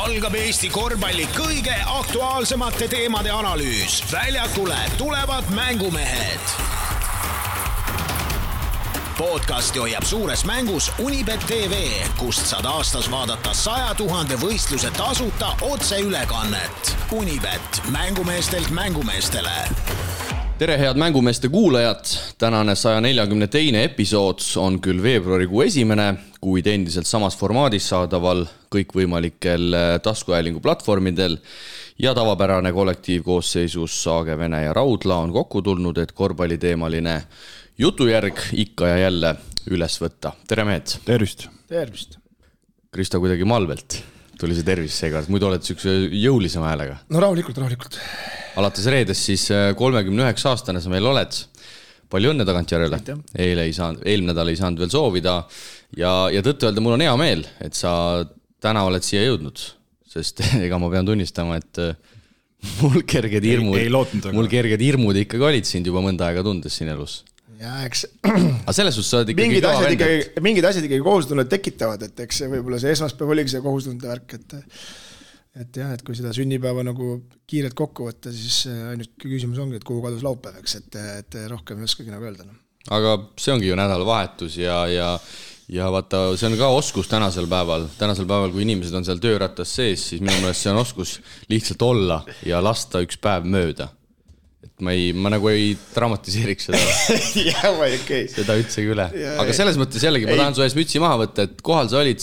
algab Eesti korvpalli kõige aktuaalsemate teemade analüüs. Väljakule tulevad mängumehed. Podcasti hoiab suures mängus Unibet TV, kust saad aastas vaadata 100 000 võistluse tasuta otseülekannet. Unibet, mängumeestelt mängumeestele. Tere head mängumeeste kuulajad, tänane 142. episood on küll veebruarikuu esimene, kuid endiselt samas formaadis saadaval kõikvõimalikel taskuhäälingu platvormidel ja tavapärane kollektiivkoosseisus Saage, Vene ja Raudla on kokku tulnud, et korvpalliteemaline jutujärg ikka ja jälle üles võtta. Tere mehed! Tervist! Tervist! Krista kuidagi malvelt tuli see tervis seega, muidu oled sükse jõulisema häälega. No rahulikult. Alates reedest siis 39 aastane sa meil oled. Palju õnne tagantjärele. Eelmine nädal ei saanud veel soovida ja tõttu öelda, mul on hea meel, et sa täna oled siia jõudnud, sest ega ma pean tunnistama, et mul kerged hirmud ikkagi olid sind juba mõnda aega tundes siin elus. Ja eks aga selles suhtes sa oled ikkagi mingid asjad ikkagi kohustunnet tekitavad, et eks võib-olla see esmaspäev oligi see kohustunnet värk, et jah, et kui seda sünnipäeva nagu kiirelt kokku võtta, siis ainult küsimus ongi, et kuhu kadus laupäev, eks, et rohkem ei oskagi nagu öelda. Aga see ongi ju nädalavahetus ja vaata, see on ka oskus tänasel päeval, kui inimesed on seal töörattas sees, siis minu meelest see on oskus lihtsalt olla ja lasta üks päev mööda. Et ma nagu ei dramatiseeriks seda, seda üldsegi üle. Aga selles mõttes jällegi, ma tahan su ees mütsi maha võtta, et kohal sa olid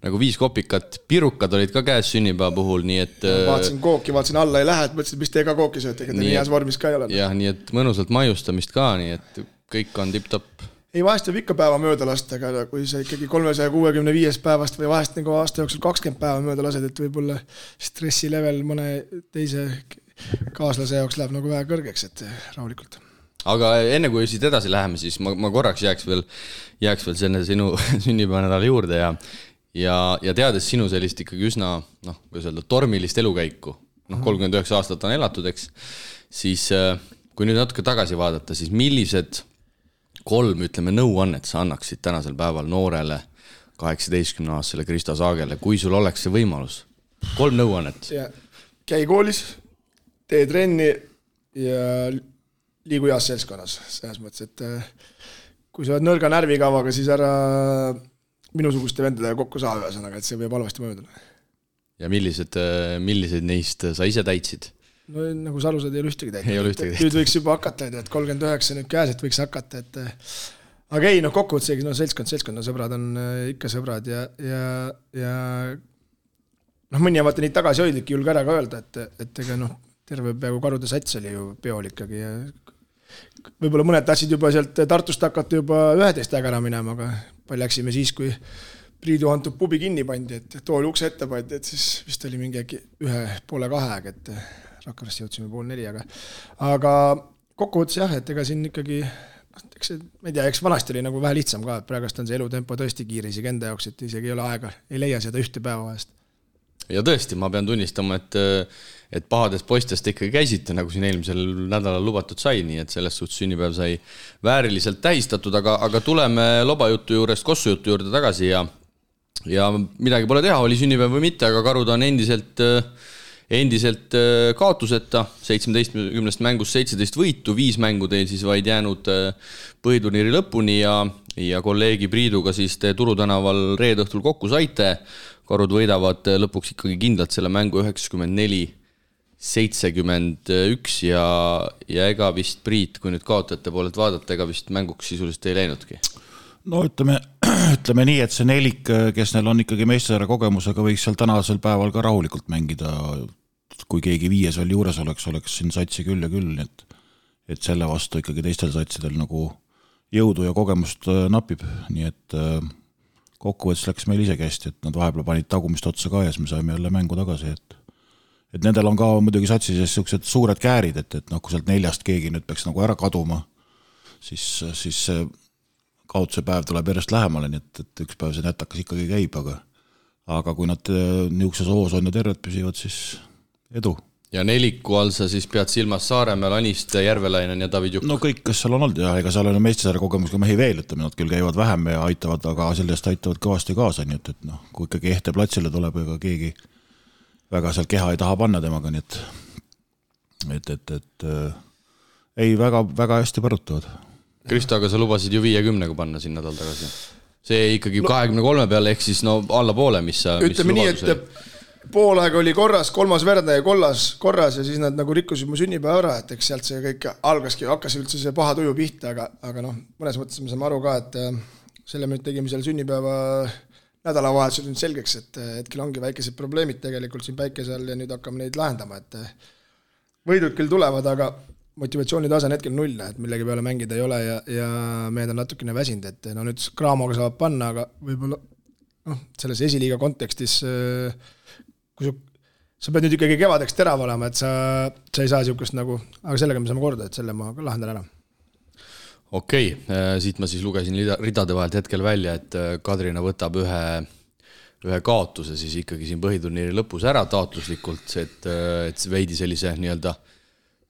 nagu 5 kopikat, pirukad olid ka käes sünnipäeva puhul, nii et vaatasin kooki, vaatasin alla ei lähe, et mõtlesin, mis te ka kooki sööte, ega te nii heas vormis ka ei ole. Jah, nii et mõnusalt maiustamist ka, nii et kõik on tipp-topp. Ei, vahest võib ikka päeva mööda lasta, aga kui sa ikkagi 365 päevast või vahest nagu aasta jooksul 20 päeva mööda lased, et võib-olla stressilevel mõne teise kaaslase jaoks läheb nagu vähe kõrgeks, et rahulikult. Aga enne kui siit edasi läheme, siis ma korraks jääks veel selle sinu sünnipäevanädala juurde ja teades sinu sellist ikkagi üsna, tormilist elukäiku, 39 aastat on elatud, eks, siis kui nüüd natuke tagasi vaadata, siis millised 3, nõuannet sa annaksid tänasel päeval noorele 18-aastasele Krista Saagele, kui sul oleks see võimalus? 3 nõuannet. Käi koolis, tee trenni ja liigu heas seltskonnas. Selles mõttes, et kui sa oled nõrga närvikavaga, siis ära minusuguste vendadega kokku saa ühesõnaga, et see võib halvasti mõjuda. Ja millised neist sa ise täitsid? No nagu Salusad ei ole ühtegi täitnud. Nüüd võiks juba hakata, et 39 nüüd käes, et võiks hakata. Aga ei, kokkuvõtsegi, seltskond, sõbrad on ikka sõbrad ja mõni vaata nii tagasihoidlik julge ära ka öelda, et ega terve peaaegu karude sats oli ju peol ikkagi ja võib-olla mõned tahtsid juba sealt Tartust hakata juba 11 ära minema, aga palju läksime siis, kui Priidu Antub pubi kinni pandi, et tooli ukse ette pandi, et siis vist oli mingi 1:30 aeg, et Rakveres jõudsime 3:30, aga kokkuvõttes jah, et ega siin ikkagi ma ei tea, eks vanasti oli nagu vähe lihtsam ka, et praegust on see elutempo tõesti kiire isegi enda jaoks, et isegi ei ole aega, ei leia seda ühte päeva vahest. Ja tõesti, ma pean tunnistama, et pahadest poistest ikkagi käisite, nagu siin eelmisel nädalal lubatud sai, nii et selles suhtes sünnipäev sai vääriliselt tähistatud, aga tuleme lobajutu juurest kossujutu juurde tagasi ja midagi pole teha, oli sünnipäev või mitte, aga karud on endiselt kaotuseta, 17 mängust 17 võitu, 5 mängu teil siis vaid jäänud põhiturniiri lõpuni ja kolleegi Priiduga siis te Turutänaval reede õhtul kokku saite. Karud võidavad lõpuks ikkagi kindlalt selle mängu 94-71 ja ega vist Priit, kui nüüd kaotajate poolelt vaadata, ega vist mänguks sisuliselt ei läinudki. No ütleme nii, et see nelik, kes neil on ikkagi meistesarja kogemusega, võiks seal tänasel päeval ka rahulikult mängida, kui keegi 5 veel juures oleks siin satsi küll ja küll, et selle vastu ikkagi teistel satsidel nagu jõudu ja kogemust napib, nii et kokkuvõttes läks meil isegi hästi, et nad vahepeal panid tagumist otsa ka ja siis me saime jälle mängu tagasi, et nendel on ka muidugi satsi sees sellised suured käärid, et kui sealt 4 keegi nüüd peaks nagu ära kaduma, siis kaotuse päev tuleb järjest lähemale, nii et üks päev see nätakas ikkagi käib, aga kui nad niisuguses hoos on ja terved püsivad, siis edu. Ja neliku all sa siis pead silmas Saaremäel, Aniste, Järvelainen ja David Jukk? No kõik, kes seal on olnud, ja ega seal on meistesarja kogemusega mehi veel, et nad küll käivad vähem ja aitavad, aga sellest aitavad kõvasti kaasa, nii et kui ikkagi ehte platsile tuleb, ega keegi väga seal keha ei taha panna temaga, nii et ei, väga hästi põrutavad. Kristo, aga sa lubasid ju 50 panna siin nädal tagasi. See ikkagi 23 peale, ehk siis alla poole, mis ütleme nii, et poolaeg oli korras, 3. verdaja korras ja siis nad nagu rikkusid mu sünnipäeva ära, et eks sealt see kõik hakkas üldse see paha tuju pihta, aga mõnes mõttes me saame aru ka, et selle me tegime seal sünnipäeva nädalavahetusel nüüd selgeks, et hetkel ongi väikesed probleemid tegelikult siin päikese all ja nüüd hakkame neid lahendama, et võidud küll tulevad, aga motivatsioonitase on hetkel 0, et millegi peale mängida ei ole ja mehed on natukene väsinud, et nüüd Craamoga saab panna, aga võib-olla selles esiliiga kontekstis, kui sa pead nüüd ikkagi kevadeks terav olema, et sa ei saa niisugust nagu, aga sellega me saame korda, et selle ma lahendan ära. Okei, siit ma siis lugesin ridade vahelt hetkel välja, et Kadrina võtab ühe kaotuse siis ikkagi siin põhiturniiri lõpus ära taotluslikult, et veidi sellise nii-öelda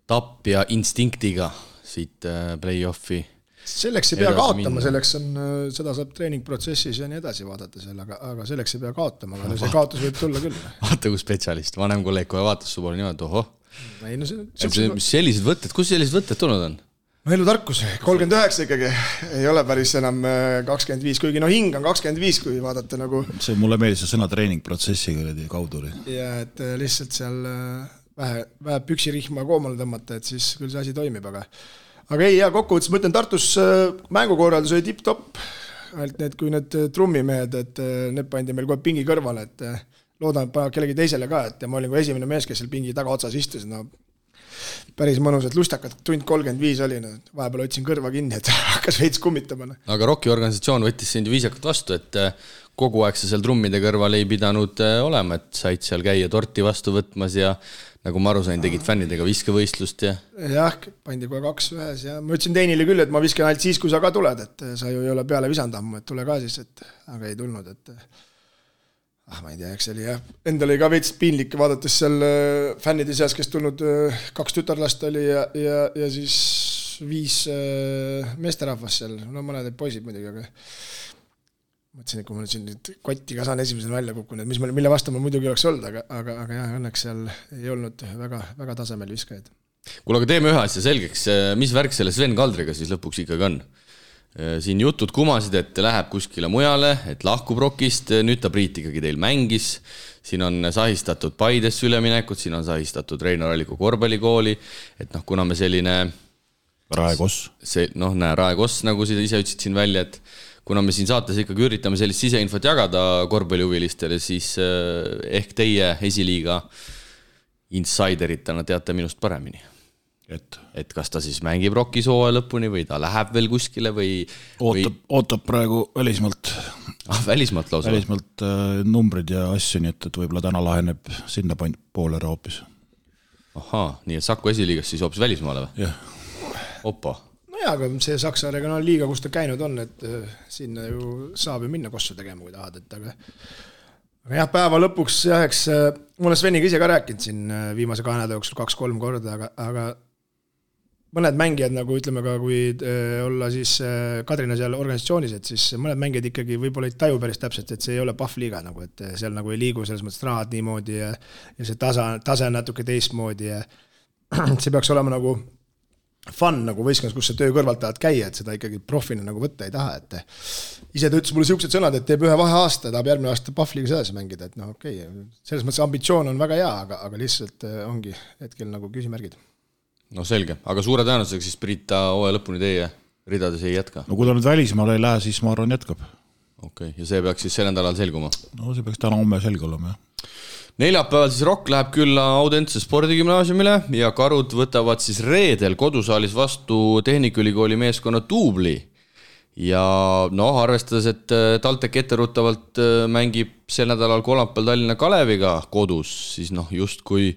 tapja instinktiga siit play-offi. Selleks ei pea kaotama, seda saab treeningprotsessis ja nii edasi vaadata seal, aga selleks ei pea kaotama, aga see kaotus võib tulla küll. Vaata kui spetsialist, vanem kolleeg kohe vaatas su poole niimoodi, ohoh. Sellised võtted, kus sellised võtted tulnud on? Elutarkus, 39 ikkagi, ei ole päris enam 25, kuigi hing on 25, kui vaadata nagu... See mulle meeldis see sõna treeningprotsessiga kaudu. Ja et lihtsalt seal vähe püksirihma koomale tõmmata, et siis küll see asi toimib, aga ei, kokkuvõttes ma ütlen, Tartus mängukorraldus oli tipp-topp, ainult need, kui need trummimehed, et need pandi meil kohe pingi kõrvale, et loodan, et paneb kellegi teisele ka, et ma olin kui esimene mees, kes seal pingi taga otsas istus, päris mõnus, et lustakad, tund 35 oli, vahepeal otsin kõrva kinni, et hakkas veits kummitama. Aga Rocki organisatsioon võttis sind viisakalt vastu, et kogu aeg sa seal trummide kõrval ei pidanud olema, et said seal käia torti vastu võtmas ja nagu ma aru sain, tegid fännidega viskevõistlust ja... Jah, pandi kohe 2 ühes ja ma ütlesin Teinile küll, et ma viskan ainult siis, kui sa ka tuled, et sa ju ei ole peale visanud ammu, et tule ka siis, aga ei tulnud, et ma ei tea, eks oli jah. Endal oli ka veits piinlik vaadates seal fännide seas, kes tulnud 2 tütarlast oli ja siis 5 meesterahvas seal, mõned poisid muidugi, aga mõtlesin, et kui ma siin kotti ka saan esimesel välja kukkunud, mille vastu ma muidugi oleks olnud, aga jah, õnneks seal ei olnud väga tasemel viskajaid. Kuule, aga teeme ühe asja selgeks, mis värk selle Sven Kaldriga siis lõpuks ikkagi on? Siin jutud kumasid, et läheb kuskile mujale, et lahkub Rockist, nüüd ta Priit ikkagi teil mängis, siin on sahistatud Paidesse üleminekut, siin on sahistatud Reinar Alliku korvpallikooli, et kuna me selline... Raekoss. Raekoss, nagu sa ise ütlesid siin välja, et kuna me siin saates ikkagi üritame sellist siseinfot jagada korvpallihuvilistele, siis ehk teie esiliiga insideritena teate minust paremini. Et kas ta siis mängib Rockis hooaja lõpuni või ta läheb veel kuskile või... Ootab praegu välismaalt. Välismaalt lausa? Välismaalt numbrid ja asju, nii et võib-olla täna laheneb sinna poole ära hoopis. Ahaa, nii et Saku esiliigas siis hoopis välismaale või? Jah. Opa. Aga see Saksa regionaalliiga, kus ta käinud on, et sinna ju saab ju minna kossu tegema, kui tahad, et aga jah, päeva lõpuks eks ma olen Sveniga ise ka rääkinud siin viimase 2 nädala jooksul 2-3 korda, aga mõned mängijad, nagu ütleme ka, kui olla siis Kadrina seal organisatsioonis, et siis mõned mängijad ikkagi võib-olla ei taju päris täpselt, et see ei ole pahvliiga, nagu, et seal nagu ei liigu selles mõttes rahad niimoodi ja see tase on natuke teistmoodi ja see peaks olema nagu fun nagu võistkonnas, kus sa töö kõrvalt tahad käia, et seda ikkagi profina nagu võtta ei taha, et ise ta ütles mulle siuksed sõnad, et teeb 1 vaheaasta, tahab järgmine aasta Pahvliga sedasi mängida, et okei, selles mõttes ambitsioon on väga hea, aga lihtsalt ongi hetkel nagu küsimärgid. No selge, aga suure tõenäosusega siis Priit ta hooaja lõpuni teie ridades ei jätka? No kui ta nüüd välismaale ei lähe, siis ma arvan jätkab. Okei, ja see peaks siis sel nädalal selguma? No see peaks täna homme selge olema, jah. Neljapäeval siis Rock läheb külla Audentse spordigümnaasiumile ja Karud võtavad siis reedel kodusaalis vastu Tehnikaülikooli meeskonna Tuubli. Ja arvestades, et TalTech etteruttavalt mängib sel nädalal kolmapäeval Tallinna Kaleviga kodus, siis just kui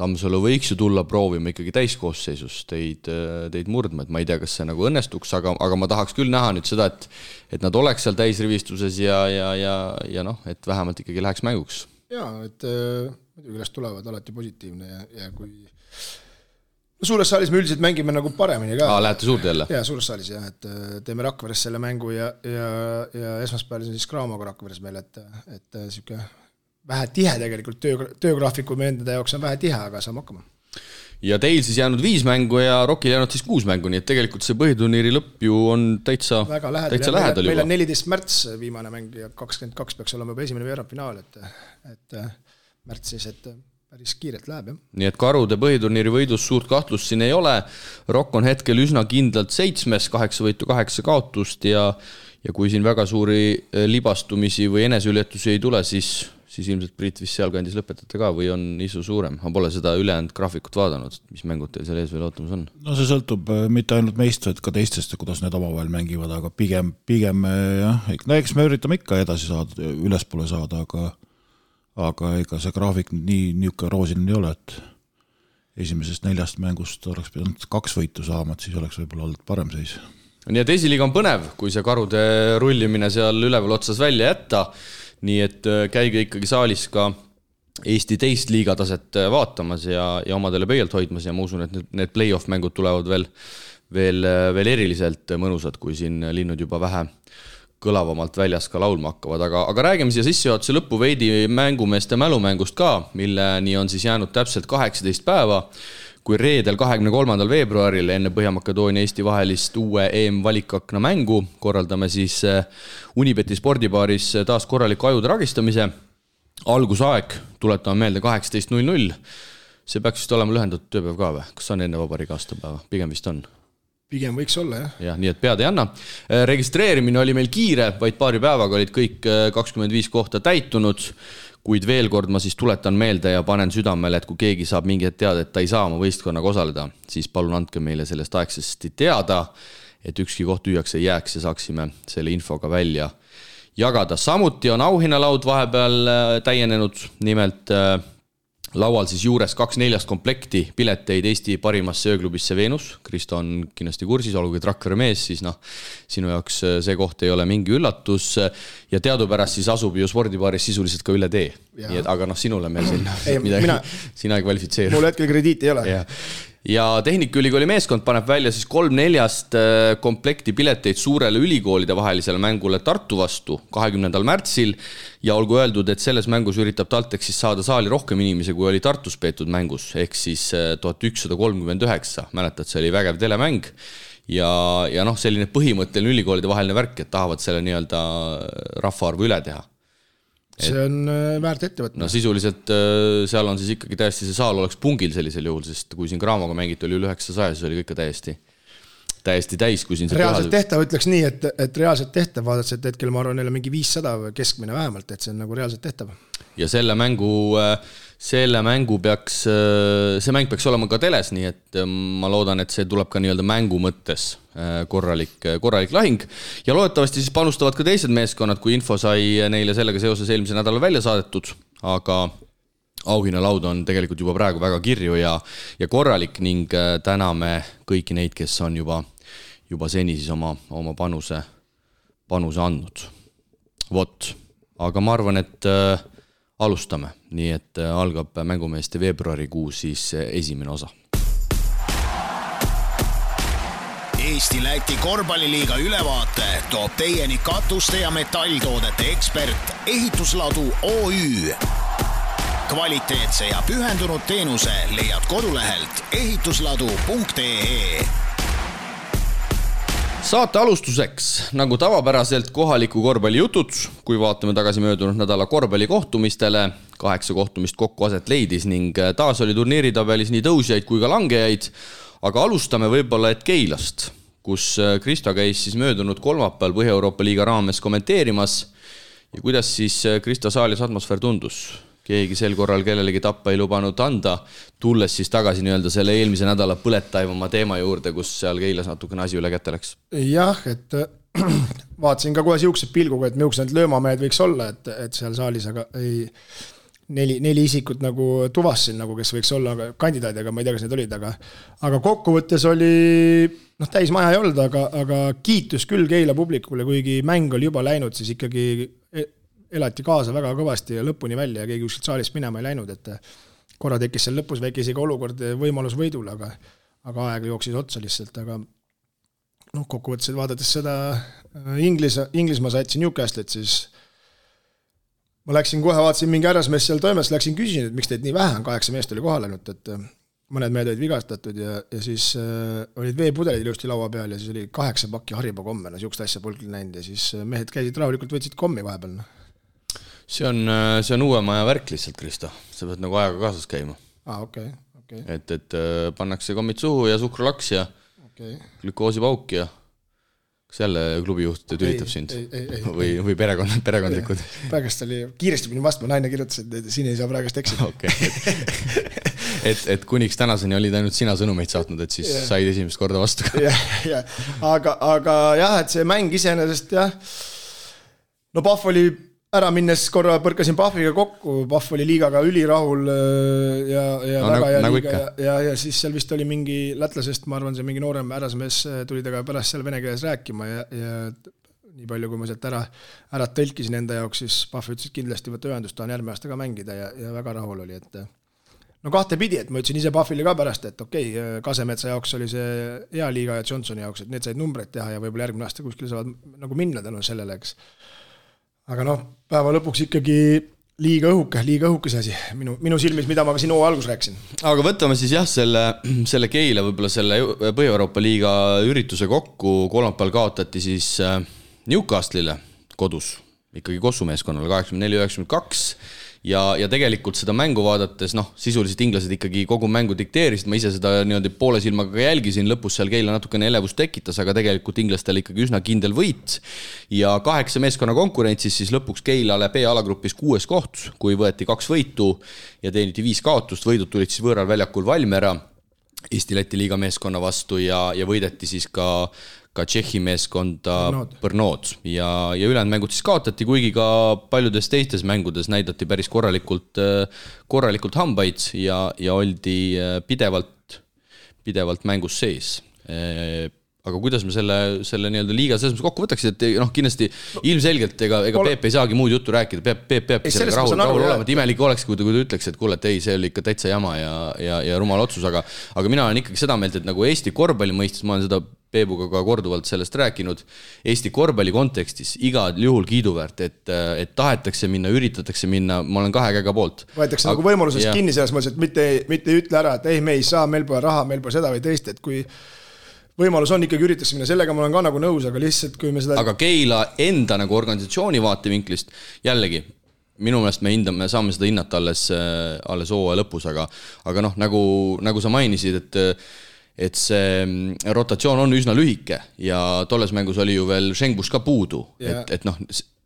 Tammsalu võiks ju tulla proovima ikkagi täiskoosseisus teid murdma, et ma ei tea, kas see nagu õnnestuks, aga ma tahaks küll näha nüüd seda, et nad oleks seal täisrivistuses ja et vähemalt ikkagi läheks mänguks. Jaa, et muidugi üles tulevad alati positiivne ja kui suures saalis me üldiselt mängime nagu paremini ka. Lähete suurde jälle? Jaa, suures saalis jah, et teeme Rakveres selle mängu ja esmaspäeval siis Craamoga Rakveres meil, et siuke vähe tihe tegelikult, töögraafiku meie enda jaoks on vähe tihe, aga saame hakkama. Ja teil siis jäänud 5 mängu ja Rockil jäänud siis 6 mängu, nii et tegelikult see põhiturniiri lõpp ju on täitsa lähedal juba. Meil on 14 märts viimane mäng ja 22 peaks olema juba esimene veerandfinaal, et märts siis, et päris kiirelt läheb, jah. Nii et Karude põhiturniiri võidus suurt kahtlust siin ei ole. Rock on hetkel üsna kindlalt 7, 8 võitu, 8 kaotust ja kui siin väga suuri libastumisi või eneseületusi ei tule, siis ilmselt Priit vist sealkandis lõpetate ka või on isu suurem? Ma pole seda ülejäänud graafikut vaadanud, mis mängud teil seal ees veel ootamas on? No see sõltub mitte ainult meist, et ka teistest, kuidas need omavahel mängivad, aga pigem jah, eks me üritame ikka edasi saada, ülespoole saada, aga ega see graafik niisugune roosiline ei ole, et esimesest 4 mängust oleks pidanud 2 võitu saama, et siis oleks võib-olla olnud parem seis. Nii et esiliiga on põnev, kui see Karude rullimine seal üleval otsas välja jätta. Nii et käige ikkagi saalis ka Eesti teist liigataset vaatamas ja omadele pöialt hoidmas ja ma usun, et need play-off mängud tulevad veel eriliselt mõnusad, kui siin linnud juba vähe kõlavamalt väljas ka laulma hakkavad, aga räägime siia sissejuhatuse lõppu veidi mängumeeste mälumängust ka, milleni on siis jäänud täpselt 18 päeva, kui reedel 23. veebruaril enne Põhja-Makedoonia Eesti vahelist uue EM-valikakna mängu korraldame siis Unibeti spordibaaris taas korraliku ajude ragistamise. Algusaeg, tuletame meelde 18.00. See peaks vist olema lühendatud tööpäev ka või? Kas on enne vabariigi aastapäeva? Pigem vist on. Pigem võiks olla, jah. Ja, nii et pead ei anna. Registreerimine oli meil kiire, vaid paari päevaga olid kõik 25 kohta täitunud, kuid veel kord ma siis tuletan meelde ja panen südamele, et kui keegi saab mingi teada, et ta ei saa oma võistkonnaga osaleda, siis palun andke meile sellest aegsasti teada, et ükski koht tühjaks ei jääks ja saaksime selle infoga välja jagada. Samuti on auhinnalaud vahepeal täienenud, nimelt laual siis juures 2/4 komplekti pileteid Eesti parimasse ööklubisse Venus. Kristo on kindlasti kursis, olgugi Rakvere mees, siis sinu jaoks see koht ei ole mingi üllatus ja teadupärast siis asub ju spordibaaris sisuliselt ka üle tee. Aga sinule meil siin midagi, sina ei kvalifitseeru. Mul hetkel krediiti ei ole. Ja Tehnikaülikooli meeskond paneb välja siis 3/4 komplekti pileteid suurele ülikoolide vahelisele mängule Tartu vastu 20. märtsil ja olgu öeldud, et selles mängus üritab TalTech siis saada saali rohkem inimesi, kui oli Tartus peetud mängus, ehk siis 1139, mäletad, see oli vägev telemäng ja selline põhimõtteline ülikoolide vaheline värk, et tahavad selle nii-öelda rahvaarvu üle teha. See on väärt ettevõtmine. No sisuliselt seal on siis ikkagi täiesti see saal oleks pungil sellisel juhul, sest kui siin Graamoga mängiti oli üle 900, siis oli kõik täiesti täis, kui siin reaalselt tehtav, ütleks nii, et reaalselt tehtav vaadates, et hetkel ma arvan, neil on mingi 500 keskmine vähemalt, et see on nagu reaalselt tehtav. Ja see mäng peaks olema ka teles, nii et ma loodan, et see tuleb ka nii-öelda mängu mõttes korralik lahing ja loodetavasti siis panustavad ka teised meeskonnad, kui info sai neile sellega seoses eelmise nädala välja saadetud, aga auhinnalaud on tegelikult juba praegu väga kirju ja korralik ning täname kõiki neid, kes on juba seni siis oma panuse andnud. Vot, aga ma arvan, et alustame, nii et algab mängumeeste veebruarikuu siis esimene osa. Eesti-Läti korvpalliliiga ülevaate toob teieni katuste ja metalltoodete ekspert Ehitusladu OÜ. Kvaliteetse ja pühendunud teenuse leiad kodulehelt ehitusladu.ee. Saate alustuseks, nagu tavapäraselt kohaliku korvpallijutud, kui vaatame tagasi möödunud nädala korvpallikohtumistele, 8 kohtumist kokku aset leidis ning taas oli turniiritabelis nii tõusjaid kui ka langejaid, aga alustame võib-olla et Keilast, kus Kristo käis siis möödunud kolmapäeval Põhja-Euroopa liiga raames kommenteerimas ja kuidas siis Kristo saalis atmosfäär tundus? Keegi sel korral kellelegi tappa ei lubanud anda, tulles siis tagasi nii-öelda selle eelmise nädala põletaivama teema juurde, kus seal Keilas natukene asi üle kätte läks. Jah, et vaatasin ka kohe siuksed pilguga, et miuksed löömamehed võiks olla, et seal saalis, aga ei, neli isikut nagu tuvasin, nagu kes võiks olla kandidaadi, aga ma ei tea, kas need olid, aga kokkuvõttes oli, täis maja ei olnud, aga kiitus küll Keila publikule, kuigi mäng oli juba läinud, siis ikkagi elati kaasa väga kõvasti ja lõpuni välja ja keegi kuskilt saalist minema ei läinud, et korra tekkis seal lõpus väike isegi olukord võimalus võidule, aga aeg jooksis otsa lihtsalt, aga kokkuvõttes vaadates seda Inglismaa saatsi Newcastle'it, siis ma läksin kohe, vaatasin mingi härrasmees seal toimes, läksin küsin, et miks teid nii vähe on, 8 meest oli kohal ainult, et mõned mehed olid vigastatud ja siis olid veepudelid ilusti laua peal ja siis oli 8 pakki Haribo komme, siukest asja polnud näinud ja siis mehed käisid rahulikult, võtsid kommi vahepeal. See on uue maja värk lihtsalt, Kristo. Sa pead nagu ajaga kaasas käima. Okay. Et pannakse kommid suhu ja suhkrulaks ja glükoosipauk ja kas jälle klubijuht tülitab sind? Või perekondlikud? Praegust oli, kiiresti pidin vastma, naine kirjutas, et siin ei saa praegust eksida. Okay. et kuniks tänaseni olid ainult sina sõnumeid saatnud, et siis said esimest korda vastu ka. Aga jah, et see mäng iseenesest jah, no Pahv oli ära minnes korra põrkasin Pahviga kokku, Pahv oli liigaga ülirahul ja väga hea liiga ja siis seal vist oli mingi lätlasest, ma arvan, see mingi noorem härrasmees tuli taga pärast seal vene keeles rääkima ja nii palju, kui ma sealt ära tõlkisin enda jaoks, siis Pahv ütles, et kindlasti võtta ühendust, tahan järgmine aasta ka mängida ja väga rahul oli, et no kahtepidi, et ma ütlesin ise Pahvile ka pärast, et okei, Kasemetsa jaoks oli see hea liiga ja Johnsoni jaoks, et need said numbreid teha ja võib-olla järgmine aasta kuskil saavad nagu minna tänu sellele, eks. Aga noh, päeva lõpuks ikkagi liiga õhuke see asi, minu silmis, mida ma ka siin algus rääksin. Aga võtame siis jah, selle Keila, võib-olla selle Põhja-Euroopa liiga ürituse kokku, kolmapäeval kaotati siis Newcastle'ile kodus, ikkagi Kossumeeskonnale 84-92 ja tegelikult seda mängu vaadates, noh, sisuliselt inglased ikkagi kogu mängu dikteerisid, ma ise seda niimoodi poole silmaga jälgisin, lõpus seal Keila natukene elevust tekitas, aga tegelikult inglastel ikkagi üsna kindel võit ja 8 meeskonna konkurentsis siis lõpuks Keilale B-alagrupis 6 koht, kui võeti 2 võitu ja teeniti 5 kaotust, võidud tulid siis võõral väljakul Valmiera Eesti-Läti liiga meeskonna vastu ja võideti siis ka Tšehhi meeskonda Brnod ja ülejäänud mängud siis kaotati, kuigi ka paljudes teistes mängudes näidati päris korralikult hambaid ja oldi pidevalt mängus sees. Aga kuidas me selle nii-öelda liiga selles mõttes kokku võtaks, et noh, kindlasti ilmselgelt ega Peep ei saagi muud juttu rääkida, Peep sellega rahul olema, et imelik oleks, kui ta ütleks, et kuule, et ei, see oli ikka täitsa jama ja rumal otsus, aga mina olen ikkagi seda meelt, et nagu Eesti korvpalli mõistes, ma olen seda Peebuga ka korduvalt sellest rääkinud, Eesti korvpalli kontekstis igal juhul kiiduväärt, et tahetakse minna, üritatakse minna, ma olen 2 käega poolt. Võetakse nagu võimalusest kinni selles mõttes, et mitte ütle ära, et ei, me ei saa, meil pole raha, meil pole seda või teist, et kui võimalus on ikkagi üritakse minna, sellega ma olen ka nagu nõus, aga lihtsalt kui me seda... Aga Keila enda nagu organisatsiooni vaatevinklist, jällegi, minu meelest me saame seda hinnata alles hooaja lõpus, aga noh, nagu sa mainisid, et see rotatsioon on üsna lühike ja tolles mängus oli ju veel Šengbus ka puudu, et noh,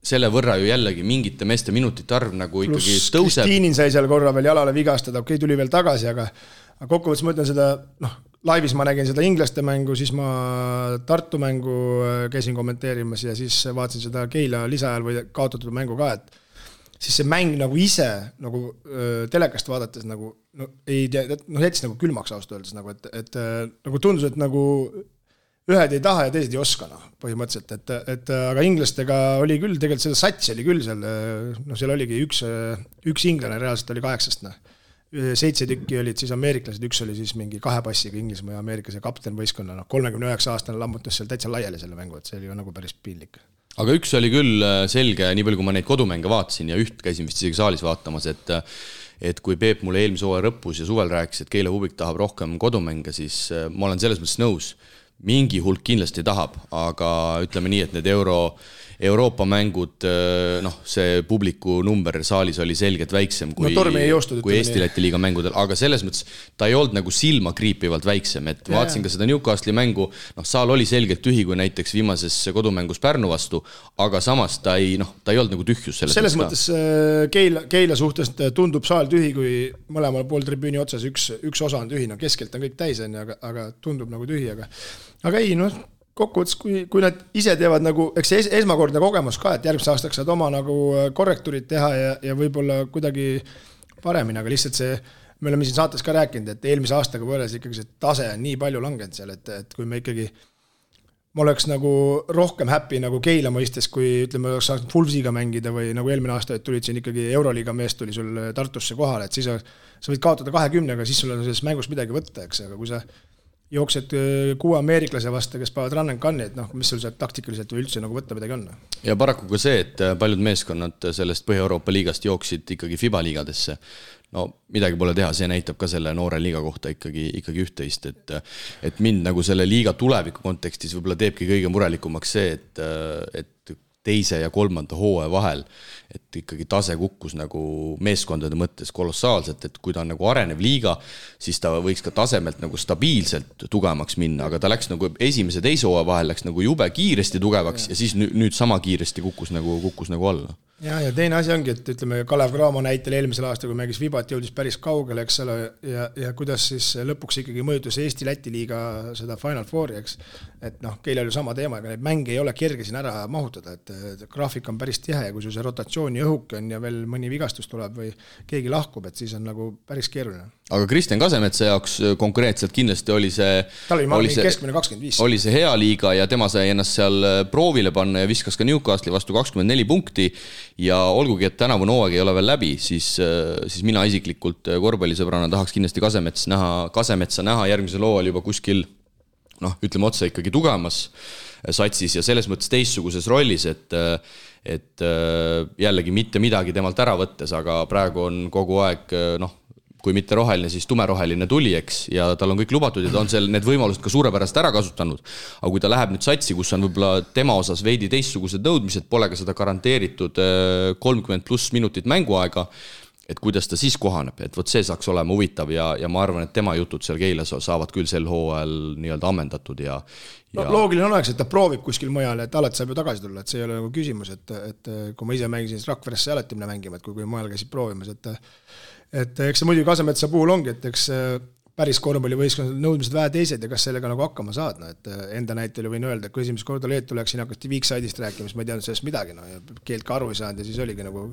selle võrra ju jällegi mingite meeste minutite arv nagu ikkagi tõuseb. Kristiinin sai seal korra veel jalale vigastada, okei, tuli veel tagasi, aga kokkuvõttes ma ütlen seda, noh, laivis ma nägin seda inglaste mängu, siis ma Tartu mängu käisin kommenteerimas ja siis vaatasin seda Keila lisaajal või kaotatud mängu ka, et siis see mäng nagu ise nagu telekast vaadates nagu no, ei tea, jättis nagu külmaks ausalt öeldes nagu, et nagu tundus, et nagu ühed ei taha ja teised ei oska põhimõtteliselt, et aga inglastega oli küll, tegelikult seda sats oli küll seal, no seal oligi üks inglane reaalselt oli 8, 7 tükki olid siis ameeriklased, üks oli siis mingi 2 passiga Inglismaa ja Ameerikas ja kapten võistkonna, 39-aastane lammutas seal täitsa laiali selle mängu, et see oli ju nagu päris piinlik. Aga üks oli küll selge, nii palju kui ma neid kodumänge vaatasin ja üht käisin vist isegi saalis vaatamas, et kui Peep mulle eelmise hooaja lõpus ja suvel rääkis, et Keila Hubik tahab rohkem kodumänge, siis ma olen selles mõttes nõus. Mingi hulk kindlasti tahab, aga ütleme nii, et need Euroopa mängud, noh, see publiku number saalis oli selgelt väiksem kui Eesti-Läti liiga mängudel, aga selles mõttes ta ei olnud nagu silma kriipivalt väiksem, et vaatasin ka seda Newcastle'i mängu, noh, saal oli selgelt tühi kui näiteks viimases kodumängus Pärnu vastu, aga samas ta ei olnud nagu tühjus selles mõttes Keila suhtes tundub saal tühi, kui mõlemal pool tribüüni otsas üks osa on tühi, no keskelt on kõik täis, aga tundub nagu tühi, aga ei, noh, kokkuvõttes, kui nad ise teevad nagu, eks see esmakordne kogemus ka, et järgmise aastaks saad oma nagu korrektuurid teha ja võib-olla kuidagi paremini, aga lihtsalt see, me oleme siin saates ka rääkinud, et eelmise aastaga võrreldes ikkagi see tase on nii palju langenud seal, et kui me ikkagi, ma oleks nagu rohkem happy nagu Keila mõistes, kui ütleme, oleks saanud Fulvsiga mängida või nagu eelmine aasta, et tulid siin ikkagi Euroliiga mees tuli sul Tartusse kohale, et siis sa võid kaotada 20, aga siis sul on selles mängus midagi võtta, eks, aga kui sa jooksed 6 ameeriklase vastu, kes paavad run and gun'i, et noh, mis sul sealt taktikaliselt või üldse nagu võtta midagi on. Ja paraku ka see, et paljud meeskonnad sellest Põhja-Euroopa liigast jooksid ikkagi FIBA liigadesse. No midagi pole teha, see näitab ka selle noore liiga kohta ikkagi üht-teist, et mind nagu selle liiga tuleviku kontekstis võib-olla teebki kõige murelikumaks see, et teise ja kolmanda hooaja vahel, et ikkagi tase kukkus nagu meeskondade mõttes kolossaalselt, et kui ta on nagu arenev liiga, siis ta võiks ka tasemelt nagu stabiilselt tugevamaks minna, aga ta läks nagu esimese teise hooaja vahel läks nagu jube kiiresti tugevaks ja siis nüüd sama kiiresti kukkus nagu alla. Ja teine asi ongi, et ütleme Kalev Cramo näitel eelmisel aastal, kui mängis Vibat, jõudis päris kaugele, eks ole, ja kuidas siis lõpuks ikkagi mõjutus Eesti-Läti liiga seda Final Fouri, eks, et noh, Keilal ju sama teema, aga neid mänge ei ole kerge siin ära mahutada, et graafik on päris tihe ja kui sul see rotatsiooni õhuk on ja veel mõni vigastus tuleb või keegi lahkub, et siis on nagu päris keeruline. Aga Kristjan Kasemetsa jaoks konkreetselt kindlasti oli keskmine 25. Oli see hea liiga ja tema sai ennast seal proovile panna ja viskas ka Newcastle'i vastu 24 punkti ja olgugi, et tänavune hooaeg ei ole veel läbi, siis mina isiklikult korvpallisõbrana tahaks kindlasti Kasemetsa näha järgmisel hooajal juba kuskil, noh, ütleme otse ikkagi tugevamas satsis ja selles mõttes teistsuguses rollis, et jällegi mitte midagi temalt ära võttes, aga praegu on kogu aeg, noh, kui mitte roheline, siis tumeroheline tuli, eks, ja tal on kõik lubatud ja ta on seal need võimalused ka suurepärast ära kasutanud. Aga kui ta läheb nüüd satsi, kus on võib-olla tema osas veidi teistsugused nõudmised, pole ka seda garanteeritud 30+ minutit mänguaega, et kuidas ta siis kohaneb, et võt see saaks olema huvitav ja ma arvan, et tema jutud seal Keilas saavad küll sel hooajal nii-öelda ammendatud ja loogiline oleks, et ta proovib kuskil mujal, et alati saab ju tagasi tulla, et see ei ole nagu küsimus, et kui ma ise mängisin, siis Rakveresse alati minna mängima, et kui mujal käisid proovimas, et eks see muidugi Kasemetsa puhul ongi, et eks päris korvpallivõistkonnad nõudmised vähe teised ja kas sellega nagu hakkama saad, no, et enda näitel võin öelda, et kui esimest korda Leetu läksin, hakati Viikside'ist rääkima, siis ma ei teadnud sellest midagi, no, ja keelt ka aru ei saanud ja siis oligi nagu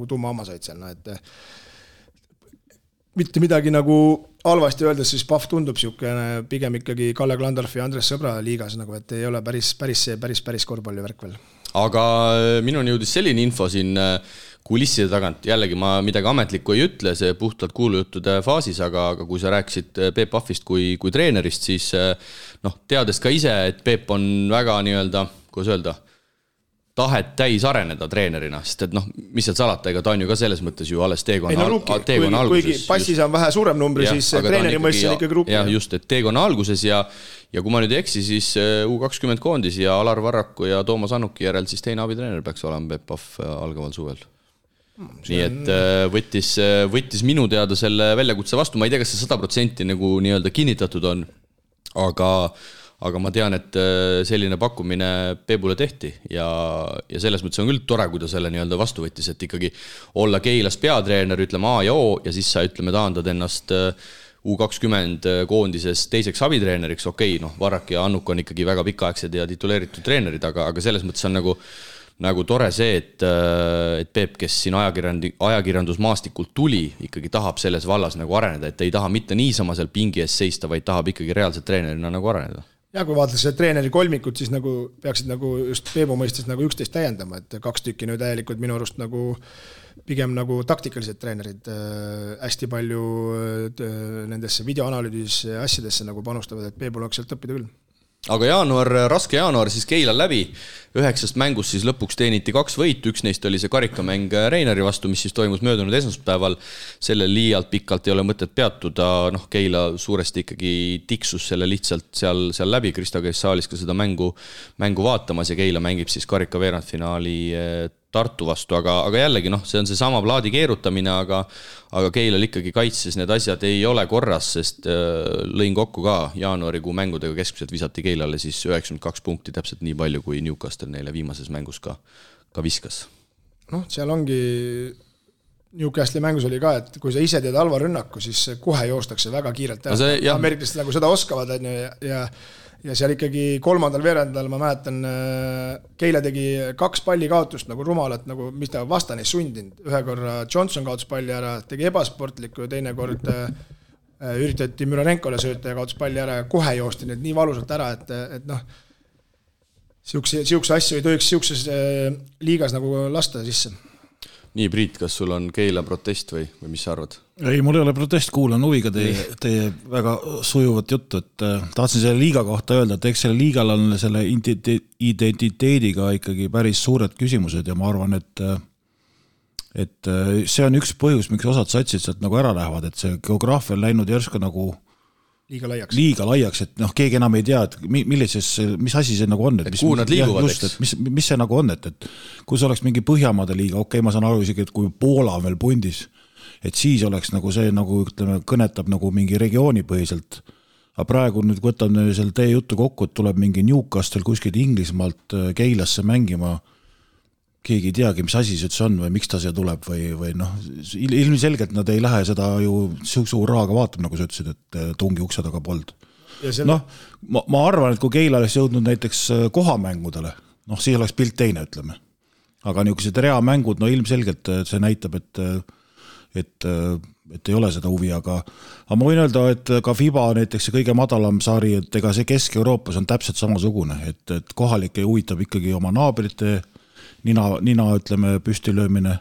tumma hammasaid seal, no, et mitte midagi nagu halvasti öeldes, siis Pahv tundub siukene pigem ikkagi Kalle Klandorfi ja Andres Sõbra liigas, nagu, et ei ole päris korvpallivärk veel. Aga minuni jõudis selline info siin kulisside tagant, jällegi ma midagi ametlikku ei ütle, see puhtalt kuulujuttude faasis, aga kui sa rääkisid Peep Pahvist kui treenerist, siis noh, teades ka ise, et Peep on väga nii-öelda, kuidas öelda, tahet täis areneda treenerina, sest et noh, mis seal salata, ega ta on ju ka selles mõttes ju alles teekonna alguses. Kuigi passis on vähe suurem numbri, siis treeneri mõistes on ikkagi ruup. Ja just, et teekonna alguses ja kui ma nüüd ei eksi, siis U20 koondis ja Alar Varraku ja Toomas Annuki järel siis teine abitreener peaks olema Peep Pahv algaval suvel. Nii et võttis minu teada selle väljakutse vastu, ma ei tea, kas see 100% nagu nii-öelda kinnitatud on, aga ma tean, et selline pakkumine Peebule tehti ja selles mõttes on küll tore, kui ta selle nii-öelda vastu võttis, et ikkagi olla Keilas peatreener, ütleme A ja O ja siis sa ütleme taandad ennast U20 koondises teiseks abitreeneriks, okei, noh, Varrak ja Annuk on ikkagi väga pikaaegsed ja tituleeritud treenerid, aga selles mõttes on nagu tore see, et Peep, kes siin ajakirjandusmaastikult tuli, ikkagi tahab selles vallas nagu areneda, et ei taha mitte niisama seal pingi ees seista, vaid tahab ikkagi reaalselt treenerina nagu areneda. Ja kui vaadates treeneri kolmikut, siis nagu peaksid nagu just Peebu mõistes nagu üksteist täiendama, et 2 tükki nüüd täielikult minu arust nagu pigem nagu taktikalised treenerid hästi palju nendesse videoanalüüdis asjadesse nagu panustavad, et Peebul oleks sealt õppida küll. Aga raske jaanuar siis Keilal läbi, 9 mängust siis lõpuks teeniti 2 võitu, üks neist oli see karikamäng Reinari vastu, mis siis toimus möödunud esmaspäeval, sellel liialt pikalt ei ole mõtet peatuda, noh Keila suuresti ikkagi tiksus selle lihtsalt seal läbi, Kristo käis saalis ka seda mängu vaatamas ja Keila mängib siis karika veerandfinaali Tartu vastu, aga jällegi noh, see on see sama plaadi keerutamine, aga Keilal ikkagi kaitses need asjad ei ole korras, sest lõin kokku ka jaanuarikuu mängudega keskmiselt visati Keilale siis 92 punkti, täpselt nii palju kui Newcastle neile viimases mängus ka viskas. Noh, seal ongi Newcastle'i mängus oli ka, et kui sa ise teed halva rünnaku, siis kohe joostakse väga kiirelt. Ameeriklased nagu seda oskavad ja seal ikkagi 3. veerandal ma mäletan, Keila tegi 2 palli kaotust nagu rumalat, nagu mis ta vastane ei sundinud. Ühe korra Johnson kaotus palli ära, tegi ebasportlikku ja teine kord üritati Müranenkole sööta ja kaotus palli ära ja kohe joosti need nii valusalt ära, et noh, siukse asju ei tohiks siukses liigas nagu lasta sisse. Nii, Priit, kas sul on Keila protest või mis sa arvad? Ei, mul ei ole protest, kuulan huviga teie väga sujuvat juttu, et tahtsin selle liiga kohta öelda, et eks selle liigal on selle identiteediga ikkagi päris suured küsimused ja ma arvan, et see on üks põhjus, miks osad satsid sealt nagu ära lähevad, et see geograafia on läinud järsku nagu liiga laiaks, et keegi enam ei tea, et mis asi see nagu on, kuhu nad liiguvad, eks? Mis see nagu on, et kui see oleks mingi Põhjamaade liiga, ma saan aru isegi, et kui Poola on veel pundis, et siis oleks nagu see, nagu ütleme, kõnetab nagu mingi regiooni põhiselt. Aga praegu nüüd võtame seal teie juttu kokku, et tuleb mingi Newcastle kuskilt Inglismaalt Keilasse mängima, keegi ei teagi, mis asi see on või miks ta siia tuleb või ilmselgelt nad ei lähe seda ju suur raaga vaatab, nagu sa ütlesid, et tungi ukse taga pold. Ma arvan, et kui Keila oleks jõudnud näiteks kohamängudele, siis oleks pilt teine, ütleme. Aga niisugused reamängud, ilmselgelt see näitab, et ei ole seda huvi, aga ma võin öelda, et ka FIBA näiteks see kõige madalam sari, et ega see Kesk-Euroopas on täpselt samasugune, et kohalik ei huvitab ikkagi oma naabrite nina ütleme, püstilöömine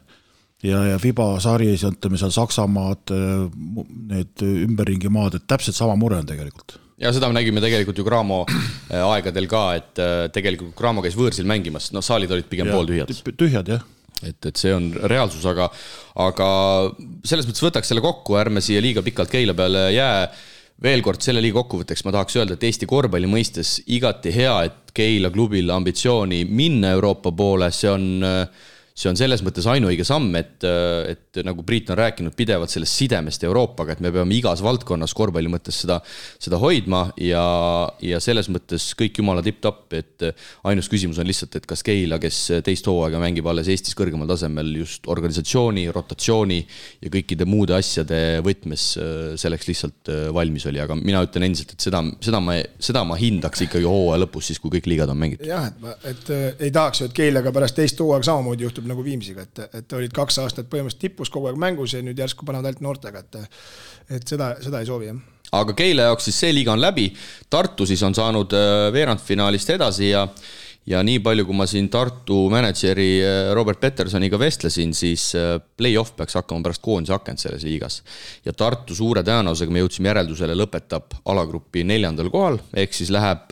ja FIBA sari, ütleme seal Saksamaad, need ümberringi maad, et täpselt sama mure on tegelikult. Ja seda me nägime tegelikult ju Graamo aegadel ka, et tegelikult Graamo käis võõrsil mängimas, saalid olid pigem pooltühjad. Tühjad, jah. Et see on reaalsus, aga selles mõttes võtaks selle kokku, ärme siia liiga pikalt Keila peale jää. Veel kord selle liiga kokkuvõtteks ma tahaks öelda, et Eesti korvpalli mõistes igati hea, et Keila klubil ambitsiooni minna Euroopa poole, see on selles mõttes ainuõige samm, et nagu Priit on rääkinud pidevalt sellest sidemest Euroopaga, et me peame igas valdkonnas korvpalli mõttes seda hoidma ja selles mõttes kõik jumala tipp-tapp, et ainus küsimus on lihtsalt, et kas Keila, kes teist hooaega mängib alles Eestis kõrgemal tasemel just organisatsiooni, rotatsiooni ja kõikide muude asjade võtmes selleks lihtsalt valmis oli, aga mina ütlen endiselt, et seda ma hindaks ikkagi hooaja lõpus siis, kui kõik liigad on mängitud. Jah, et ei tahaks ju, et Keilaga pärast teist hooaega samamoodi juhtub nagu Viimsiga, et olid 2 aastat põhimõtteliselt tippus kogu aeg mängus ja nüüd järsku panevad ainult noortega, et seda ei soovi, jah. Aga Keila jaoks siis see liiga on läbi, Tartu siis on saanud veerandfinaalist edasi ja nii palju, kui ma siin Tartu mänedžeri Robert Petersoniga vestlesin, siis play-off peaks hakkama pärast koondise akent selles liigas. Ja Tartu suure tõenäosusega me jõudsime järeldusele lõpetab alagrupi 4. kohal, ehk siis läheb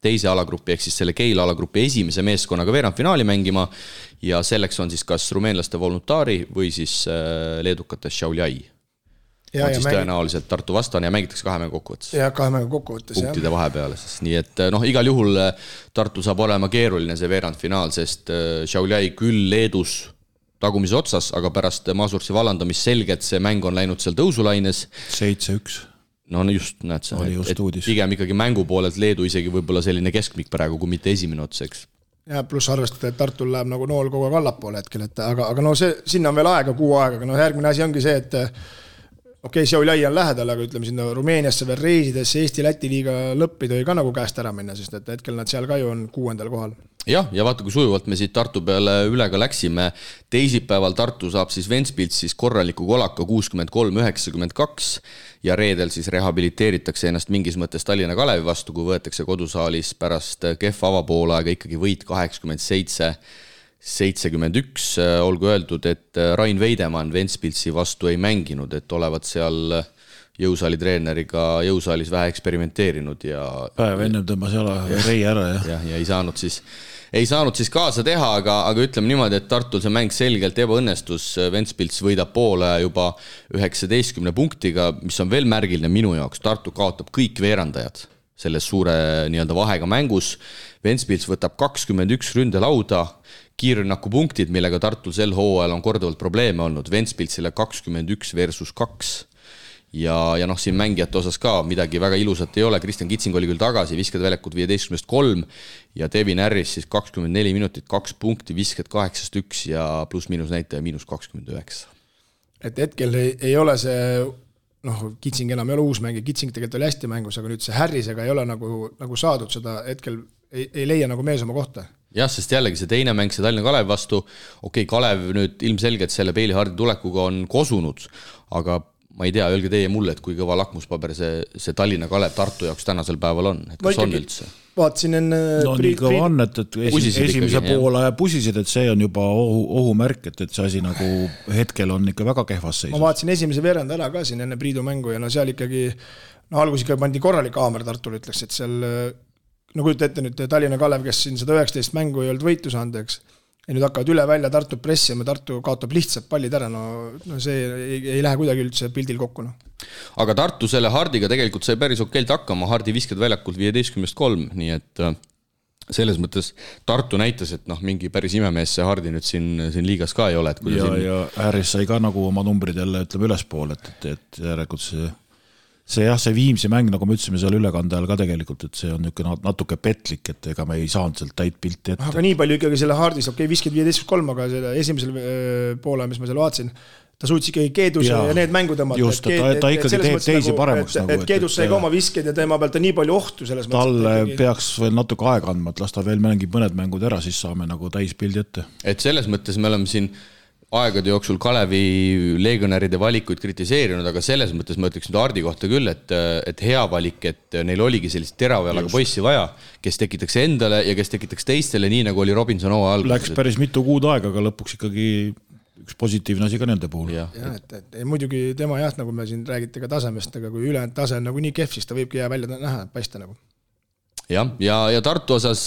teise alagrupi, ehk siis selle Keila alagrupi esimese meeskonnaga veerandfinaali mängima ja selleks on siis kas rumeenlaste Voluntaari või siis leedukate Šiauliai. On siis tõenäoliselt Tartu vastane ja mängitakse 2 mängu kokkuvõttes. Ja 2 mängu kokkuvõttes, jah. Punktide vahepeale. Nii et igal juhul Tartu saab olema keeruline see veerandfinaal, sest Šiauliai küll Leedus tagumise otsas, aga pärast Masurtsi vallandamist selgelt see mäng on läinud seal tõusulaines. 7-1. No just, näed sa. Just uudis. Pigem ikkagi mängu poolelt Leedu isegi võib-olla selline keskmik praegu, kui mitte esimene otseks. Ja pluss arvestada, et Tartul läheb nagu nool kogu aeg allapoole hetkel, aga sinna on veel aega, 6 aega, aga järgmine asi ongi see, et Šiauliai on lähedal, aga ütleme sinna Rumeeniasse veel reisides Eesti-Läti liiga lõppi tõi ka nagu käest ära minna, sest et hetkel nad seal ka ju on 6. kohal. Ja vaata, kui sujuvalt me siit Tartu peale üle ka läksime. Teisipäeval Tartu saab siis Ventspils siis korraliku kolaka 63-92 ja reedel siis rehabiliteeritakse ennast mingis mõttes Tallinna Kalevi vastu, kui võetakse kodusaalis pärast kehva avapoolaega ikkagi võit 87-71. Olgu öeldud, et Rain Veidemann Ventspilsi vastu ei mänginud, et olevat seal jõusaali treeneriga jõusaalis vähe eksperimenteerinud ja päev ennem tõmbas jala rei ära ja ei saanud siis kaasa teha, aga ütleme niimoodi, et Tartul see mäng selgelt ebaõnnestus. Ventspils võidab poole juba 19 punktiga, mis on veel märgiline minu jaoks. Tartu kaotab kõik veerandajad selles suure nii-öelda vahega mängus. Ventspils võtab 21 ründelauda, kiirrünnaku punktid, millega Tartul sel hooajal on korduvalt probleeme olnud. Ventspilsile 21 versus 2. Ja siin mängijate osas ka midagi väga ilusat ei ole. Kristjan Kitsing oli küll tagasi, viskad väljakut 15-3 ja Devin Harris siis 24 minutit, 2 punkti, viskad 8-1 ja pluss-miinus näitaja -29. Et hetkel ei ole see, Kitsing enam ei ole uus mängija, Kitsing tegelikult oli hästi mängus, aga nüüd see Harrisega ei ole nagu saadud seda, hetkel ei leia nagu mees oma kohta. Jah, sest jällegi see teine mäng, see Tallinna Kalev vastu, Kalev nüüd ilmselgelt selle Peili Hardi tulekuga on kosunud, aga ma ei tea, öelge teie mulle, et kui kõva lakmuspaber see Tallinna Kalev Tartu jaoks tänasel päeval on, et kas on üldse? Vaatasin enne... No nii kõva on, et esimese poole pusisid, et see on juba ohumärk, et see asi nagu hetkel on ikka väga kehvas seisus. Ma vaatasin esimese veerand ära ka siin enne Priidu mängu ja no seal ikkagi, no algus ikka pandi korralik haamer Tartul, ütleks, et seal, no kujuta ette nüüd Tallinna Kalev, kes siin 119 mängu ei olnud võitu saanud, eks, ja nüüd hakkavad üle välja Tartu pressima, Tartu kaotab lihtsalt pallid ära, no see ei lähe kuidagi üldse pildil kokku. No. Aga Tartu selle Hardiga tegelikult sai päris okeilt hakkama, Hardi viskad väljakult 15-3, nii et selles mõttes Tartu näitas, et mingi päris imemees see Hardi nüüd siin liigas ka ei ole. Et ja Ääris sai ka nagu oma numbrid jälle ütleme ülespool, et järelikult see Viimsi mäng, nagu me ütlesime seal ülekande ajal ka tegelikult, et see on natuke petlik, et ega me ei saanud sealt täit pilti ette. Aga nii palju ikkagi selle Hardis, viskid 15-3, aga selle esimesel poole, mis ma seal vaatasin, ta suutis ikkagi Keeduse ja need mängu tõmmata. Just, ta ikkagi teeb teisi paremaks. Et Keedus sai ka oma visked ja teema pealt on nii palju ohtu selles mõttes. Talle peaks veel natuke aega andma, et las ta veel mängib mõned mängud ära, siis saame nagu täis pildi ette. Et selles mõttes me oleme siin aegade jooksul Kalevi legionäride valikuid kritiseerinud, aga selles mõttes ma ütleks nüüd Hardi kohta küll, et hea valik, et neil oligi sellist teravjalaga poissi vaja, kes tekitaks endale ja kes tekitaks teistele, nii nagu oli Robinson hooaja alguses. Läks päris mitu kuud aega, aga lõpuks ikkagi üks positiivne asi ka nende puhul. Ja, et muidugi tema nagu me siin räägite ka tasemest, aga kui ülejäänud tase on nagu nii kehv, siis ta võibki jää välja näha, paista nagu. Ja Tartu osas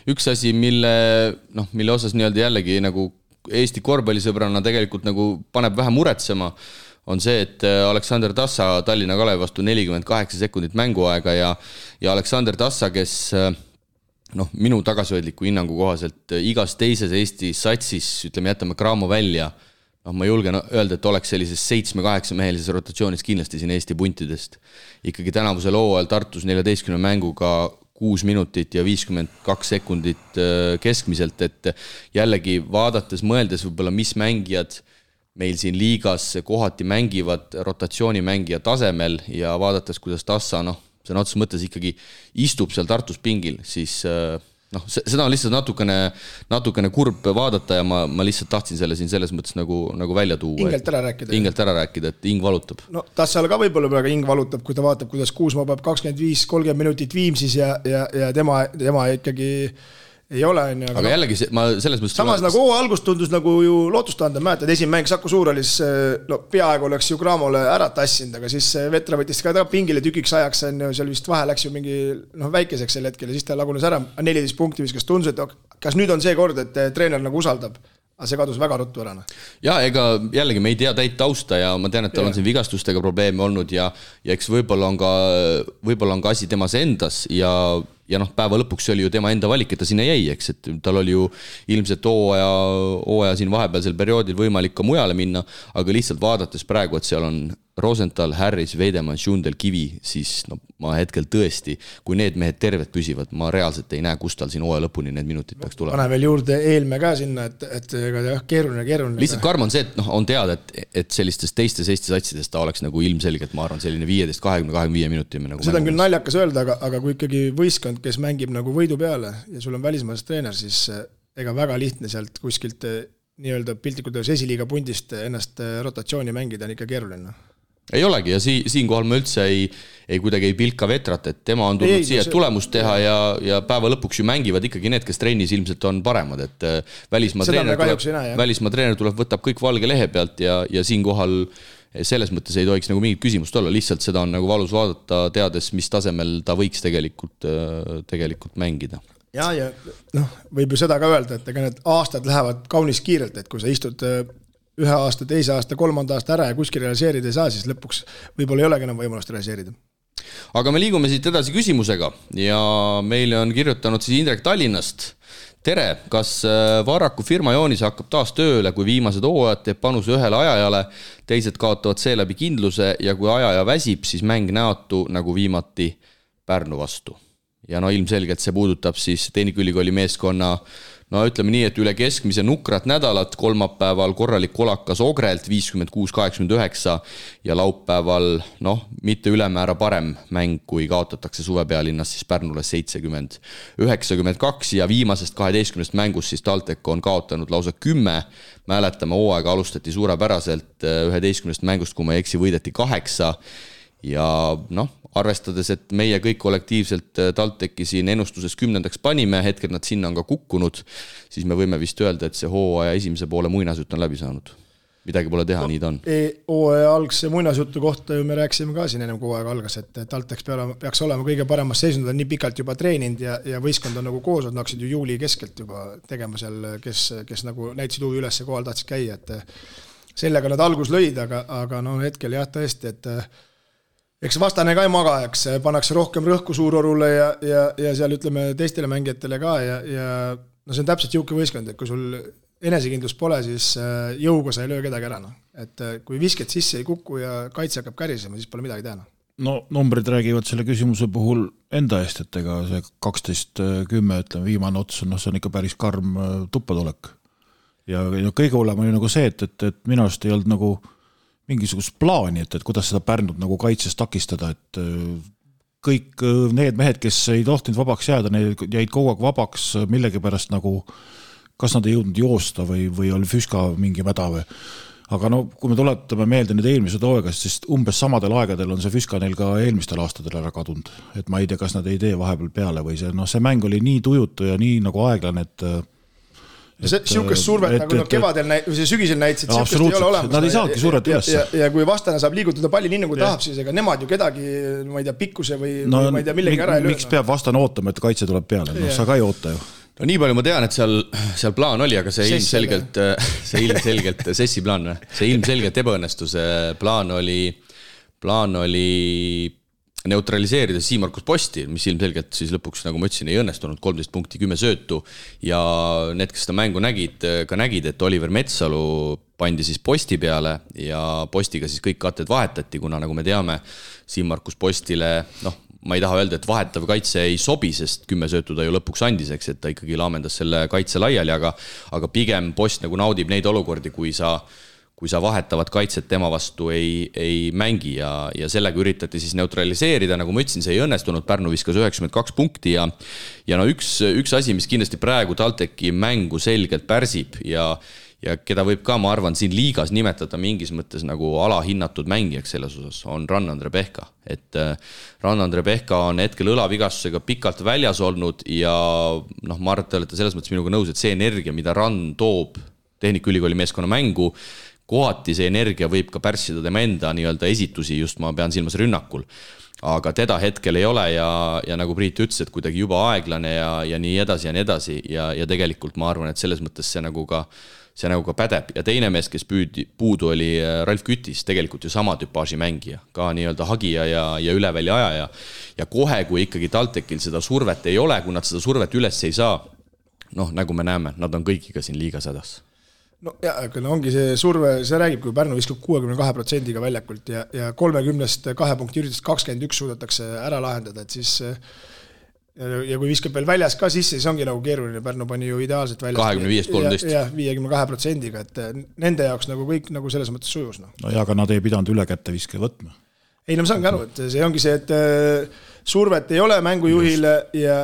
üks asi, mille osas nii-öelda jällegi nagu Eesti korvpallisõbrana tegelikult nagu paneb vähe muretsema, on see, et Aleksander Tassa Tallinna Kalevi vastu 48 sekundit mänguaega ja Aleksander Tassa, kes minu tagasihoidliku hinnangu kohaselt igas teises Eesti satsis, ütleme, jätame Kraamo välja, ma julgen öelda, et oleks sellises 7-8 mehelises rotatsioonis kindlasti siin Eesti puntidest. Ikkagi tänavusel hooajal Tartus 14 mänguga 6 minutit ja 52 sekundit keskmiselt, et jällegi vaadates, mõeldes võib-olla, mis mängijad meil siin liigas kohati mängivad rotatsioonimängija tasemel ja vaadates, kuidas Tassa, see on otses mõttes ikkagi istub seal Tartus pingil, siis seda on lihtsalt natukene kurb vaadata ja ma lihtsalt tahtsin selle siin selles mõttes nagu välja tuua. Ingelt ära rääkida, et ing valutab. No Tassal ka võib-olla praegu ing valutab, kui ta vaatab, kuidas Kuusmaa peab 25-30 minutit Viimsis ja tema ikkagi ei ole. Aga jällegi, ma selles mõttes... Samas nagu algust tundus nagu ju lootustanda, mäletad, esimene mäng Saku Suurhallis, peaaegu oleks ju Kraamole ära tassinud, aga siis Vetra võttis ka pingile tükiks ajaks, seal vist vahe läks ju mingi väikeseks sel hetkel ja siis ta lagunes ära, 14 punkti viskas, tundus, et kas nüüd on see kord, et treener nagu usaldab? Aga see kadus väga ruttu ära. Ja ega jällegi me ei tea täit tausta ja ma tean, et tal on siin vigastustega probleeme olnud ja eks võib-olla on ka asi temas endas ja päeva lõpuks oli ju tema enda valik, et ta sinna jäi, eks, et tal oli ju ilmselt hooaja siin vahepealsel perioodil võimalik ka mujale minna, aga lihtsalt vaadates praegu, et seal on Rosenthal, Harris, Veidemann, Schundel, Kivi, siis ma hetkel tõesti, kui need mehed terved püsivad, ma reaalselt ei näe, kus tal siin hooaja lõpuni need minutid peaks tulema. Pane veel juurde Eelme ka sinna, et keeruline. Lihtsalt karm on see, et on teada, et sellistes teistes Eesti satsides ta oleks nagu ilmselgelt, ma arvan, selline 15-20-25 minuti. Seda on küll naljakas öelda, aga kui ikkagi võistkond, kes mängib nagu võidu peale ja sul on välismaast treener, siis ega väga lihtne sealt kuskilt nii-öelda piltlikult esiliiga pundist ennast rotatsiooni mängida on ikka keeruline. Ei olegi ja siinkohal ma üldse ei kuidagi ei pilka Vetrat, et tema on tulnud siia tulemust teha ja päeva lõpuks ju mängivad ikkagi need, kes trennis ilmselt on paremad, et välismaa treener tuleb, võtab kõik valge lehe pealt ja siinkohal selles mõttes ei tohiks nagu mingit küsimust olla, lihtsalt seda on nagu valus vaadata, teades, mis tasemel ta võiks tegelikult mängida. Ja võib ju seda ka öelda, et ega need aastad lähevad kaunis kiirelt, et kui sa istud ühe aasta, teise aasta, kolmanda aasta ära ja kuskil realiseerida ei saa, siis lõpuks võib-olla ei olegi enam võimalust realiseerida. Aga me liigume siit edasi küsimusega ja meile on kirjutanud siis Indrek Tallinnast. Tere, kas Varraku firma Joonis hakkab taas tööle, kui viimased hooajad teeb panuse ühele ajajale, teised kaotavad seeläbi kindluse ja kui ajaja väsib, siis mäng näotu nagu viimati Pärnu vastu. ja no ilmselgelt see puudutab siis Tehnikaülikooli meeskonna no ütleme nii, et üle keskmise nukrat nädalat, kolmapäeval korralik kolakas Ogrelt 56-89 ja laupäeval mitte ülemäära parem mäng, kui kaotatakse suvepealinnas siis Pärnule 70-92 ja viimasest 12 mängust siis TalTech on kaotanud lausa 10. Mäletame, hooaega alustati suurepäraselt 11 mängust, kui ma ei eksi, võideti 8 ja arvestades, et meie kõik kollektiivselt TalTechi siin ennustuses 10. panime, hetkel nad sinna on ka kukkunud, siis me võime vist öelda, et see hooaja esimese poole muinasjutt on läbi saanud. Midagi pole teha, nii ta on. Hooaja algse muinasjutu kohta ju me rääkisime ka siin ennem kui hooaega algas, et TalTech peaks olema kõige paremas seisund, on nii pikalt juba treeninud ja võistkond on nagu koos, nad hakkasid ju juuli keskelt juba tegema seal, kes nagu näitasid huvi üles ja kohal tahtsid käia, et sellega nad algus lõid, aga hetkel jah tõesti, et eks vastane ka ei maga, eks pannakse rohkem rõhku Suurorule ja seal ütleme teistele mängijatele ka ja see on täpselt jõuke võistkond, et kui sul enesekindlus pole, siis jõuga sa ei löö kedagi ära. Et kui visked sisse ei kuku ja kaitse hakkab kärisema, siis pole midagi teha. No numbrid räägivad selle küsimuse puhul enda eest, et ega see 12-10, ütleme viimane ots, see on ikka päris karm tuppadolek. Ja kõige hullem oli nagu see, et minu arust ei olnud nagu mingisugust plaani, et kuidas seda Pärnut nagu kaitses takistada, et kõik need mehed, kes ei tohtinud vabaks jääda, need jäid kogu aeg vabaks millegipärast nagu, kas nad ei jõudnud joosta või oli füska mingi mäda või. Aga kui me tuletame meelde nüüd eelmised hooaegast, siis umbes samadel aegadel on see füska neil ka eelmistel aastatel ära kadunud. Et ma ei tea, kas nad ei tee vahepeal peale või see mäng oli nii tujutu ja nii nagu aeglane, et Siukest survet, nagu kevadel või sügisel näitasid, siukest ei ole olemas. Nad ei saagi survet üles. Ja kui vastane saab liigutada palli nii nagu tahab, siis ega nemad ju kedagi, ma ei tea, pikkuse või ma ei tea, millegi ära ei löö. Miks peab vastane ootama, et kaitse tuleb peale? Sa ka ei oota ju. No nii palju ma tean, et seal plaan oli, aga see ilmselgelt Sessi plaan, see ilmselgelt ebaõnnestuse plaan oli neutraliseerida Siimarkus Posti, mis ilmselgelt siis lõpuks, nagu ma ütlesin, ei õnnestunud 13 punkti, 10 söötu ja need, kes seda mängu nägid, et Oliver Metsalu pandi siis Posti peale ja Postiga siis kõik katted vahetati, kuna nagu me teame, Siimarkus Postile, ma ei taha öelda, et vahetav kaitse ei sobi, sest 10 söötu ta ju lõpuks andis, eks, et ta ikkagi laamendas selle kaitse laiali, aga pigem Post nagu naudib neid olukordi, kui sa vahetavad kaitset tema vastu ei mängi ja sellega üritati siis neutraliseerida, nagu ma ütlesin, see ei õnnestunud, Pärnu viskas 92 punkti ja üks asi, mis kindlasti praegu TalTechi mängu selgelt pärsib ja keda võib ka, ma arvan, siin liigas nimetada mingis mõttes nagu alahinnatud mängijaks selles osas, on Rann-Andre Pehka. Et Rann-Andre Pehka on hetkel õlavigastusega pikalt väljas olnud ja ma arvan, et te olete selles mõttes minuga nõus, et see energia, mida Rann toob Tehnikaülikooli meeskonna mängu, kohati see energia võib ka pärssida tema enda nii-öelda esitusi, just ma pean silmas rünnakul. Aga teda hetkel ei ole ja nagu Priit ütles, et kuidagi juba aeglane ja nii edasi ja tegelikult ma arvan, et selles mõttes see nagu ka pädeb. Ja teine mees, kes puudu oli Ralf Kütis, tegelikult ju sama tüpaaži mängija, ka nii-öelda hagija ja üleväli ajaja. Ja kohe, kui ikkagi TalTechil seda survet ei ole, kui nad seda survet üles ei saa, nagu me näeme, nad on kõikiga siin liigas hädas. No ja, aga ongi see surve, see räägib, kui Pärnu viskab 62% väljakult ja 30-st 2 punkti üritust 21 suudetakse ära lahendada, et siis ja kui viskab veel väljas ka sisse, siis ongi nagu keeruline, Pärnu pani ju ideaalselt väljas 25-13 ja 52%-ga, et nende jaoks nagu kõik nagu selles mõttes sujus. No ja, aga nad ei pidanud üle kätte viske võtma. Ei, ma saangi aru, et see ongi see, et survet ei ole mängujuhile ja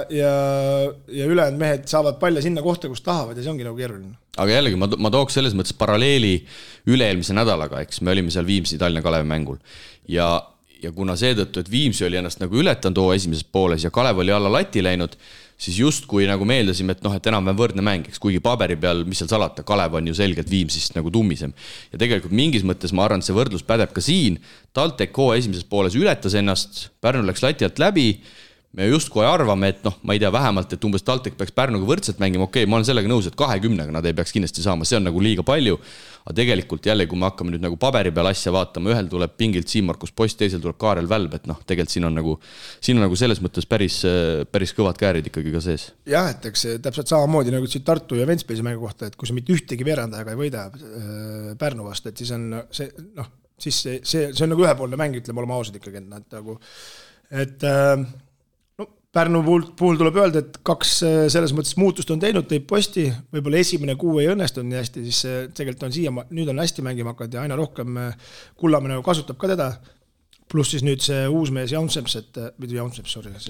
ülejäänud mehed saavad palle sinna kohta, kus tahavad ja see ongi nagu keeruline. Aga jällegi, ma tooks selles mõttes paralleeli üle-eelmise nädalaga, eks me olime seal Viimsi Tallinna Kalevi mängul ja kuna seetõttu, et Viimsi oli ennast nagu ületanud esimeses pooles ja Kalev oli alla lati läinud, siis justkui nagu meeldasime, et enam võrdne mäng, eks kuigi paberi peal, mis seal salata, Kalev on ju selgelt Viimsist nagu tummisem. Ja tegelikult mingis mõttes ma arvan, et see võrdlus pädeb ka siin. TalTech esimeses pooles ületas ennast, Pärnu läks lati alt läbi, me justkui arvame, et ma ei tea vähemalt, et umbes TalTech peaks Pärnuga võrdselt mängima, okei, ma olen sellega nõus, et 20-ga nad ei peaks kindlasti saama, see on nagu liiga palju, aga tegelikult jälle, kui me hakkame nüüd nagu paberi peal asja vaatama, ühel tuleb pingilt Siimarkus Post, teisel tuleb Kaarel Välb, et tegelikult siin on nagu selles mõttes päris kõvad käärid ikkagi ka sees. Jah, et eks täpselt samamoodi nagu siin Tartu ja Ventspilsi mängu kohta, et kui sa mitte ühtegi veerandajaga ei võida Pärnu vastu, et siis on see on nagu ühepoolne mäng, ütleme olema ausad ikkagi, et Pärnu puhul tuleb öelda, et 2 selles mõttes muutust on teinud, teeb Posti, võib-olla esimene 6 ei õnnestunud nii hästi, siis tegelikult on nüüd on hästi mängima hakanud ja aina rohkem Kullamäe kasutab ka teda, pluss siis nüüd see uus mees Jaunseps,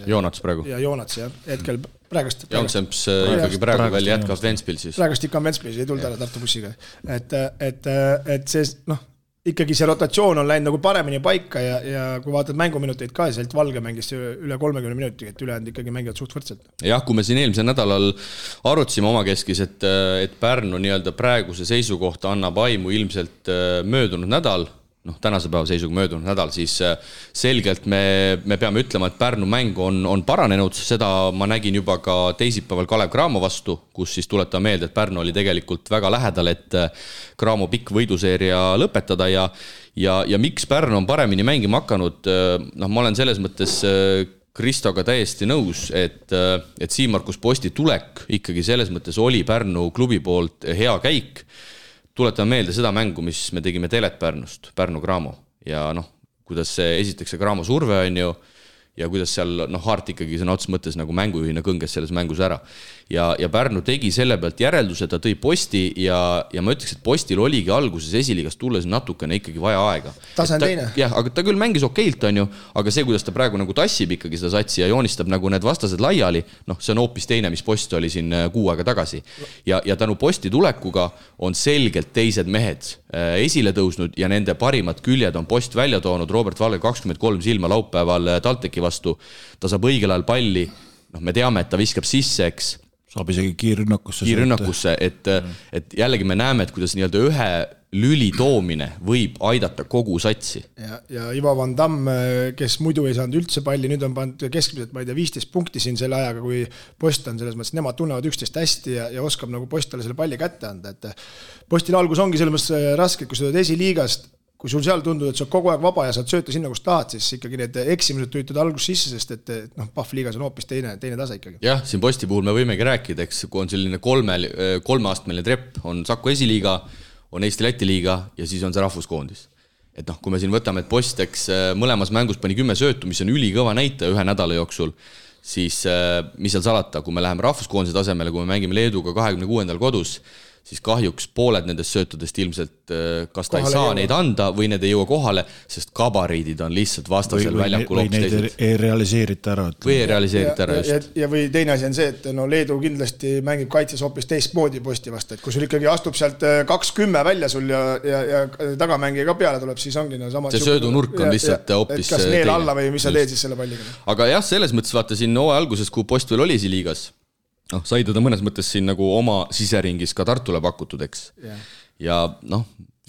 Joonats praegu. Ja Joonats, jah, hetkel praegust. Jaunseps ikkagi praegu veel jätkab Ventspil siis. Praegust ikka on Ventspil, ei tulnud ära Tartu bussiga. Et see, ikkagi see rotatsioon on läinud nagu paremini paika ja kui vaatad mänguminuteid ka, siis Valge mängis üle 30 minuti, et ülejäänud ikkagi mängivad suht võrdselt. Jah, kui me siin eelmisel nädalal arutasime omakeskis, et Pärnu nii-öelda praeguse seisukohta annab aimu ilmselt möödunud nädal, tänase päeva seisuga möödunud nädal, siis selgelt me peame ütlema, et Pärnu mäng on paranenud, seda ma nägin juba ka teisipäeval Kalev Cramo vastu, kus siis tuletan meelde, et Pärnu oli tegelikult väga lähedal, et Cramo pikk võiduseeria lõpetada ja miks Pärnu on paremini mängima hakanud, ma olen selles mõttes Kristoga täiesti nõus, et Siim-Markus Posti tulek ikkagi selles mõttes oli Pärnu klubi poolt hea käik. Tuletame meelde seda mängu, mis me tegime Telet Pärnust, Pärnu Cramo ja kuidas see esiteks see Cramo surve on ju ja kuidas seal Hart ikkagi sõna otseses mõttes nagu mängujuhina kõnges selles mängus ära. Ja Pärnu tegi selle pealt järelduse, ta tõi Posti ja ma ütleks, et Postil oligi alguses esiliigast tulles natukene ikkagi vaja aega. Tase on teine. Jah, aga ta küll mängis okeilt on ju, aga see, kuidas ta praegu nagu tassib ikkagi seda satsi ja joonistab nagu need vastased laiali, see on hoopis teine, mis Post oli siin 6 aega tagasi. Ja tänu Posti tulekuga on selgelt teised mehed esile tõusnud ja nende parimad küljed on Post välja toonud. Robert Valge 23 silma laupäeval TalTechi vastu. Ta saab õigel ajal palli, me teame, et ta viskab sisse, eks. Saab isegi kiirrünnakusse, et jällegi me näeme, et kuidas nii-öelda ühe lüli toomine võib aidata kogu satsi. Ja Ivo Van Damme, kes muidu ei saanud üldse palli, nüüd on pandud keskmiselt, ma ei tea, 15 punkti siin selle ajaga, kui Post on selles mõttes, nemad tunnevad üksteist hästi ja oskab nagu Postile selle palli kätte anda, et Postil algus ongi selles mõttes raske, kui sa oled esiliigast, kui sul seal tundub, et sa kogu aeg vaba ja saad sööta sinna, kus tahad, siis ikkagi need eksimused tüütud algus sisse, sest et Pahvliigas on hoopis teine tase ikkagi. Jah, siin Posti puhul me võimegi rääkida, eks, kui on selline kolmeastmeline trepp, on Saku esiliiga, on Eesti-Läti liiga ja siis on see rahvuskoondis. Et kui me siin võtame, et Post, eks, mõlemas mängus pani 10 söötu, mis on ülikõva näite ühe nädala jooksul, siis mis seal salata, kui me läheme rahvuskoondise tasemele, kui me mängime Leeduga 26. kodus, siis kahjuks pooled nendest söötudest ilmselt kas ta kohale ei saa neid anda või need ei jõua kohale, sest kabariidid on lihtsalt vastasel väljakul hoopis teised. Või neid ei realiseerita ära. Või ei realiseerita ära just. Ja või teine asi on see, et Leedu kindlasti mängib kaitses hoopis teistmoodi Posti vastu, et kui sul ikkagi astub sealt 2-10 välja sul ja tagamängija ka peale tuleb, siis ongi sama. See söödunurk on lihtsalt hoopis kas neel alla või mis sa teed siis selle palliga. Aga jah, selles mõttes vaata siin hooaja alguses, kui Post veel oli liigas, sai teda mõnes mõttes siin nagu oma siseringis ka Tartule pakutud, eks. Ja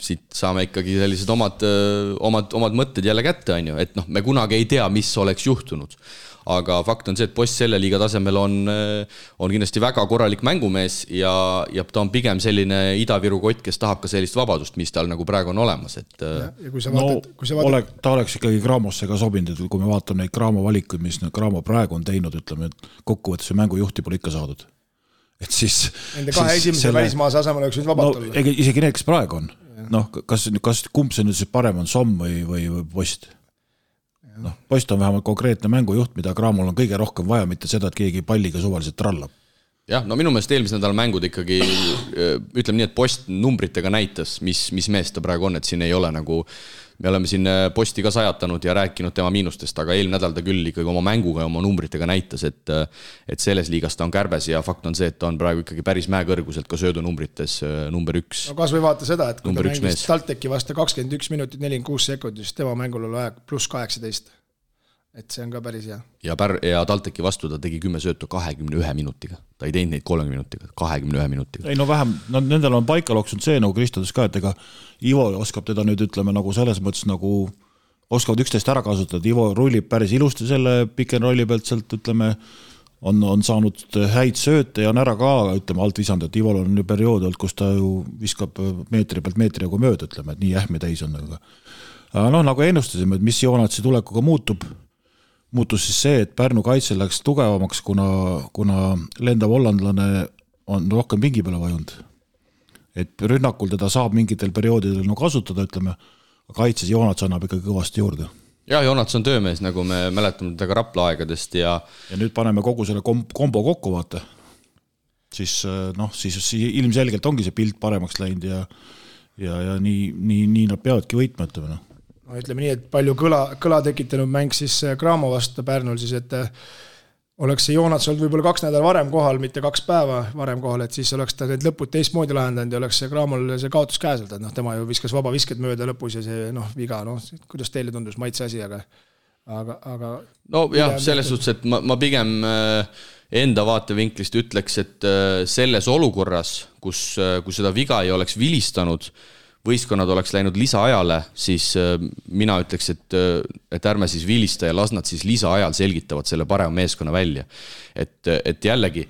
siit saame ikkagi sellised omad mõtted jälle kätte, on ju, et me kunagi ei tea, mis oleks juhtunud. Aga fakt on see, et Post selle liiga tasemel on kindlasti väga korralik mängumees ja ta on pigem selline Ida-Viru kott, kes tahab ka sellist vabadust, mis tal nagu praegu on olemas. Et... Ja kui sa vaatad... ta oleks ikkagi Craamosse ka sobinud, et kui me vaatame neid Cramo valikuid, mis Cramo praegu on teinud, ütleme, et kokkuvõttes mängujuhti pole ikka saadud. Et siis... Nende kahe esimese välismaase asemel oleks nüüd vabalt olla. Isegi need, kes praegu on. Kas kumb see nüüd siis parem on, Somm või Post? Post on vähemalt konkreetne mängujuht, mida Cramol on kõige rohkem vaja, mitte seda, et keegi palliga suvaliselt trallab. Jah, minu meelest eelmise nädala mängud ikkagi, ütleme nii, et Post numbritega näitas, mis mees ta praegu on, et siin ei ole nagu, me oleme siin Posti ka sajatanud ja rääkinud tema miinustest, aga eelmine nädal ta küll ikkagi oma mänguga ja oma numbritega näitas, et selles liigas ta on kärbes ja fakt on see, et ta on praegu ikkagi päris mäekõrguselt ka söödunumbrites number 1. No kas või vaata seda, et kui ta mängis TalTechi vastu 21 minutit 46 sekundit, siis tema mängul oli aeg pluss 18. Et see on ka päris hea. Ja TalTechi vastu ta tegi 10 söötu 21 minutiga. Ta ei teinud neid 30 minutiga, 21 minutiga. Ei vähem, nendel on paika loksunud see, nagu Kristodis ka, et ega Ivo oskab teda nüüd, ütleme, nagu selles mõttes nagu oskavad üksteist ära kasutada. Ivo rullib päris ilusti selle pick and rolli pealt sealt, ütleme, on saanud häid sööte ja on ära ka, ütleme, alt visanud, et Ivol on ju periood olnud, kus ta ju viskab meetri pealt meetri nagu mööda, ütleme, et nii ähme täis on. Aga nagu ennustasime, et mis Joonatsi tulekuga muutus siis see, et Pärnu kaitsel läks tugevamaks, kuna lendav hollandlane on rohkem pingi peale vajunud. Et rünnakul teda saab mingitel perioodidel kasutada, ütleme, aga kaitses Joonats annab ikkagi kõvasti juurde. Jah, Joonats on töömees, nagu me mäletame teda ka Rapla aegadest ja nüüd paneme kogu selle kombo kokku, vaata. Siis ilmselgelt ongi see pilt paremaks läinud ja nii nad peavadki võitma, ütleme. No, ütleme nii, et palju kõla tekitanud mäng siis Cramo vastu Pärnul, siis et oleks see Joonats olnud võib-olla 2 nädal varem kohal, mitte 2 päeva varem kohal, et siis oleks ta need lõpud teistmoodi lahendanud ja oleks see Cramol see kaotus käeselt, et tema ju viskas vaba visket mööda lõpus ja see viga, kuidas teile tundus maitse asi, aga no jah, selles suhtes, et ma pigem enda vaatevinklist ütleks, et selles olukorras, kus seda viga ei oleks vilistanud, võistkonnad oleks läinud lisaajale, siis mina ütleks, et ärme siis vilista ja las nad siis lisaajal selgitavad selle parema meeskonna välja. Et jällegi,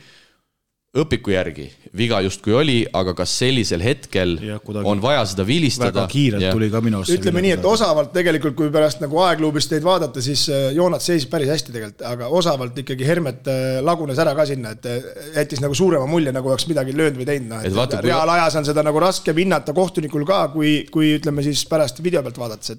õpiku järgi viga justkui oli, aga kas sellisel hetkel on vaja seda vilistada? Väga kiirelt tuli ka minu arust. Ütleme nii, et osavalt tegelikult, kui pärast nagu aegluubist teid vaadata, siis Joonats seisis päris hästi tegelikult, aga osavalt ikkagi Hermet lagunes ära ka sinna, et jättis nagu suurema mulje, nagu oleks midagi löönud või teinud. Reaalajas on seda nagu raske hinnata kohtunikul ka, kui ütleme siis pärast video pealt vaadates,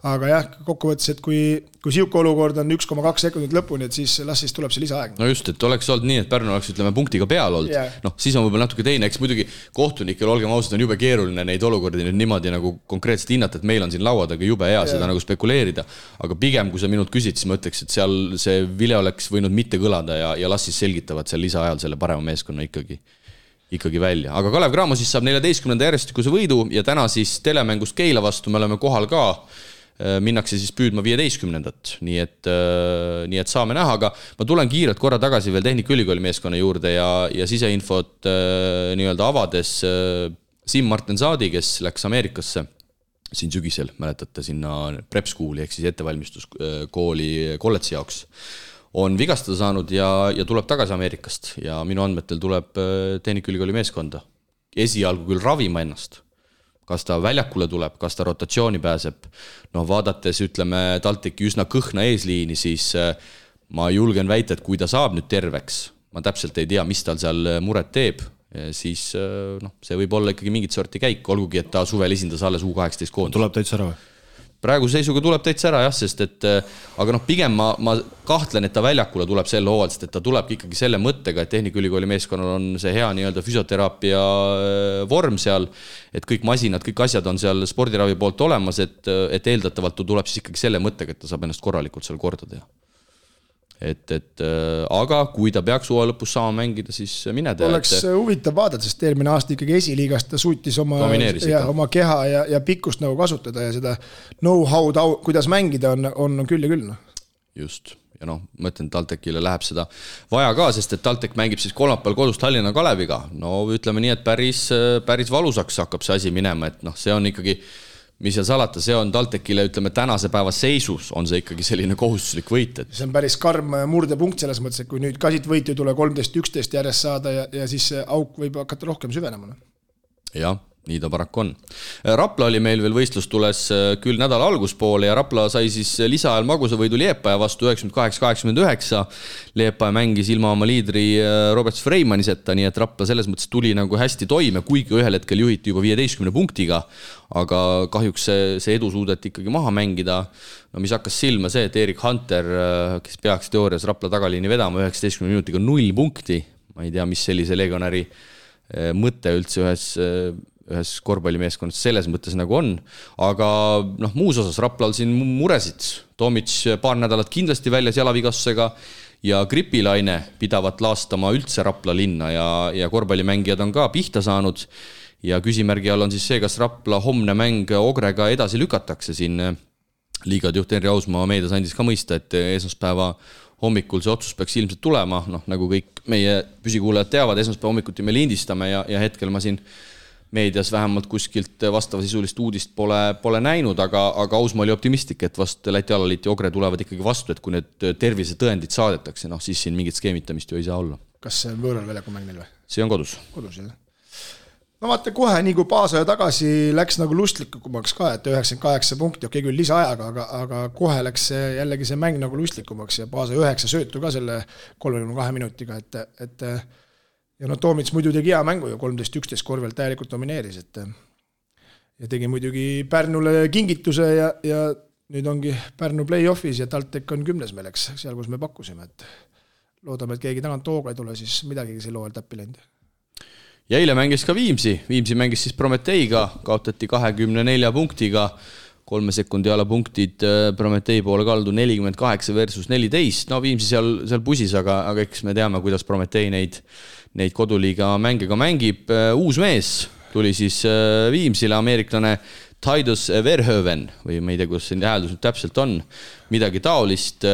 aga jah, kokkuvõttes, et kui siuke olukord on 1,2 sekundit lõpuni, et siis las siis tuleb see lisaaeg. No just, et oleks olnud nii, et Pärnu oleks, ütleme, punktiga peal olnud. Siis on võib-olla natuke teine, eks muidugi kohtunikel, olgem ausad, on jube keeruline neid olukordi nüüd niimoodi nagu konkreetselt hinnata, et meil on siin lauadaga jube hea seda nagu spekuleerida, aga pigem, kui sa minult küsid, siis ma ütleks, et seal see vile oleks võinud mitte kõlada ja las siis selgitavad seal lisaajal selle parema meeskonna ikkagi välja. Aga Kalev Cramo siis saab 14. järjestikuse võidu ja täna siis telemängust Keila vastu me oleme kohal ka, minnakse siis püüdma 15. Nii et saame näha, aga ma tulen kiirelt korra tagasi veel Tehnikaülikooli meeskonna juurde ja siseinfot nii-öelda avades Siim Martin Saadi, kes läks Ameerikasse siin sügisel, mäletate, sinna prep school'i ehk siis ettevalmistuskooli kolledži jaoks, on vigastada saanud ja tuleb tagasi Ameerikast ja minu andmetel tuleb Tehnikaülikooli meeskonda. Esialgu küll ravima ennast. Kas ta väljakule tuleb, kas ta rotatsiooni pääseb. Vaadates, ütleme, TalTechi üsna kõhna eesliini, siis ma julgen väita, et kui ta saab nüüd terveks, ma täpselt ei tea, mis tal seal muret teeb, siis see võib olla ikkagi mingit sorti käik, olgugi, et ta suvel esindas alles U18 koondis. Tuleb täitsa ära või? Praegu seisuga tuleb täitsa ära, jah, sest et aga pigem ma kahtlen, et ta väljakule tuleb selle hooval, sest et ta tuleb ikkagi selle mõttega, et Tehnikaülikooli meeskonnal on see hea nii-öelda füsioteraapia vorm seal, et kõik masinad, kõik asjad on seal spordiravi poolt olemas, et eeldatavalt tuleb siis ikkagi selle mõttega, et ta saab ennast korralikult seal korda teha. Aga kui ta peaks uue lõpus saama mängida, siis mine tea. Oleks huvitav vaadata, sest eelmine aasta ikkagi esiliigast ta suutis oma keha ja pikkust nagu kasutada ja seda know-how, kuidas mängida on küll ja küll. Just. Ja ma ütlen, TalTechile läheb seda vaja ka, sest et TalTech mängib siis kolmapäeval kodus Tallinna Kaleviga. Ütleme nii, et päris valusaks hakkab see asi minema, et see on ikkagi mis seal salata, see on TalTechile, ütleme, tänase päeva seisus on see ikkagi selline kohustuslik võit. See on päris karm murdepunkt selles mõttes, et kui nüüd kasit võitu tule 13-11 järjest saada ja siis auk võib hakata rohkem süvenema. Jah, nii ta paraku on. Rapla oli meil veel võistlus tules küll nädala alguspoole ja Rapla sai siis lisaajal magusa võidu Liepaja vastu 98-89. Liepaja mängis ilma oma liidri Robert Freimaniseta, nii et Rapla selles mõttes tuli nagu hästi toime, kuigi ühel hetkel juhiti juba 15 punktiga, aga kahjuks see edu suudeti ikkagi maha mängida. Mis hakkas silma see, et Erik Hunter, kes peaks teoorias Rapla tagaliini vedama 19 minutiga 0 punkti, ma ei tea, mis sellise legionäri mõte üldse ühes korvpallimeeskonnas selles mõttes nagu on, aga muus osas Raplal siin muresid. Tomic paar nädalat kindlasti väljas jalavigastusega ja gripilaine pidavat laastama üldse Rapla linna ja korvpallimängijad on ka pihta saanud ja küsimärgi all on siis see, kas Rapla homne mäng Ogrega edasi lükatakse siin. Liigad juht Henri Ausmaa meedias andis ka mõista, et esmaspäeva hommikul see otsus peaks ilmselt tulema, nagu kõik meie püsikuulajad teavad, esmaspäeva hommikuti me lindistame ja hetkel ma siin meedias vähemalt kuskilt vastavasisulist uudist pole näinud, aga Ausmaa oli optimistlik, et vast Läti alaliit ja Ogre tulevad ikkagi vastu, et kui need tervisetõendid saadetakse, siis siin mingit skeemitamist ju ei saa olla. Kas see on võõral väljaku mäng neil või? See on kodus. Kodus, jah. No vaata kohe, nii kui Paasoja tagasi läks nagu lustlikumaks ka, et 98 punkti, okei küll lisaajaga, aga kohe läks jällegi see mäng nagu lustlikumaks ja Paasoja 9 söötu ka selle 32 minutiga, et ja Toomits muidu tegi hea mängu ju 13-11 korvelt täielikult domineeris, ja tegi muidugi Pärnule kingituse ja nüüd ongi Pärnu play-offis ja TalTech on 10. melleks, seal kus me pakkusime, et loodame, et keegi tagant hooga ei tule, siis midagi sel hooajal täppi läinud. Ja eile mängis ka Viimsi mängis siis Prometeiga, kaotati 24 punktiga, 3 sekundi ala punktid Prometei poole kaldu 48 versus 14, no Viimsi seal pusis, aga eks me teame, kuidas Prometei neid koduliiga mänge ka mängib. Uus mees tuli siis Viimsile, ameeriklane Titus Verhoeven või ma ei tea, kuidas see hääldus nüüd täpselt on, midagi taolist.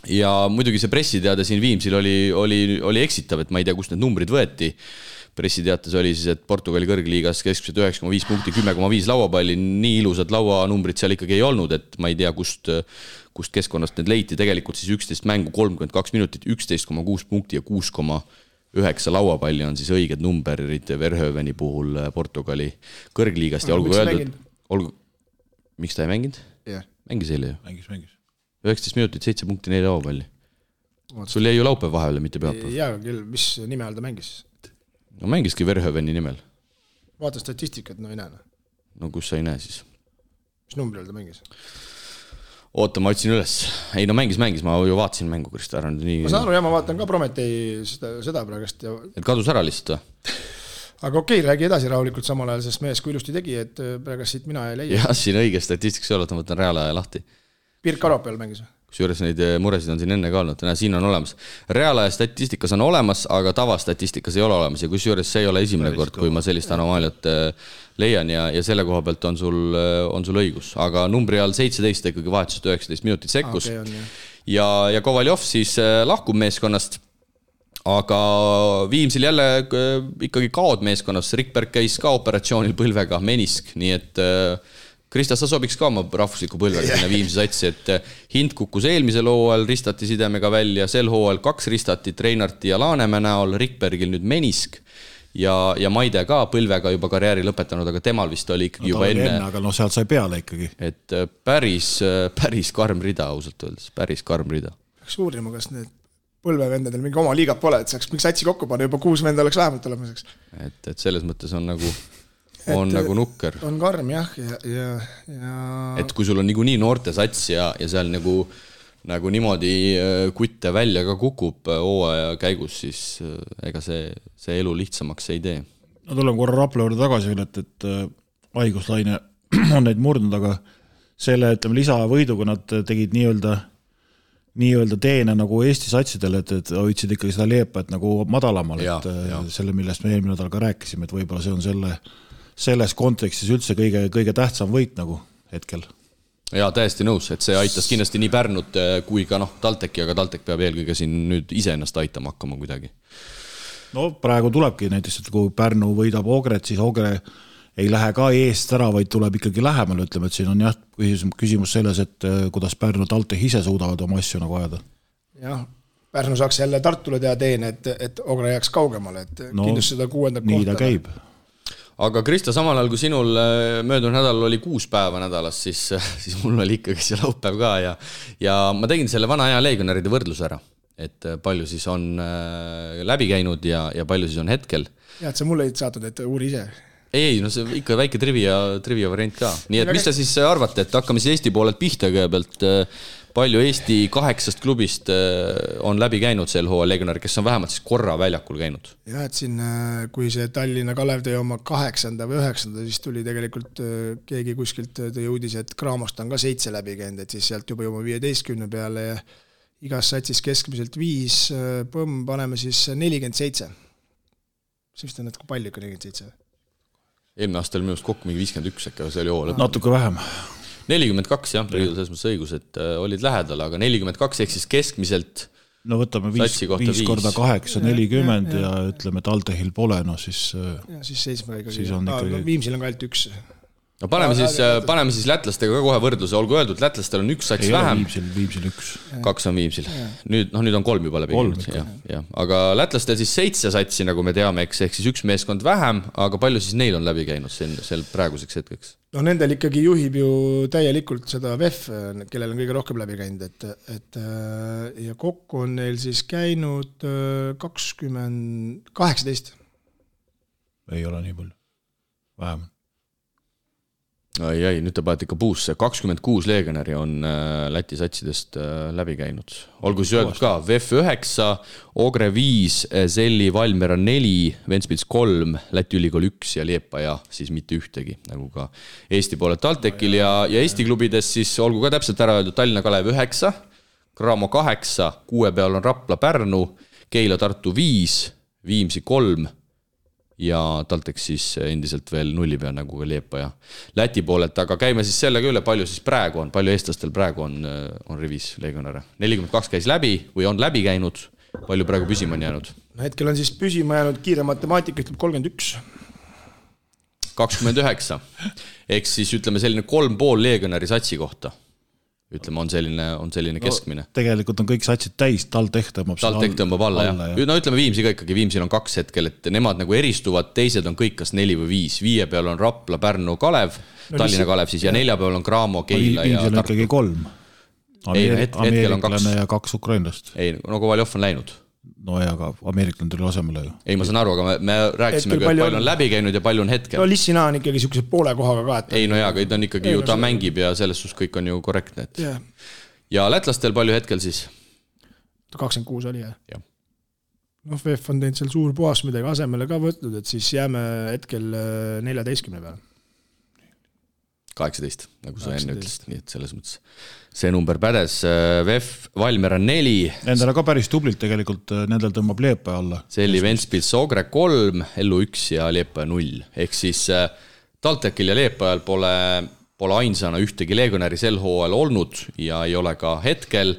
Ja muidugi see pressiteade siin Viimsil oli eksitav, et ma ei tea, kust need numbrid võeti. Pressiteates oli siis, et Portugali kõrgliigas keskmiselt 9,5 punkti, 10,5 lauapalli, nii ilusad lauanumbrid seal ikkagi ei olnud, et ma ei tea, kust keskkonnast need leiti, tegelikult siis 11 mängu, 32 minutit, 11,6 punkti ja 6,9 lauapalli on siis õiged numberid Verhoeveni puhul Portugali kõrgliigast ja miks ta ei mänginud? Yeah. Mängis eile ju. Mängis. 19 minutit, 7 punkti, 4 lauapalli. Sul jäi ju laupäev vahele, mitte pühapäev. Jaa, küll, mis nime all ta mängis? No mängiski Verhoeveni nimel. Vaata statistikat, no ei näe. No kus sa ei näe siis? Mis numbri all ta mängis? Oota, ma otsin üles. Ei, no mängis, ma ju vaatasin mängu, Krista Aran. Ma saan aru, ma vaatan ka Prometei seda praegust. Ja... Et kadus ära lihtsalt või? Aga okei, räägi edasi rahulikult samal ajal, sest mees kui ilusti tegi, et praegust siit mina ei leia. Jah, siin õige statistikas ei ole, et ma võtan reaalaja lahti. Pirk Aropel mängis või? Kusjuures neid muresid on siin enne ka olnud, siin on olemas. Reaalaja statistikas on olemas, aga tavastatistikas ei ole olemas ja kusjuures see ei ole esimene kord, kui ma sellist anomaaliat leian ja selle koha pealt on sul õigus. Aga numbri all 17 ikkagi vahetusest 19 minutit sekkus. Ja Kovaljov siis lahkub meeskonnast, aga Viimsil jälle ikkagi kaod meeskonnas. Rikberg käis ka operatsioonil põlvega, menisk, nii et... Krista, sa sobiks ka oma rahvusliku põlvega sinna Viimsi satsi, et Hind kukkus eelmisel hooajal, ristati sidemega välja, sel hooajal 2 ristatit Reinarti ja Laanemäe näol, Rikbergil nüüd menisk ja Maide ka põlvega juba karjääri lõpetanud, aga temal vist oli ikkagi juba enne. Aga no sealt sai peale ikkagi. Et päris karm rida ausalt öeldes, päris karm rida. Peaks uurima, kas need põlvevendadel mingi oma liigat pole, et saaks mingi satsi kokku panna, juba 6 venda oleks vähemalt olemiseks. Et selles mõttes on nagu nukker. On karm, jah. Ja... Et kui sul on nii noorte sats ja seal nagu niimoodi kutte välja ka kukub hooaja käigus, siis ega see elu lihtsamaks ei tee. No tuleme korra Rapla juurde tagasi veel, et haiguslaine on neid murdnud, aga selle lisavõiduga nad tegid nii-öelda teene nagu Eesti satsidele, et hoidsid ikkagi seda leepet nagu madalamal, selle, millest me eelmine nädal ka rääkisime, et võib-olla see on selles kontekstis üldse kõige tähtsam võit nagu hetkel. Jaa, täiesti nõus, et see aitas kindlasti nii Pärnut kui ka TalTechi, aga TalTech peab eelkõige siin nüüd ise ennast aitama hakkama kuidagi. No praegu tulebki näiteks, et kui Pärnu võidab Ogret, siis Ogre ei lähe ka eest ära, vaid tuleb ikkagi lähemal, ütleme, et siin on jah küsimus selles, et kuidas Pärnu TalTech ise suudavad oma asju nagu ajada. Jah, Pärnu saaks jälle Tartule teha teene, et Ogre jääks kaugemale, et kindlasti seda 6. kohta. Nii ta käib. Aga Krista, samal ajal kui sinul möödunud nädalal oli 6 päeva nädalas, siis mul oli ikkagi see laupäev ka ja ma tegin selle vana aja legionäride võrdluse ära, et palju siis on läbi käinud ja palju siis on hetkel. Ja, et sa mulle ei saatnud, et uuri ise. Ei, no see ikka väike trivia variant ka. Nii et mis te siis arvate, et hakkame siis Eesti poolelt pihta kõigepealt, palju Eesti 8 klubist on läbi käinud sel hooajal legionäri, kes on vähemalt siis korra väljakul käinud? Jah, et siin, kui see Tallinna Kalev tõi oma 8. või 9. siis tuli tegelikult keegi kuskilt tõi uudis, et Kraamost on ka 7 läbi käinud, et siis sealt juba 15 peale ja igas satsis keskmiselt 5, paneme siis 47. See vist on natuke palju ikka 47. Eelmine aastal minust kokku mingi 51, aga see oli hoo lõpp. Natuke vähem. 42, jah, selles mõttes õigus, et olid lähedal, aga 42 ehk siis keskmiselt no võtame 5 korda 8, 40 ja ütleme, et TalTechil pole, no siis... Ja siis 7 ikkagi. ikkagi... Viimsil on ka ainult 1. No paneme siis lätlastega ka kohe võrdluse, olgu öeldud, lätlastel on 1 sats vähem. Viimsil 1. 2 on Viimsil. Nüüd on 3 juba läbi. Aga lätlastel siis 7 satsi, nagu me teame, ehk siis 1 meeskond vähem, aga palju siis neil on läbi käinud sel praeguseks hetkeks? No nendel ikkagi juhib ju täielikult seda VEF, kellel on kõige rohkem läbi käinud, ja kokku on neil siis käinud 18. Ei ole nii palju. Vähem. Ai, nüüd te panete ikka puusse. 26 legionäri on Läti satsidest läbi käinud. Olgu siis öeldud ka, VEF 9, Ogre 5, Selli Valmiera 4, Ventspils 3, Läti Ülikool 1 ja Liepaja siis mitte ühtegi, nagu ka Eesti poolelt TalTechil ja Eesti klubides siis olgu ka täpselt ära öeldud Tallinna Kalev 9, Cramo 8, 6 peal on Rapla Pärnu, Keila Tartu 5, Viimsi 3 ja TalTech siis endiselt veel 0 peal nagu ka Liepaja Läti poolelt, aga käime siis sellega üle, palju siis praegu on, palju eestlastel praegu on rivis legionäre. 42 käis läbi või on läbi käinud, palju praegu püsima on jäänud? No hetkel on siis püsima jäänud kiire matemaatika, ütleb 31. 29. Eks siis ütleme selline 3,5 legionäri satsi kohta. Ütleme, on selline keskmine. Tegelikult on kõik satsid täis, TalTech tõmbab alla, jah. No ütleme Viimsi ka ikkagi, Viimsil on 2 hetkel, et nemad nagu eristuvad, teised on kõik kas 4 või 5. 5 peal on Rapla, Pärnu, Kalev, Tallinna Kalev siis ja 4 peal on Cramo, Keila ja Tartu. Viimsil on ikkagi 3. Hetkel on 2. Ja 2 ukrainlast. Ei, no Kovaljov on läinud. No ja ka ameeriklane tuli asemele ju. Ei, ma saan aru, aga me rääkisime, et palju on läbi käinud ja palju on hetkel. No Lissina on ikkagi siukse poole kohaga ka. Ei, no jaa, aga ta on ikkagi ju, ta mängib ja selles suhtes kõik on ju korrektne. Ja lätlastel palju hetkel siis? 26 oli, jah. No VEF on teinud seal suur puhas midagi asemele ka võtnud, et siis jääme hetkel 14 peale. 18, nagu sa enne ütlesid, nii et selles mõttes see number pädes. VEF Valmiera 4. Nendele ka päris tublilt tegelikult, nendel tõmbab Liepaja alla. Selli Ventspils Ogre 3, Ellu 1 ja Liepaja 0. Ehk siis TalTechil ja Liepajal pole ainsana ühtegi legionäri sel hooajal olnud ja ei ole ka hetkel.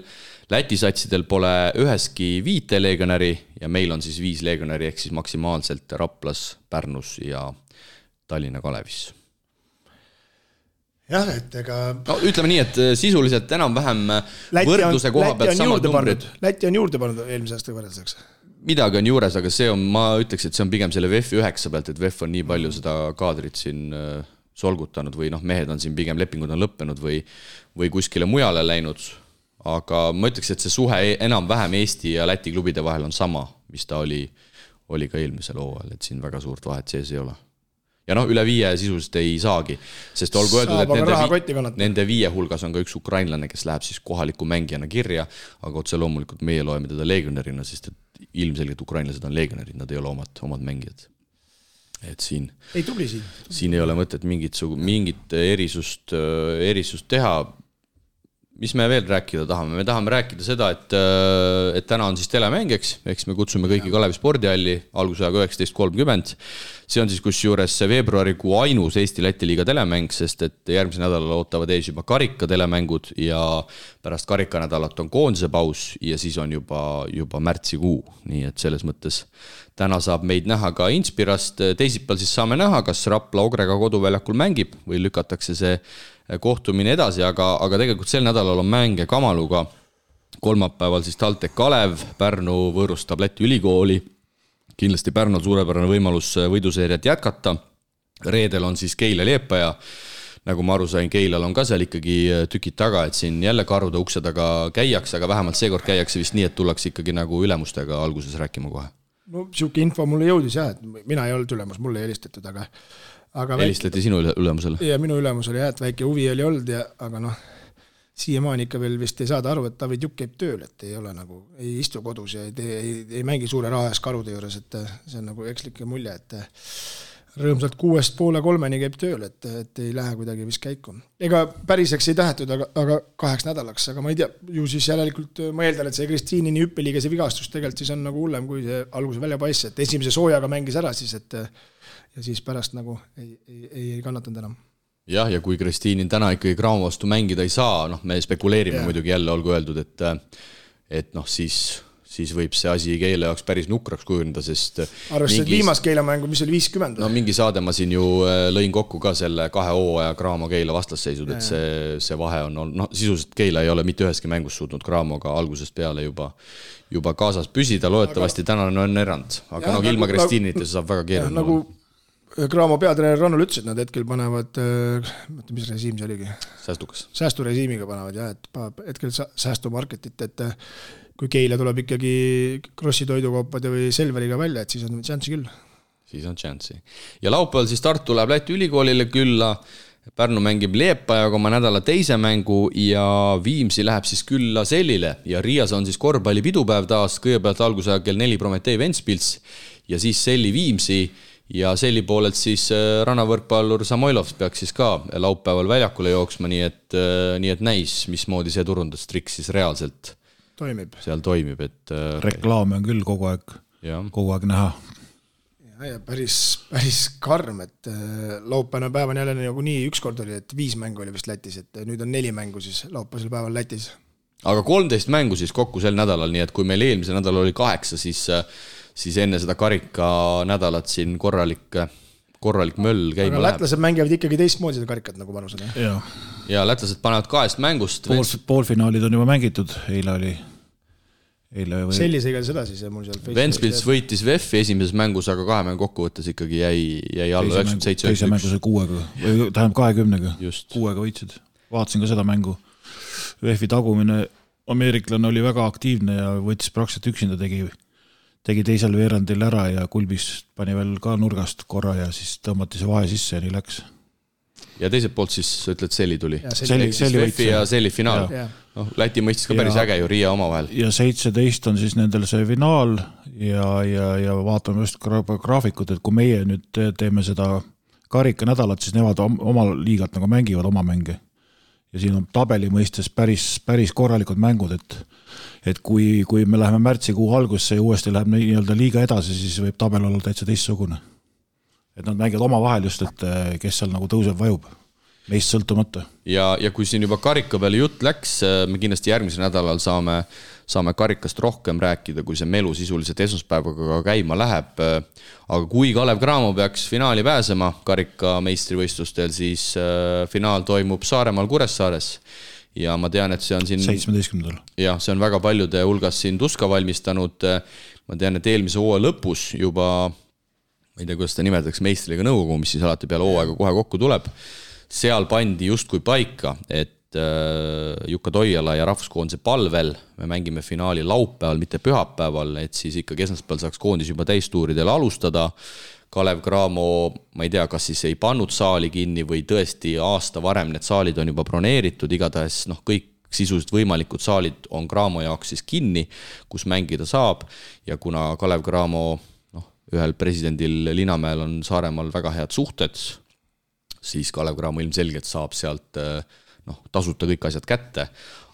Läti satsidel pole üheski 5 legionäri ja meil on siis 5 legionäri ehk siis maksimaalselt Raplas, Pärnus ja Tallinna Kalevis. Jah, et ega... No, ütleme nii, et sisuliselt enam-vähem võrdluse koha pealt samad numbrid. Läti on juurde pannud eelmise aasta võrdluseks. Midagi on juures, aga see on, ma ütleks, et see on pigem selle VEF 9 pealt, et VEF on nii palju seda kaadrit siin solgutanud või mehed on siin pigem lepingud on lõppenud või kuskile mujale läinud. Aga ma ütleks, et see suhe enam-vähem Eesti ja Läti klubide vahel on sama, mis ta oli ka eelmisel hooajal, et siin väga suurt vahet sees ei ole. Ja üle 5 sisuliselt ei saagi, sest olgu öeldud, et nende 5 hulgas on ka üks ukrainlane, kes läheb siis kohaliku mängijana kirja, aga otse loomulikult meie loeme teda legionärina, sest et ilmselgelt ukrainlased on legionärid, nad ei ole omad mängijad. Et siin ei ole mõtet mingit erisust teha. Mis me veel rääkida tahame? Me tahame rääkida seda, et täna on siis telemängeks, eks me kutsume kõiki Kalevi spordihalli algusajaga 19.30. See on siis kusjuures veebruarikuu ainus Eesti-Läti liiga telemäng, sest et järgmise nädalal ootavad ees juba karika telemängud ja pärast karikanädalat on koondise paus ja siis on juba märtsikuu. Nii et selles mõttes täna saab meid näha ka Inspirast. Teisipäeval siis saame näha, kas Rapla Ogrega koduväljakul mängib või lükatakse see kohtumine edasi, aga tegelikult sel nädalal on mänge Kamaluga. Kolmapäeval siis TalTech Kalev, Pärnu võõrustab Läti Ülikooli. Kindlasti Pärnul suurepärane võimalus võiduseeriat jätkata. Reedel on siis Keila Liepaja. Nagu ma aru sain, Keilal on ka seal ikkagi tükid taga, et siin jälle karude ukse taga käiakse, aga vähemalt seekord käiakse vist nii, et tullakse ikkagi nagu ülemustega alguses rääkima kohe. No siuke info mulle jõudis jah, et mina ei olnud ülemus, mulle ei helistatud, aga helistati sinu ülemusele? Ja minu ülemusele jah, et väike huvi oli olnud, aga siiamaani ikka veel vist ei saada aru, et David Jukk käib tööl, et ei ole nagu, ei istu kodus ja ei mängi suure raha ees karude juures, et see on nagu ekslike mulje, et rõõmsalt 2:30 käib tööl, et ei lähe kuidagi vist käiku. Ega päriseks ei tähetud, aga 8 nädalaks, aga ma ei tea, ju siis järelikult ma eeldan, et see Kristiinini hüppeliiga see vigastus tegelikult siis on nagu hullem, kui see alguse välja paissi, et esimese soojaga mängis ära siis, et ja siis pärast nagu ei kannatanud enam. Jah, ja kui Kristiinin täna ikkagi Cramo vastu mängida ei saa, me spekuleerime muidugi jälle, olgu öeldud, et siis võib see asi Keila jaoks päris nukraks kujuneda, sest arvestades viimast Keila mängu, mis oli 50. No mingi saade ma siin ju lõin kokku ka selle 2 hooaja Cramo Keila vastasseisud, et see vahe on olnud, sisuliselt Keila ei ole mitte üheski mängus suutnud Cramoga algusest peale juba kaasas püsida, loodetavasti tänane on erand, aga ilma Kristiinita see saab väga keeruline. Nagu Cramo peatreener Rannul ütles, et nad hetkel panevad, mis režiim see oligi? Säästukas. Säästurežiimiga panevad, jah, et hetkel säästumarketit, et kui Keila tuleb ikkagi Krossi toidukaupade või Selveriga välja, et siis on šanssi küll. Siis on šanssi. Ja laupäeval siis Tartu läheb Läti Ülikoolile külla. Pärnu mängib Liepajaga oma nädala teise mängu ja Viimsi läheb siis külla Sellile ja Riias on siis korvpalli pidupäev taas, kõigepealt algusaja kell 4 Prometee Ventspils ja siis Selli Viimsi ja Selli poolelt siis rannavõrkpallur Samoilov peaks siis ka laupäeval väljakule jooksma, nii et näis, mismoodi see turundustrikk siis reaalselt seal toimib. Et reklaame on küll kogu aeg näha. Ja päris karm, et laupäevane päev on jälle nagu nii, ükskord oli, et 5 mängu oli vist Lätis, et nüüd on 4 mängu siis laupäevasel päeval Lätis. Aga 13 mängu siis kokku sel nädalal, nii et kui meil eelmise nädal oli 8, siis enne seda karika nädalat siin korralik möll käima läheb. Aga lätlased mängivad ikkagi teistmoodi seda karikat nagu panused. Ja lätlased panevad 2 mängust. Poolfinaalid on juba mängitud, eile oli. Sellisega seda siis mul seal Ventspils võitis VEF-i esimeses mängus, aga 2 mängu kokkuvõttes ikkagi jäi alla 97. Teise mängu sai 6-ga, tähendab 20-ga, 6-ga võitsid. Vaatasin ka seda mängu. VEF-i tagumine ameeriklane oli väga aktiivne ja võttis praktiliselt üksinda, tegi teisel veerandil ära ja Kulbis pani veel ka nurgast korra ja siis tõmmati see vahe sisse ja nii läks. Ja teiselt poolt siis ütled Selli tuli. VEF-i ja Selli finaal. Läti mõistis ka päris äge ju Riia oma vahel. Ja 17 on siis nendel see finaal ja vaatame just graafikut, et kui meie nüüd teeme seda karika nädalat, siis nemad oma liigat nagu mängivad oma mänge. Ja siin on tabeli mõistes päris korralikud mängud, et kui me läheme märtsikuu algusse ja uuesti läheb nii-öelda liiga edasi, siis võib tabel olla täitsa teistsugune. Et nad mängivad oma vahel just, et kes seal nagu tõuseb vajub, meist sõltumata. Ja kui siin juba karika peale jutt läks, me kindlasti järgmisel nädalal saame karikast rohkem rääkida, kui see melu sisuliselt esmaspäevaga käima läheb. Aga kui Kalev Cramo peaks finaali pääsema karika meistrivõistlustel, siis finaal toimub Saaremaal Kuressaares. Ja ma tean, et see on siin 17. Ja see on väga paljude hulgas siin tuska valmistanud. Ma tean, et eelmise hooaja lõpus juba, ma ei tea, kuidas ta nimetatakse, meistriliiga nõukogu, mis siis alati peale hooaega kohe kokku tuleb. Seal pandi justkui paika, et Jukka Toiala ja rahvuskoondise palvel me mängime finaali laupäeval, mitte pühapäeval, et siis ikkagi esmaspäeval saaks koondis juba täistuuridel alustada. Kalev Cramo, ma ei tea, kas siis ei pannud saali kinni või tõesti aasta varem need saalid on juba broneeritud, igatahes kõik sisuliselt võimalikud saalid on Cramo jaoks siis kinni, kus mängida saab ja kuna Kalev Cramo ühel presidendil Linamäel on Saaremaal väga head suhted, siis Kalev Cramo ilmselgelt saab sealt tasuta kõik asjad kätte,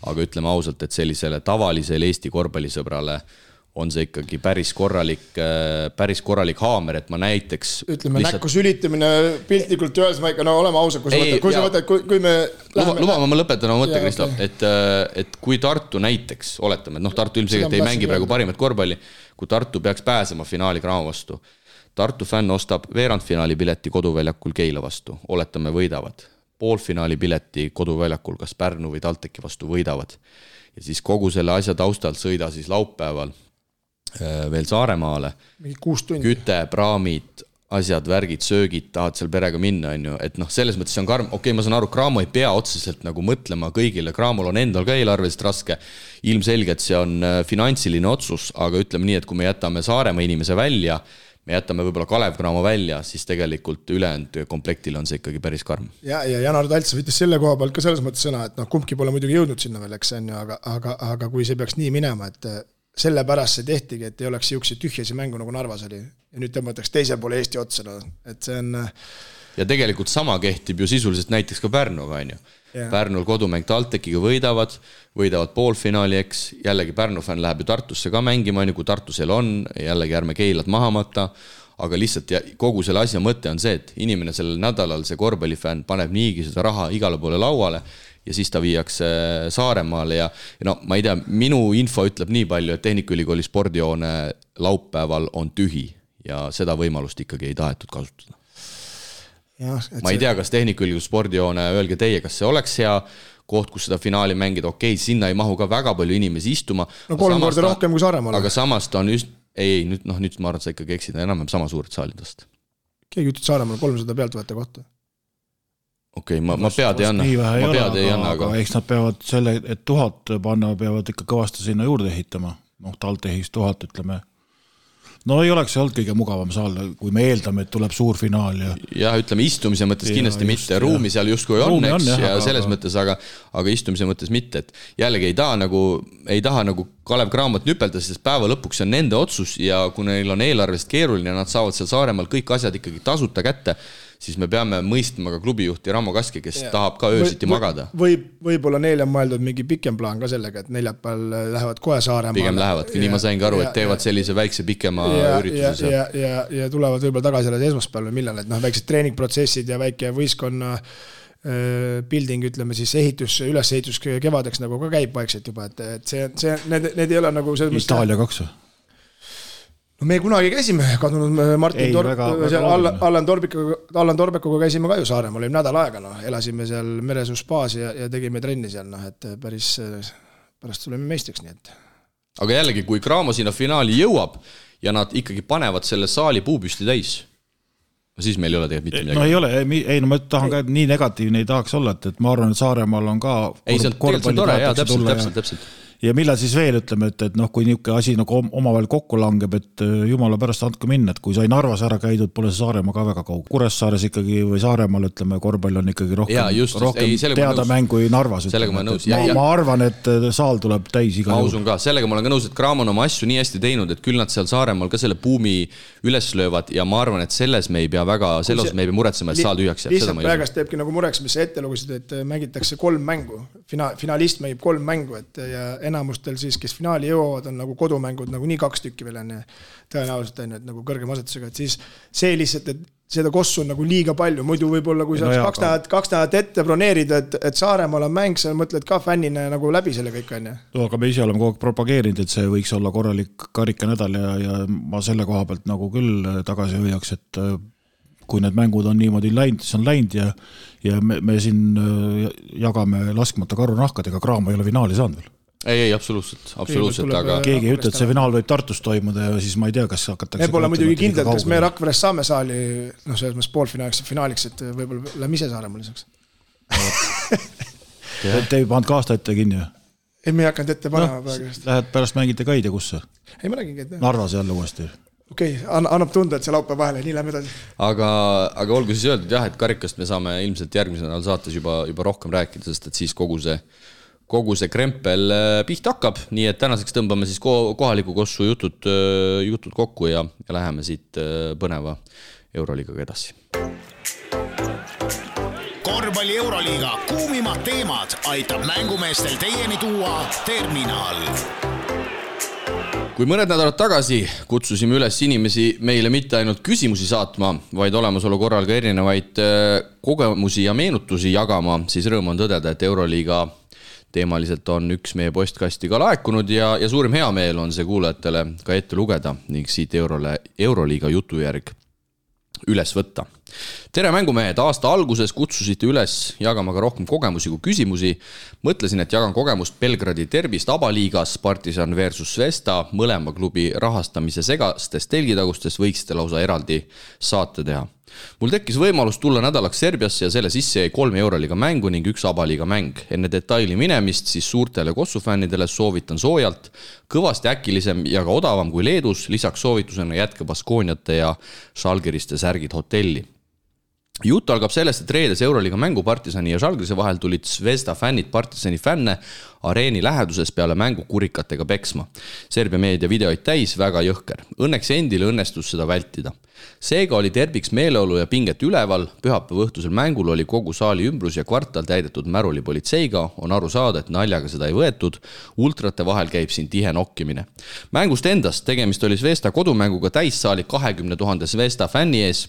aga ütleme ausalt, et sellisele tavalisele Eesti korvpallisõbrale on see ikkagi päris korralik haamer, et ma näiteks ütleme näkku sülitamine piltlikult öeldes, ma ikka oleme ausad, kui me Luba, ma lõpetan oma mõtte, Kristo, et kui Tartu näiteks, oletame, et Tartu ilmselgelt ei mängi praegu parimat korvpalli, kui Tartu peaks pääsema finaali Cramo vastu, Tartu fänn ostab veerandfinaali pileti koduväljakul Keila vastu, oletame võidavad, poolfinaali pileti koduväljakul kas Pärnu või Talteki vastu võidavad ja siis kogu selle asja taustalt sõida siis laupäeval veel Saaremaale, küte, praamid, asjad, värgid, söögid, tahad seal perega minna, et selles mõttes see on karm, ma saan aru, Cramo ei pea otseselt nagu mõtlema kõigile, Cramol on endal ka eelarveliselt raske, ilmselgelt see on finantsiline otsus, aga ütleme nii, et kui me jätame Saaremaa inimese välja, me jätame võib-olla Kalev Cramo välja, siis tegelikult ülejäänud komplektil on see ikkagi päris karm. Ja Janar Talts võttis selle koha pealt ka selles mõttes sõna, et kumbki pole muidugi jõudnud sinna veel, aga kui see peaks nii minema, et selle pärast see tehtigi, et ei oleks siukse tühjasi mängu nagu Narvas oli ja nüüd tõmmatakse teise poole Eesti otsa, et see on ja tegelikult sama kehtib ju sisuliselt näiteks ka Pärnuga, Pärnul kodumäng Taltekiga võidavad poolfinaali, eks jällegi Pärnu fänn läheb ju Tartusse ka mängima, kui Tartusel on, jällegi ärme Keilat maha matta, aga lihtsalt kogu selle asja mõte on see, et inimene sellel nädalal, see korvpallifänn paneb niigi seda raha igale poole lauale ja siis ta viiakse Saaremaale ja ma ei tea, minu info ütleb nii palju, et Tehnikaülikooli spordihoone laupäeval on tühi ja seda võimalust ikkagi ei tahetud kasutada. Ma ei tea, kas Tehnikaülikooli spordihoone, öelge teie, kas see oleks hea koht, kus seda finaali mängida, sinna ei mahu ka väga palju inimesi istuma. 3 korda rohkem kui Saaremaale. Aga samast on just, nüüd ma arvan, sa ikkagi eksida enam sama suured saalidest. Keegi ütled Saaremaale 300 pealt võtta kohta. Ma pead ei anna, aga eks nad peavad selle, et 1000 panna, peavad ikka kõvasti sinna juurde ehitama. Taltehis 1000, ütleme. No ei oleks olnud kõige mugavam saal, kui me eeldame, et tuleb suur finaal. Ja ütleme, istumise mõttes kindlasti mitte. Ruumi seal justkui on, eks, ja selles mõttes, aga istumise mõttes mitte. Et jällegi ei taha nagu Kalev Cramot nüpelda, sest päeva lõpuks on nende otsus ja kui neil on eelarvest keeruline, nad saavad seal Saaremaal kõik asjad ikkagi tasuta kätte, siis me peame mõistma ka klubijuhti Ramo Kaski, kes tahab ka öösiti magada. Võib-olla neil on mõeldud mingi pikem plaan ka sellega, et neljapäeval lähevad kohe Saaremaale. Pigem lähevadki, nii ma sain ka aru, et teevad sellise väikse pikema ürituse. Ja tulevad võib-olla tagasi alles esmaspäeval või millal, et väiksed treeningprotsessid ja väike võistkonna building, ütleme siis ülesehitus kevadeks nagu ka käib vaikselt juba, et need ei ole nagu Itaalia 2 No me kunagi käisime kadunud Martin Allan Torbekuga käisime ka ju Saaremaal, oli nädal aega, elasime seal Meresuuspaas ja tegime trenni seal, et pärast tuleme meistriks, nii et. Aga jällegi, kui Cramo sinna finaali jõuab ja nad ikkagi panevad selle saali puupüsti täis, siis meil ei ole tegelikult mitte midagi. No ei ole, ma tahan ka, et nii negatiivne ei tahaks olla, et ma arvan, et Saaremaal on ka korvpalli täpselt. Ja millal siis veel ütleme, et kui niisugune asi nagu omavahel kokku langeb, et jumala pärast andke minna, et kui sai Narvas ära käidud, pole see Saaremaa ka väga kaug. Kuressaares ikkagi või Saaremaal, ütleme, korvpall on ikkagi rohkem teada mängu kui Narvas. Ma arvan, et saal tuleb täis iga juhul. Ka, sellega ma olen ka nõus, et Cramo on oma asju nii hästi teinud, et küll nad seal Saaremaal ka selle buumi üles löövad ja ma arvan, et selles me ei pea muretsema, et saal tühjaks jääb. Lihtsalt praegast teebki nagu mureks, mis sa ette lugusid, et mängitakse 3 mängu. Finalist mängib 3 mängu, ja enamustel siis, kes finaali jõuavad, on nagu kodumängud nagu nii 2 tükki veel enne tõenäoliselt on, et nagu kõrgem asetusega, et siis see lihtsalt, et seda kossu on nagu liiga palju, muidu võib-olla kui sa 2 nädalat ette broneerida, et Saaremaal on mäng, sa mõtled ka fännina nagu läbi selle kõik on. Aga me ise oleme kogu aeg propageerinud, et see võiks olla korralik karikanädal ja ma selle koha pealt nagu küll tagasi hoiaks, et kui need mängud on niimoodi läinud, siis on läinud ja me siin jagame laskmata karunahkad, ega Cramo ei ole finaali saanud veel. Ei, absoluutselt, aga keegi ei ütle, et see finaal võib Tartus toimuda ja siis ma ei tea, kas hakatakse me pole muidugi kindlalt, kas me Rakveres saame saali selles mõttes poolfinaaliks, et võib-olla lähme ise Saaremaal lisaks. Te ei pannud ka aasta ette kinni? Ei, me ei hakanud ette panema praegust. Lähed pärast mängite ka ei tea kusse? Ei, ma räägin käid. Narvas jälle uuesti. Okei, annab tunda, et see laupäev vahele, nii lähme edasi. Aga olgu siis öeldud jah, et karikast me saame ilmselt järgmisel nädalal saates juba rohkem rääkida, sest et siis kogu see krempel pihta hakkab, nii et tänaseks tõmbame siis kohaliku kossu jutud kokku ja läheme siit põneva Euroliigaga edasi. Korvpalli Euroliiga kuumimad teemad aitab mängumeestel teieni tuua Terminal. Kui mõned nädalad tagasi kutsusime üles inimesi meile mitte ainult küsimusi saatma, vaid olemasolu korral ka erinevaid kogemusi ja meenutusi jagama, siis rõõm on tõdeda, et Euroliiga teemaliselt on üks meie postkasti ka laekunud ja suurim hea meel on see kuulajatele ka ette lugeda ning siit Euroliiga jutujärg üles võtta. Tere mängumehed, aasta alguses kutsusite üles jagama ka rohkem kogemusi kui küsimusi. Mõtlesin, et jagan kogemust Belgradi derbist Abaliigas, Partisan versus Svesta, mõlema klubi rahastamise segastest telgitagustest võiksite lausa eraldi saate teha. Mul tekkis võimalus tulla nädalaks Serbiasse ja selle sisse jäi 3 Euroliiga mängu ning 1 Abaliiga mäng. Enne detaili minemist siis suurtele kossufännidele soovitan soojalt, kõvasti äkilisem ja ka odavam kui Leedus, lisaks soovitusena jätke Baskooniate ja Žalgiriste särgid hotelli. Jutt algab sellest, et reedes Euroliiga mängu Partisani ja Žalgirise vahel tulid Zvezda fännid Partisani fänne areeni läheduses peale mängu kurikatega peksma. Serbia meedia videoid täis, väga jõhker. Õnneks endile õnnestus seda vältida. Seega oli terbiks meeleolu ja pinget üleval, pühapäeva õhtusel mängul oli kogu saali ümbrus ja kvartal täidetud Märuli politseiga, on aru saada, et naljaga seda ei võetud, ultrate vahel käib siin tihe nokkimine. Mängust endast tegemist oli Zvezda kodumänguga täissaali 20 000 Zvezda fänni ees,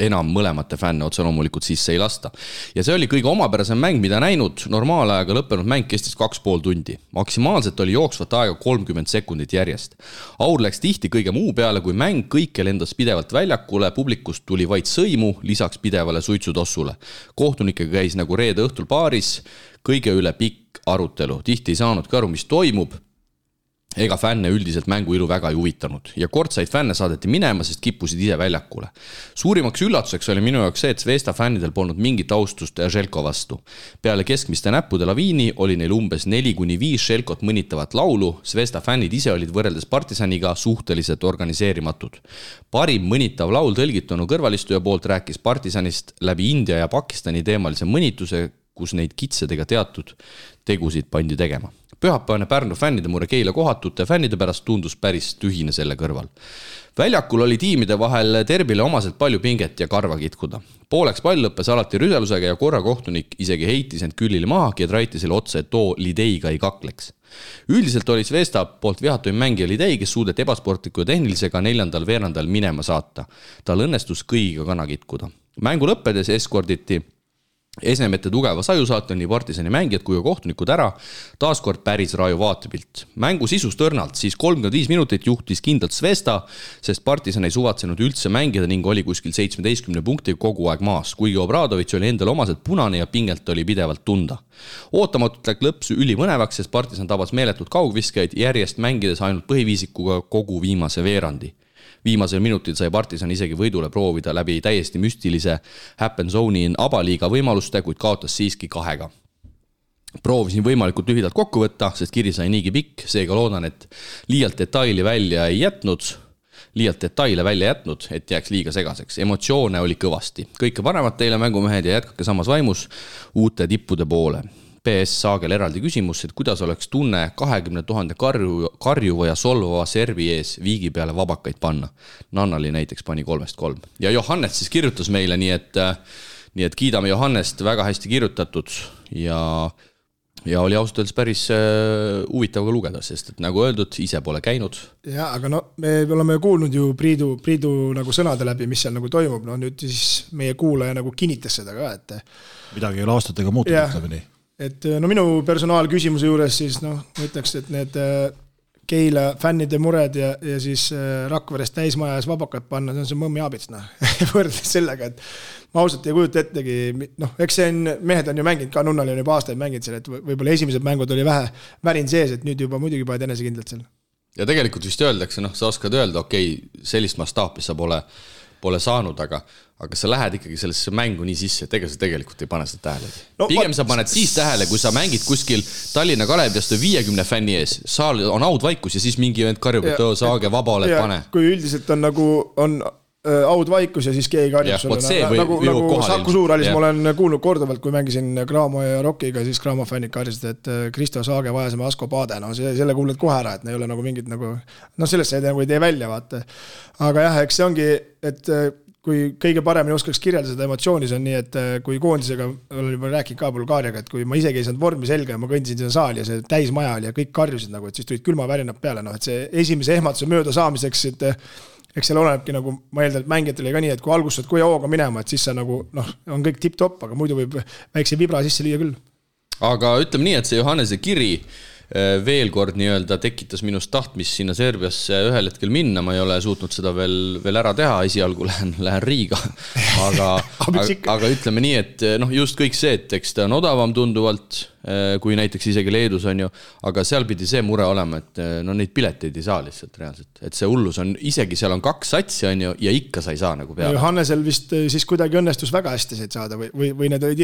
enam mõlemate fänne otse loomulikult sisse ei lasta. Ja see oli kõige omapärasem mäng, mida näinud, normaalajaga lõppenud mäng kestis 2,5 tundi. Maksimaalselt oli jooksvat aega 30 sekundit järjest. Aur läks tihti kõige muu peale, kui mäng kõike lendas pidevalt väljakule, publikust tuli vaid sõimu, lisaks pidevale suitsutossule. Kohtunikega käis nagu reede õhtul baaris, kõige üle pikk arutelu. Tihti ei saanud ka aru, mis toimub. ega fänne üldiselt mänguilu väga ei huvitanud ja kortsaid fänne saadeti minema, sest kippusid ise väljakule. Suurimaks üllatuseks oli minu jaoks see, et Zvezda fännidel polnud mingit austust Željko vastu. Peale keskmiste näppude laviini oli neil umbes 4-5 Željkot mõnitavat laulu, Zvezda fännid ise olid võrreldes Partisaniga suhteliselt organiseerimatud. Parim mõnitav laul tõlgitunu kõrvalistuja poolt rääkis Partisanist läbi India ja Pakistani teemalise mõnituse, kus neid kitsedega teatud tegusid pandi tegema. Pühapäevane Pärnu fännide mure Keila kohatute fännide pärast tundus päris tühine selle kõrval. Väljakul oli tiimide vahel derbile omaselt palju pinget ja karva kitkuda. Pooleks pall lõppes alati rüselusega ja korra kohtunik isegi heitis end Küllile mahagi ja traiti selle otsa, et too Lideiga ei kakleks. Üldiselt oli Zvezda poolt vihatuim mängija Lidei, kes suudeti ebasportliku ja tehnilisega 4. veerandal minema saata. Tal õnnestus kõigiga kana kitkuda. Mängu lõppedes eskorditi Esnemete tugeva saju saata nii Partisani mängijad kui kohtunikud ära, taaskord päris raju vaatepilt. Mängu sisus tõrnalt, siis 35 minutit juhtis kindlalt Zvezda, sest Partisan ei suvatsenud üldse mängida ning oli kuskil 17 punkti kogu aeg maas, kuigi Obradovic oli endal omaselt punane ja pingelt oli pidevalt tunda. Ootamatult läks lõps ülimõnevaks, sest Partisan tabas meeletud kaugviskaid järjest mängides ainult põhiviisikuga kogu viimase veerandi. Viimasel minutil sai Partisan isegi võidule proovida läbi täiesti müstilise happen zone'i abaliiga võimaluste, kuid kaotas siiski 2. Proovisin võimalikult lühidalt kokku võtta, sest kiri sai niigi pikk, seega loodan, et liialt detaile välja jätnud, et jääks liiga segaseks. Emotsioone oli kõvasti. Kõike paremat teile mängumehed ja jätkake samas vaimus uute tippude poole. PS Saagel eraldi küsimus, et kuidas oleks tunne 20 000 karjuva ja solvava servi ees viigi peale vabakaid panna. Nannali näiteks pani 3-3. Ja Johannes siis kirjutas meile, nii et kiidame Johannest, väga hästi kirjutatud ja oli ausalt öeldes päris huvitav ka lugeda, sest et nagu öeldud, ise pole käinud. Ja, aga no me oleme kuulnud ju Priidu nagu sõnade läbi, mis seal nagu toimub, no nüüd siis meie kuulaja nagu kinnitas seda ka, et midagi ei ole aastatega muutunud, ütleme nii. Et no minu personaalküsimuse juures siis ma ütleks, et need Keila fännide mured ja siis Rakverest täismajas vabakad panna, see on see mõmmi aabits, võrdes sellega, et ma ausalt ei kujuta ettegi, eks see on, mehed on ju mänginud ka, Nunnal on juba aastaid mänginud seal, et võib-olla esimesed mängud oli vähe värin sees, et nüüd juba muidugi paned enesekindlalt seal. Ja tegelikult vist öeldakse, sa oskad öelda, okei, sellist mastaapi sa pole saanud, aga sa lähed ikkagi sellesse mängu nii sisse, et ega sa tegelikult ei pane seda tähele. Pigem sa paned siis tähele, kui sa mängid kuskil Tallinna Kaleviast 50 fänni ees, saal on audvaikus ja siis mingi vend karjub, et saage vaba oled, pane. Kui üldiselt on nagu audvaikus ja siis keegi karjub sulle. Nagu Saku Suurhallis ma olen kuulnud korduvalt, kui mängisin Graamo ja Rockiga, siis Graamo fännid karjasid, et Kristo Saage vajasime Asko Paade. Selle kuuled kohe ära, et ne ei ole nagu mingid nagu, sellest ei tee välja, vaata. Aga jah, eks see ongi, et kui kõige paremini oskaks kirjeldada seda emotsiooni, see on nii, et kui koondisega olen juba rääkinud ka Bulgaariaga, et kui ma isegi ei saanud vormi selga ja ma kõndisin seda saali ja see täismaja oli ja kõik karjusid nagu, et siis tulid külma värinad peale, et see esimese ehmatuse mööda saamiseks, et eks seal olenebki nagu, ma eeldan, et mängijatele ka nii, et kui algustad kui hooga minema, et siis sa nagu, on kõik tipp-topp, aga muidu võib väikse vibra sisse lüüa küll. Aga ütleme nii, et see Johannese kiri veel kord nii-öelda tekitas minust tahtmist sinna Serbiasse ühel hetkel minna, ma ei ole suutnud seda veel ära teha, esialgu lähen Riiga, aga ütleme nii, et just kõik see, et eks ta on odavam tunduvalt, kui näiteks isegi Leedus on ju, aga seal pidi see mure olema, et neid pileteid ei saa lihtsalt reaalselt, et see hullus on, isegi seal on 2 satsi on ju, ja ikka sa ei saa nagu peale. Hannesel vist siis kuidagi õnnestus väga hästi said saada või need olid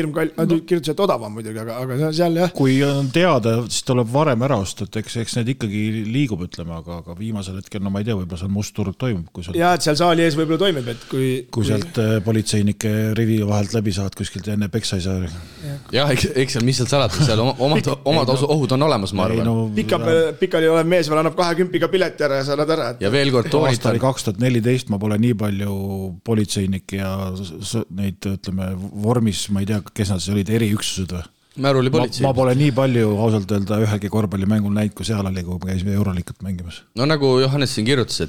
kirjutused odavam muidugi, aga seal jah. Kui on teada, siis tuleb varem ära osta, et eks need ikkagi liigub, ütleme, aga viimasel hetkel, ma ei tea, võib-olla seal mustturg toimub. Ja, et seal saali ees võib-olla toimub, et kui sealt politseinike rivi vahelt läbi saad kuskilt enne peksa ei saa. Ja, eks seal, mis seal salatud, seal omad ohud on olemas, ma arvan. Pikali olev mees veel annab 20 pileti ära ja sa annad ära. Ja veel kord aastal 2014 ma pole nii palju politseinik ja neid, ütleme, vormis, ma ei tea, kes nad olid, eriüksused või? Ma pole nii palju ausalt öelda ühegi korvpallimängul näinud, kui seal oli, kui me käisime Euroliigat mängimas. No nagu Johannes siin kirjutas,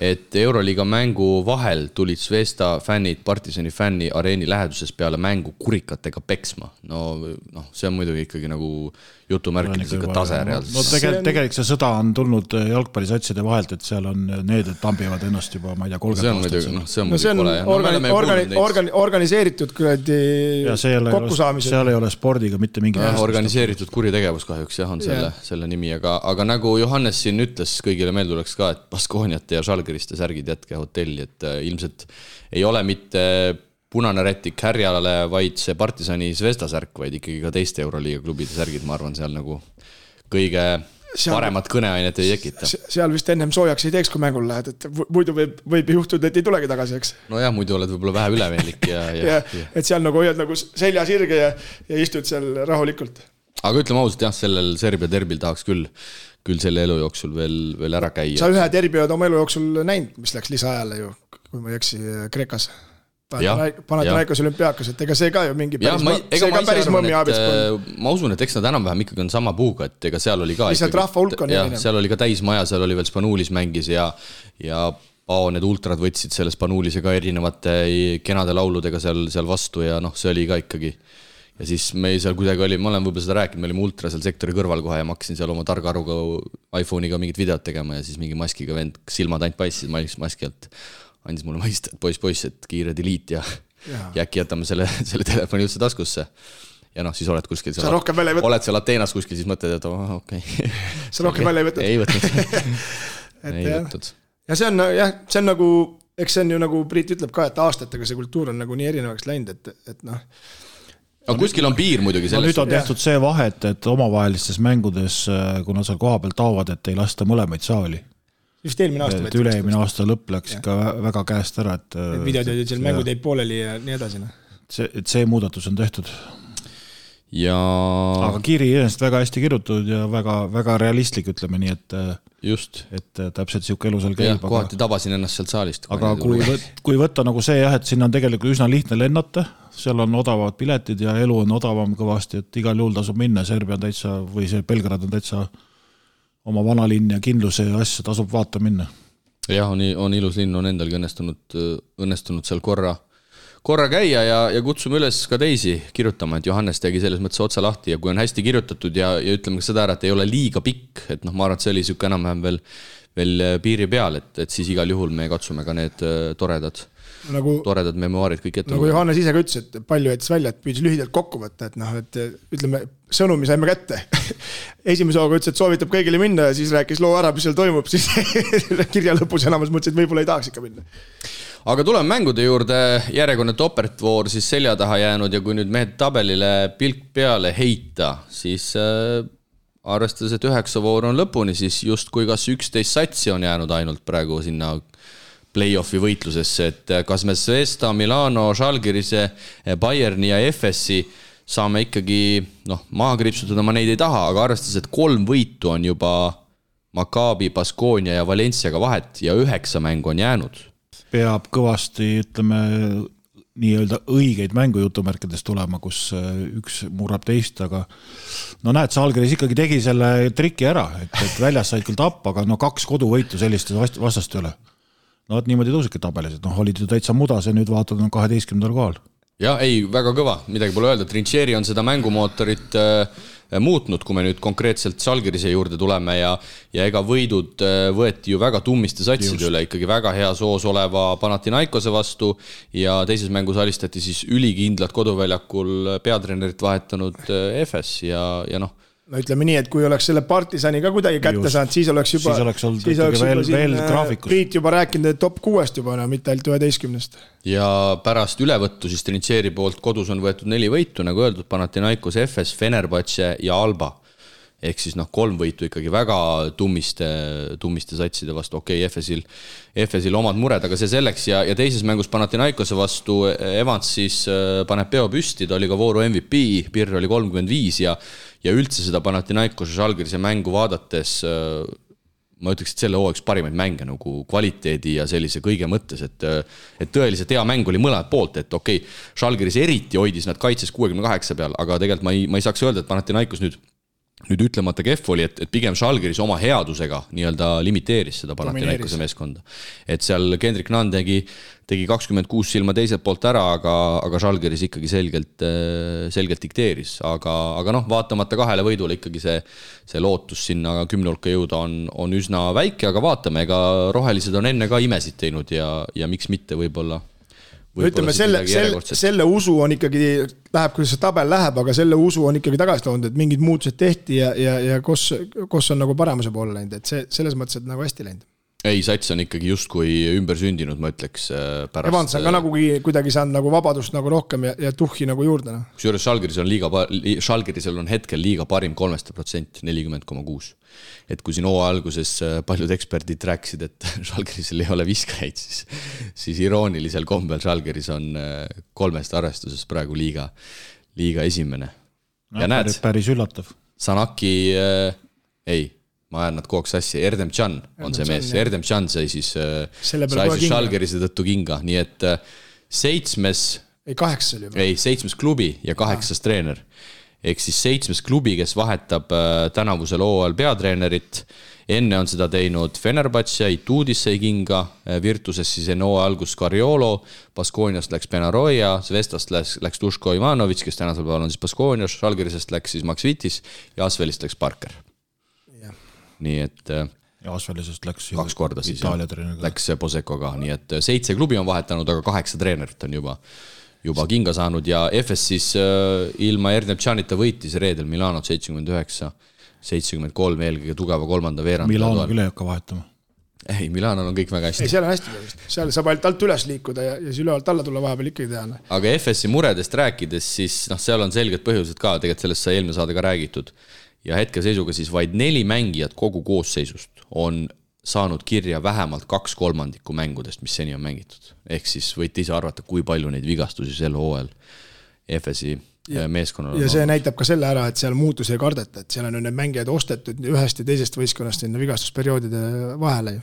et Euroliiga mängu vahel tulid Zvezda fännid Partisani fänni areeni läheduses peale mängu kurikatega peksma. No see on muidugi ikkagi nagu jutumärkides ikka tase reaalselt. No tegelikult see sõda on tulnud jalgpallisatside vahelt, et seal on need, et tambivad ennast juba, ma ei tea, 30 aastat. See on organiseeritud kokkusaamised. Seal ei ole spordiga mitte mingi organiseeritud kuritegevus kahjuks on selle nimi, aga nagu Johannes siin ütles, kõigile meelde tuleks ka, et Baskooniate ja Žalgiriste särgid jätke hotelli, et ilmselt ei ole mitte punane rätik härjale, vaid see Partisani Zvezda särk, vaid ikkagi ka teiste Euroliiga klubide särgid, ma arvan, seal nagu kõige paremat kõneainet ei tekita. Seal vist ennem soojaks ei teeks, kui mängul lähed, et muidu võib juhtuda, et ei tulegi tagasi, eks? No jah, muidu oled võib-olla vähe ülemeelik ja et seal nagu hoiad nagu selja sirge ja istud seal rahulikult. Aga ütleme ausalt, jah, sellel Serbia derbil tahaks küll selle elu jooksul veel ära käia. Sa ühe derbi oled oma elu jooksul näinud, mis läks lisaajale ju, kui ma ei eksi Kreekas. Panathinaikos olümpiaakas, et ega see ka ju mingi päris mõmmi abis. Ma usun, et eks nad enam-vähem ikkagi on sama puuga, et ega seal oli ka lihtsalt rahva hulk on erinev. Seal oli ka täismaja, seal oli veel Spanuulis mängis ja Pao need ultrad võtsid selle Spanuulise ka erinevate kenade lauludega seal vastu ja see oli ka ikkagi. Ja siis me seal kuidagi oli, ma olen võib-olla seda rääkinud, me olime ultra seal sektori kõrval kohe ja ma hakkasin seal oma targa aruga iPhone'iga mingit videot tegema ja siis mingi maskiga vend silmad ainult paissid maski alt. Andis mulle mõista, et poiss, et kiire delete ja äkki jätame selle telefoni üldse taskusse. Ja siis oled kuskil seal. Oled seal Ateenas kuskil, siis mõtled, et okei. Sa rohkem välja ei võtnud? Ei võtnud. Ja see on nagu, eks see on ju nagu Priit ütleb ka, et aastatega see kultuur on nagu nii erinevaks läinud, et Aga kuskil on piir muidugi sellest. Nüüd on tehtud see vahet, et omavahelistes mängudes, kuna seal koha peal taovad, et ei lasta mõlemaid saali. Just eelmine aasta. Et üle-eelmine aasta lõpp läks ikka väga käest ära. Et videod olid seal mängud jäid pooleli ja nii edasi. See muudatus on tehtud. Aga Kiri ennast väga hästi kirjutatud ja väga realistlik, ütleme nii, et just. Et täpselt siuke elu seal käib. Kohati tabasin ennast sealt saalist. Aga kui võtta nagu see, et siin on tegelikult üsna lihtne lennata, seal on odavad piletid ja elu on odavam kõvasti, et igal juhul tasub minna, Serbia on täitsa, või see Belgrad on täitsa oma vanalinn ja kindluse ja asja tasub vaata minna. Jah, on ilus linn, on endalgi õnnestunud seal korra käia ja kutsume üles ka teisi kirjutama, et Johannes tegi selles mõttes otsa lahti ja kui on hästi kirjutatud ja ütleme ka seda ära, et ei ole liiga pikk, et ma arvan, et see oli siuke enam-vähem veel piiri peal, et siis igal juhul me katsume ka need toredad memuaarid kõik ette. Nagu Johannes ise ka ütles, et palju jättis välja, et püüdis lühidalt kokku võtta, et ütleme, sõnumi saime kätte. Esimese hooga ütles, et soovitab kõigile minna ja siis rääkis loo ära, mis seal toimub, siis kirja lõpus enamus mõtles, et võib-olla ei tahaks ikka minna. Aga tuleme mängude juurde, järjekordne toppertvoor siis selja taha jäänud ja kui nüüd mehed tabelile pilk peale heita, siis arvestades, et 9 voor on lõpuni, siis just kui kas 11 satsi on jäänud ainult praegu sinna play-offi võitlusesse, et kas me Zvezda, Milano, Žalgirise, Bayerni ja FSi saame ikkagi maha kripsutada, ma neid ei taha, aga arvestades, et 3 võitu on juba Maccabi, Baskonia ja Valenciaga vahet ja 9 mängu on jäänud. Peab kõvasti, ütleme, nii-öelda õigeid mängujutumärkides tulema, kus üks murrab teist, aga näed, Žalgiris ikkagi tegi selle triki ära, et väljas said küll tappa, aga 2 koduvõitu selliste vastast üle. Niimoodi tõusidki tabelis, et olid ju täitsa mudas ja nüüd vaatad 12. kohal. Ja ei, väga kõva, midagi pole öelda. Trincheri on seda mängumootorit muutnud, kui me nüüd konkreetselt Žalgirise juurde tuleme ja ega võidud võeti ju väga tummiste satside üle, ikkagi väga hea soos oleva Panathinaikose vastu ja teises mängus alistati siis ülikindlad koduväljakul peatreenerit vahetanud FS ja no ütleme nii, et kui oleks selle Partisani ka kuidagi kätte saanud, siis oleks juba veel graafikus. Priit juba rääkinud, et top 6 juba, mitte ainult 11. Ja pärast ülevõttu siis Trincheri poolt kodus on võetud 4 võitu, nagu öeldud, Panathinaikos, FS, Fenerbahce ja Alba. Ehk siis 3 võitu ikkagi väga tummiste satside vastu. Okei, FS-il omad mured, aga see selleks ja teises mängus Panathinaikose vastu Evans siis paneb peo püsti, ta oli ka vooru MVP, Pirr oli 35 ja üldse seda Panathinaikose Žalgirise mängu vaadates ma ütleks, et selle hooaja parimaid mänge nagu kvaliteedi ja sellise kõige mõttes, et tõeliselt hea mäng oli mõlemad poolt, et okei, Žalgiris eriti hoidis nad kaitses 68 peal, aga tegelikult ma ei saaks öelda, et Panathinaikos nüüd nüüd ütlemata kehv oli, et pigem Žalgiris oma headusega nii-öelda limiteeris seda Panathinaikose meeskonda. Et seal Kendrick Nunn tegi 26 silma teiselt poolt ära, aga Žalgiris ikkagi selgelt dikteeris. Aga noh, vaatamata 2 võidule ikkagi see lootus sinna 10 hulka jõuda on üsna väike, aga vaatame, ega rohelised on enne ka imesid teinud ja miks mitte võib-olla ütleme, selle usu on ikkagi, läheb, kuidas see tabel läheb, aga selle usu on ikkagi tagasi toonud, et mingid muutused tehti ja kus on nagu paremuse poole läinud, et see selles mõttes, et nagu hästi läinud. Ei, Sats on ikkagi justkui ümber sündinud, ma ütleks pärast. Evans on ka nagu kuidagi saanud nagu vabadust nagu rohkem ja tuhhi nagu juurde. Kusjuures Žalgirisel on hetkel liiga parim 3%, 40,6. Et kui siin hooaja alguses paljud eksperdid rääkisid, et Žalgirisel ei ole viskajaid, siis iroonilisel kombel Žalgiris on 3 arvestuses praegu liiga esimene. Ja näed, päris üllatav. Sanaki, ma ajan nad kogu sassi, Erdem Can on see mees, Erdem Can sai siis Žalgirise tõttu kinga, nii et 7 klubi ja 8 treener. Ehk siis 7 klubi, kes vahetab tänavusel hooajal peatreenerit. Enne on seda teinud Fenerbahce, Ituudis sai kinga, Virtuses siis enne hooaja algus Cariolo, Baskooniast läks Benaroya, Zvestast läks Duško Ivanović, kes tänasel päeval on siis Baskoonias, Žalgirisest läks siis Max Vitis ja Asvelist läks Parker. Nii et ja Asvelisest läks 2 korda siis läks Poseko ka, nii et 7 klubi on vahetanud, aga 8 treenerit on juba kinga saanud ja FS siis ilma Erdem Canita võitis reedel Milanot 73 eelkõige tugeva 3. veerand. Milano küll ei hakka vahetama. Ei, Milanol on kõik väga hästi. Ei, seal on hästi. Seal saab ainult alt üles liikuda ja siis ülevalt alla tulla vahepeal ikkagi teha. Aga FS-i muredest rääkides, siis seal on selged põhjused ka, tegelikult sellest sai eelmine saade ka räägitud. Ja hetke seisuga siis vaid 4 mängijat kogu koosseisust on saanud kirja vähemalt 2/3 mängudest, mis seni on mängitud. Ehk siis võite ise arvata, kui palju neid vigastusi sel hooajal FS-i meeskonnal on. Ja see näitab ka selle ära, et seal muutusi ei kardeta, et seal on need mängijad ostetud ühest ja teisest võistkonnast sinna vigastusperioodide vahele.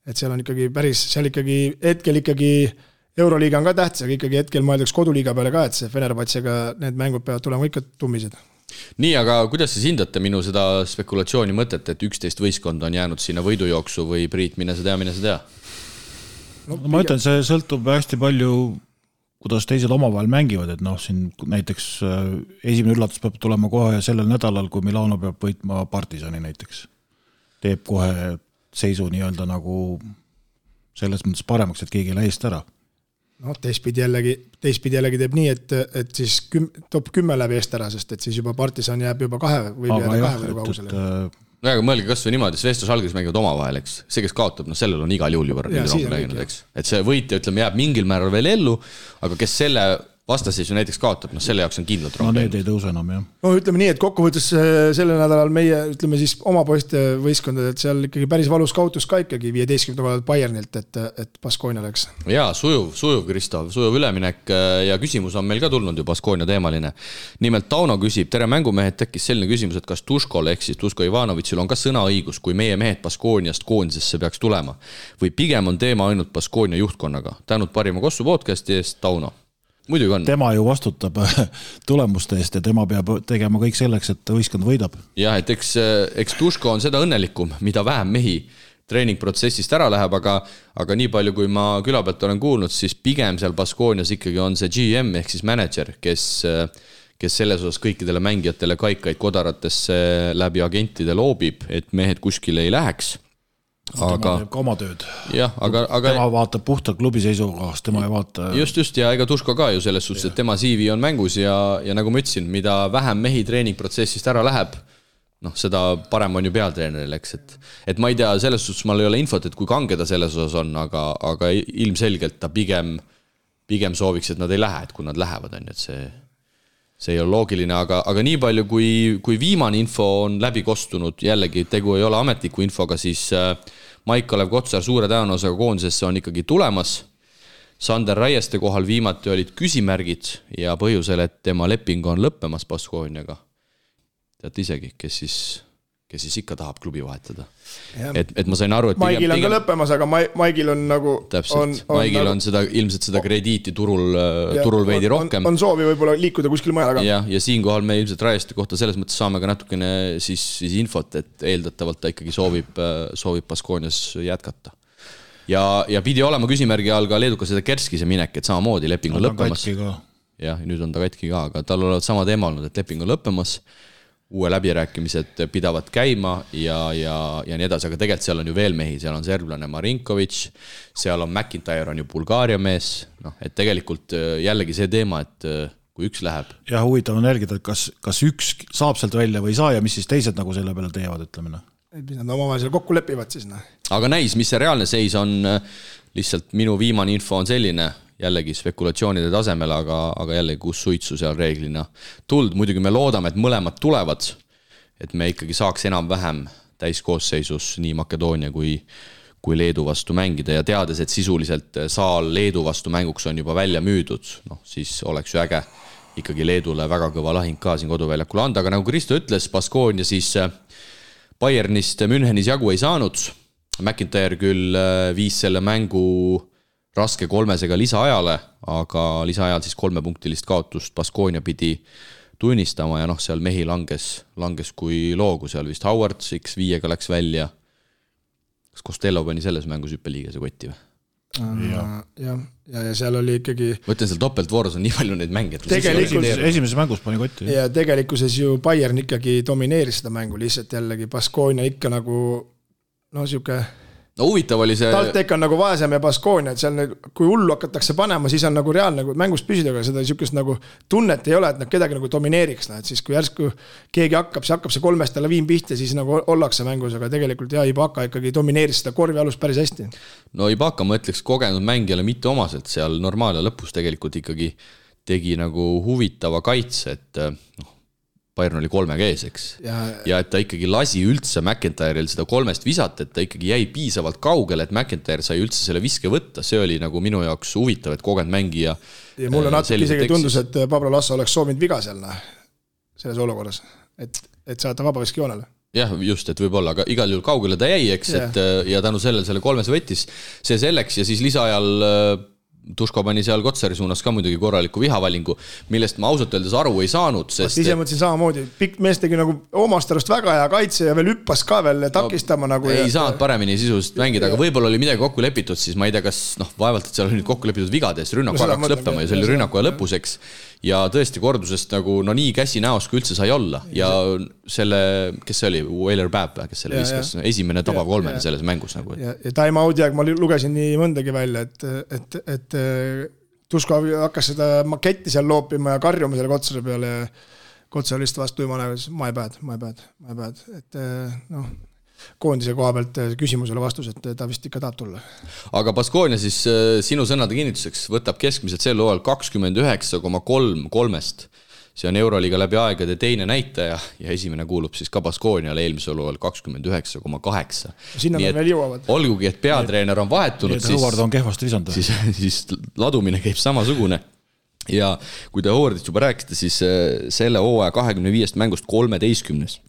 Et seal on ikkagi päris, seal ikkagi hetkel ikkagi Euroliiga on ka tähtis, aga ikkagi hetkel mõeldaks koduliiga peale ka, et see Fenerbahcega need mängud peavad tulema ikka tummised. Nii, aga kuidas siis hindate minu seda spekulatsiooni mõtet, et 11 võistkonda on jäänud sinna võidujooksu või Priit, mine sa tea? No, ma ütlen, see sõltub hästi palju, kuidas teised omavahel mängivad, et siin näiteks esimene üllatus peab tulema kohe sellel nädalal, kui Milano peab võitma Partisani näiteks. Teeb kohe seisu nii-öelda nagu selles mõttes paremaks, et keegi ei lähe eest ära. No, teistpidi jällegi teeb nii, et siis top 10 läbi eest ära, sest et siis juba Partisan jääb juba 2 või jääda 2 või kaugusele. No aga mõelge kas või niimoodi, Svestos Žalgiris mängivad omavahel, eks. See, kes kaotab, sellel on igal juhul juba rääginud, eks. Et see võitja, ütleme, jääb mingil määral veel ellu, aga kes selle vastaseisu näiteks kaotab, selle jaoks on kindlalt rohkem. No need ei tõuse enam, jah. No ütleme nii, et kokkuvõttes selle nädalal meie, ütleme siis oma poiste võistkondad, et seal ikkagi päris valus kaotus ka ikkagi 15 kohal Bayernilt, et Baskonia läks. Jaa, sujuv Kristo, sujuv üleminek ja küsimus on meil ka tulnud ju Baskonia teemaline. Nimelt Tauno küsib, tere mängumehed, tekkis selline küsimus, et kas Duškol ehk siis Duško Ivanovićil on ka sõnaõigus, kui meie mehed Baskoniast koondisesse peaks tulema või pigem on teema ainult Baskonia juhtkonnaga. Tänud parima Kossu podcasti eest, Tauno. Muidugi on. Tema ju vastutab tulemuste eest ja tema peab tegema kõik selleks, et võistkond võidab. Jah, et eks Duško on seda õnnelikum, mida vähem mehi treeningprotsessist ära läheb, aga nii palju, kui ma küla pealt olen kuulnud, siis pigem seal Baskonias ikkagi on see GM ehk siis manager, kes selles osas kõikidele mängijatele kaikaid kodaratesse läbi agentide loobib, et mehed kuskile ei läheks. Tema teeb ka oma tööd. Jah, aga tema vaatab puhtalt klubi seisukohast, tema ei vaata. Just ja ega Duško ka ju selles suhtes, et tema CV on mängus ja nagu ma ütlesin, mida vähem mehi treeningprotsessist ära läheb, seda parem on ju pealtreeneril, eks, et ma ei tea, selles suhtes mal ei ole infot, et kui kange ta selles osas on, aga ilmselgelt ta pigem sooviks, et nad ei lähe, et kui nad lähevad, on, et see ei ole loogiline, aga nii palju, kui viimane info on läbi kostunud, jällegi tegu ei ole ametliku infoga, siis Maik-Olev Kotsar suure tõenäosusega koondisesse on ikkagi tulemas. Sander Raieste kohal viimati olid küsimärgid ja põhjusel, et tema leping on lõppemas Baskoniaga. Teate isegi, kes kes siis ikka tahab klubi vahetada. Et ma sain aru, et Maigil on ka lõppemas, aga Maigil on nagu täpselt, Maigil on seda, ilmselt seda krediiti turul veidi rohkem. On soovi võib-olla liikuda kuskil mujal, aga ja siinkohal me ilmselt Rajeste kohta selles mõttes saame ka natukene siis infot, et eeldatavalt ta ikkagi soovib Baskonias jätkata. Ja pidi olema küsimärgi all ka leedukaseda Kerskise minek, et samamoodi leping on lõppemas. Ja nüüd on ta katki ka, aga tal olevat sama teema olnud, et leping on lõppemas. Uue läbirääkimised pidavad käima ja nii edasi, aga tegelikult seal on ju veel mehi, seal on serblane Marinkovic, seal on McIntyre on ju Bulgaaria mees, et tegelikult jällegi see teema, et kui üks läheb. Ja huvitav on jälgida, et kas üks saab sealt välja või ei saa ja mis siis teised nagu selle peale teevad, ütleme. Nad omavahel seal kokku lepivad siis. Aga näis, mis see reaalne seis on, lihtsalt minu viimane info on selline, jällegi spekulatsioonide tasemel, aga jällegi kus suitsu seal reeglina tuld. Muidugi me loodame, et mõlemad tulevad, et me ikkagi saaks enam-vähem täiskoosseisus nii Makedoonia kui Leedu vastu mängida ja teades, et sisuliselt saal Leedu vastu mänguks on juba välja müüdud, siis oleks ju äge ikkagi Leedule väga kõva lahing ka siin koduväljakul anda, aga nagu Kristo ütles, Baskonia siis Bayernist Münchenis jagu ei saanud. McIntyre küll viis selle mängu raske 3-sega lisaajale, aga lisaajal siis 3-punktilist kaotust Baskonia pidi tunnistama ja seal mehi langes kui loogu, seal vist Howard X5-ga läks välja. Kas Costello pani selles mängus hüppeliigese kotti või? Ja seal oli ikkagi võtlen seal topeltvooros on nii palju neid mänge, esimeses mängus pani kotti ja tegelikkuses ju Bayern ikkagi domineeris seda mängu, lihtsalt jällegi Baskonia ikka nagu siuke huvitav oli see TalTech on nagu vaesem ja Baskonia, et seal kui hullu hakatakse panema, siis on nagu reaalne nagu mängust püsida, aga seda siukest nagu tunnet ei ole, et nad kedagi nagu domineeriks, et siis kui järsku keegi hakkab see 3-st laviin pihta, siis nagu ollakse mängus, aga tegelikult Ibaka ikkagi domineeris seda korvi alust päris hästi. No Ibaka ma ütleks kogenud mängijale mitte omaselt seal normaal ja lõpus tegelikult ikkagi tegi nagu huvitava kaitse, et Bayern oli 3-ga ees, eks. Ja et ta ikkagi lasi üldse McIntyre'il seda 3-st visata, et ta ikkagi jäi piisavalt kaugele, et McIntyre sai üldse selle viske võtta. See oli nagu minu jaoks huvitav, et kogenud mängija. Ja mulle natuke isegi tundus, et Pablo Lasso oleks soovinud viga seal selles olukorras, et saada vabaviski joonele. Jah, just, et võib-olla, aga igal juhul kaugele ta jäi, eks, ja tänu selle 3 võttis see selleks ja siis lisaajal Tuško pani seal Kotsari suunas ka muidugi korraliku vihavalingu, millest ma ausalt öeldes aru ei saanud. Ise mõtlesin samamoodi, pikk mees tegi nagu omast arust väga hea kaitse ja veel hüppas ka veel takistama nagu. Ei saanud paremini sisuliselt mängida, aga võib-olla oli midagi kokku lepitud, siis ma ei tea, kas vaevalt, et seal oli nüüd kokku lepitud vigades, rünnaku hakkas lõppema ja see oli rünnaku ja lõpuseks. Ja tõesti kordusest nagu nii käsi näos, kui üldse sai olla. Ja selle, kes see oli, Wailer Babb, kes selle viskas, esimene tabav 3 selles mängus. Nagu. Ja time out'i aeg ma lugesin nii mõndagi välja, et Tuško hakkas seda maketti seal loopima ja karjuma selle Kotsari peale ja Kotsar lihtsalt vastu jumala, my bad. Et koondise koha pealt küsimusele vastus, et ta vist ikka tahab tulla. Aga Baskonia siis sinu sõnade kinnituseks võtab keskmiselt sel hooajal 29,3-st. See on Euroliiga läbi aegade teine näitaja ja esimene kuulub siis ka Baskoniale eelmisel hooajal 29,8. Sinna me veel jõuavad. Olgugi, et peatreener on vahetunud, Howard on kehvasti visanud. Siis ladumine käib samasugune. Ja kui te Howardist juba rääkisite, siis selle hooaja 25 mängust 13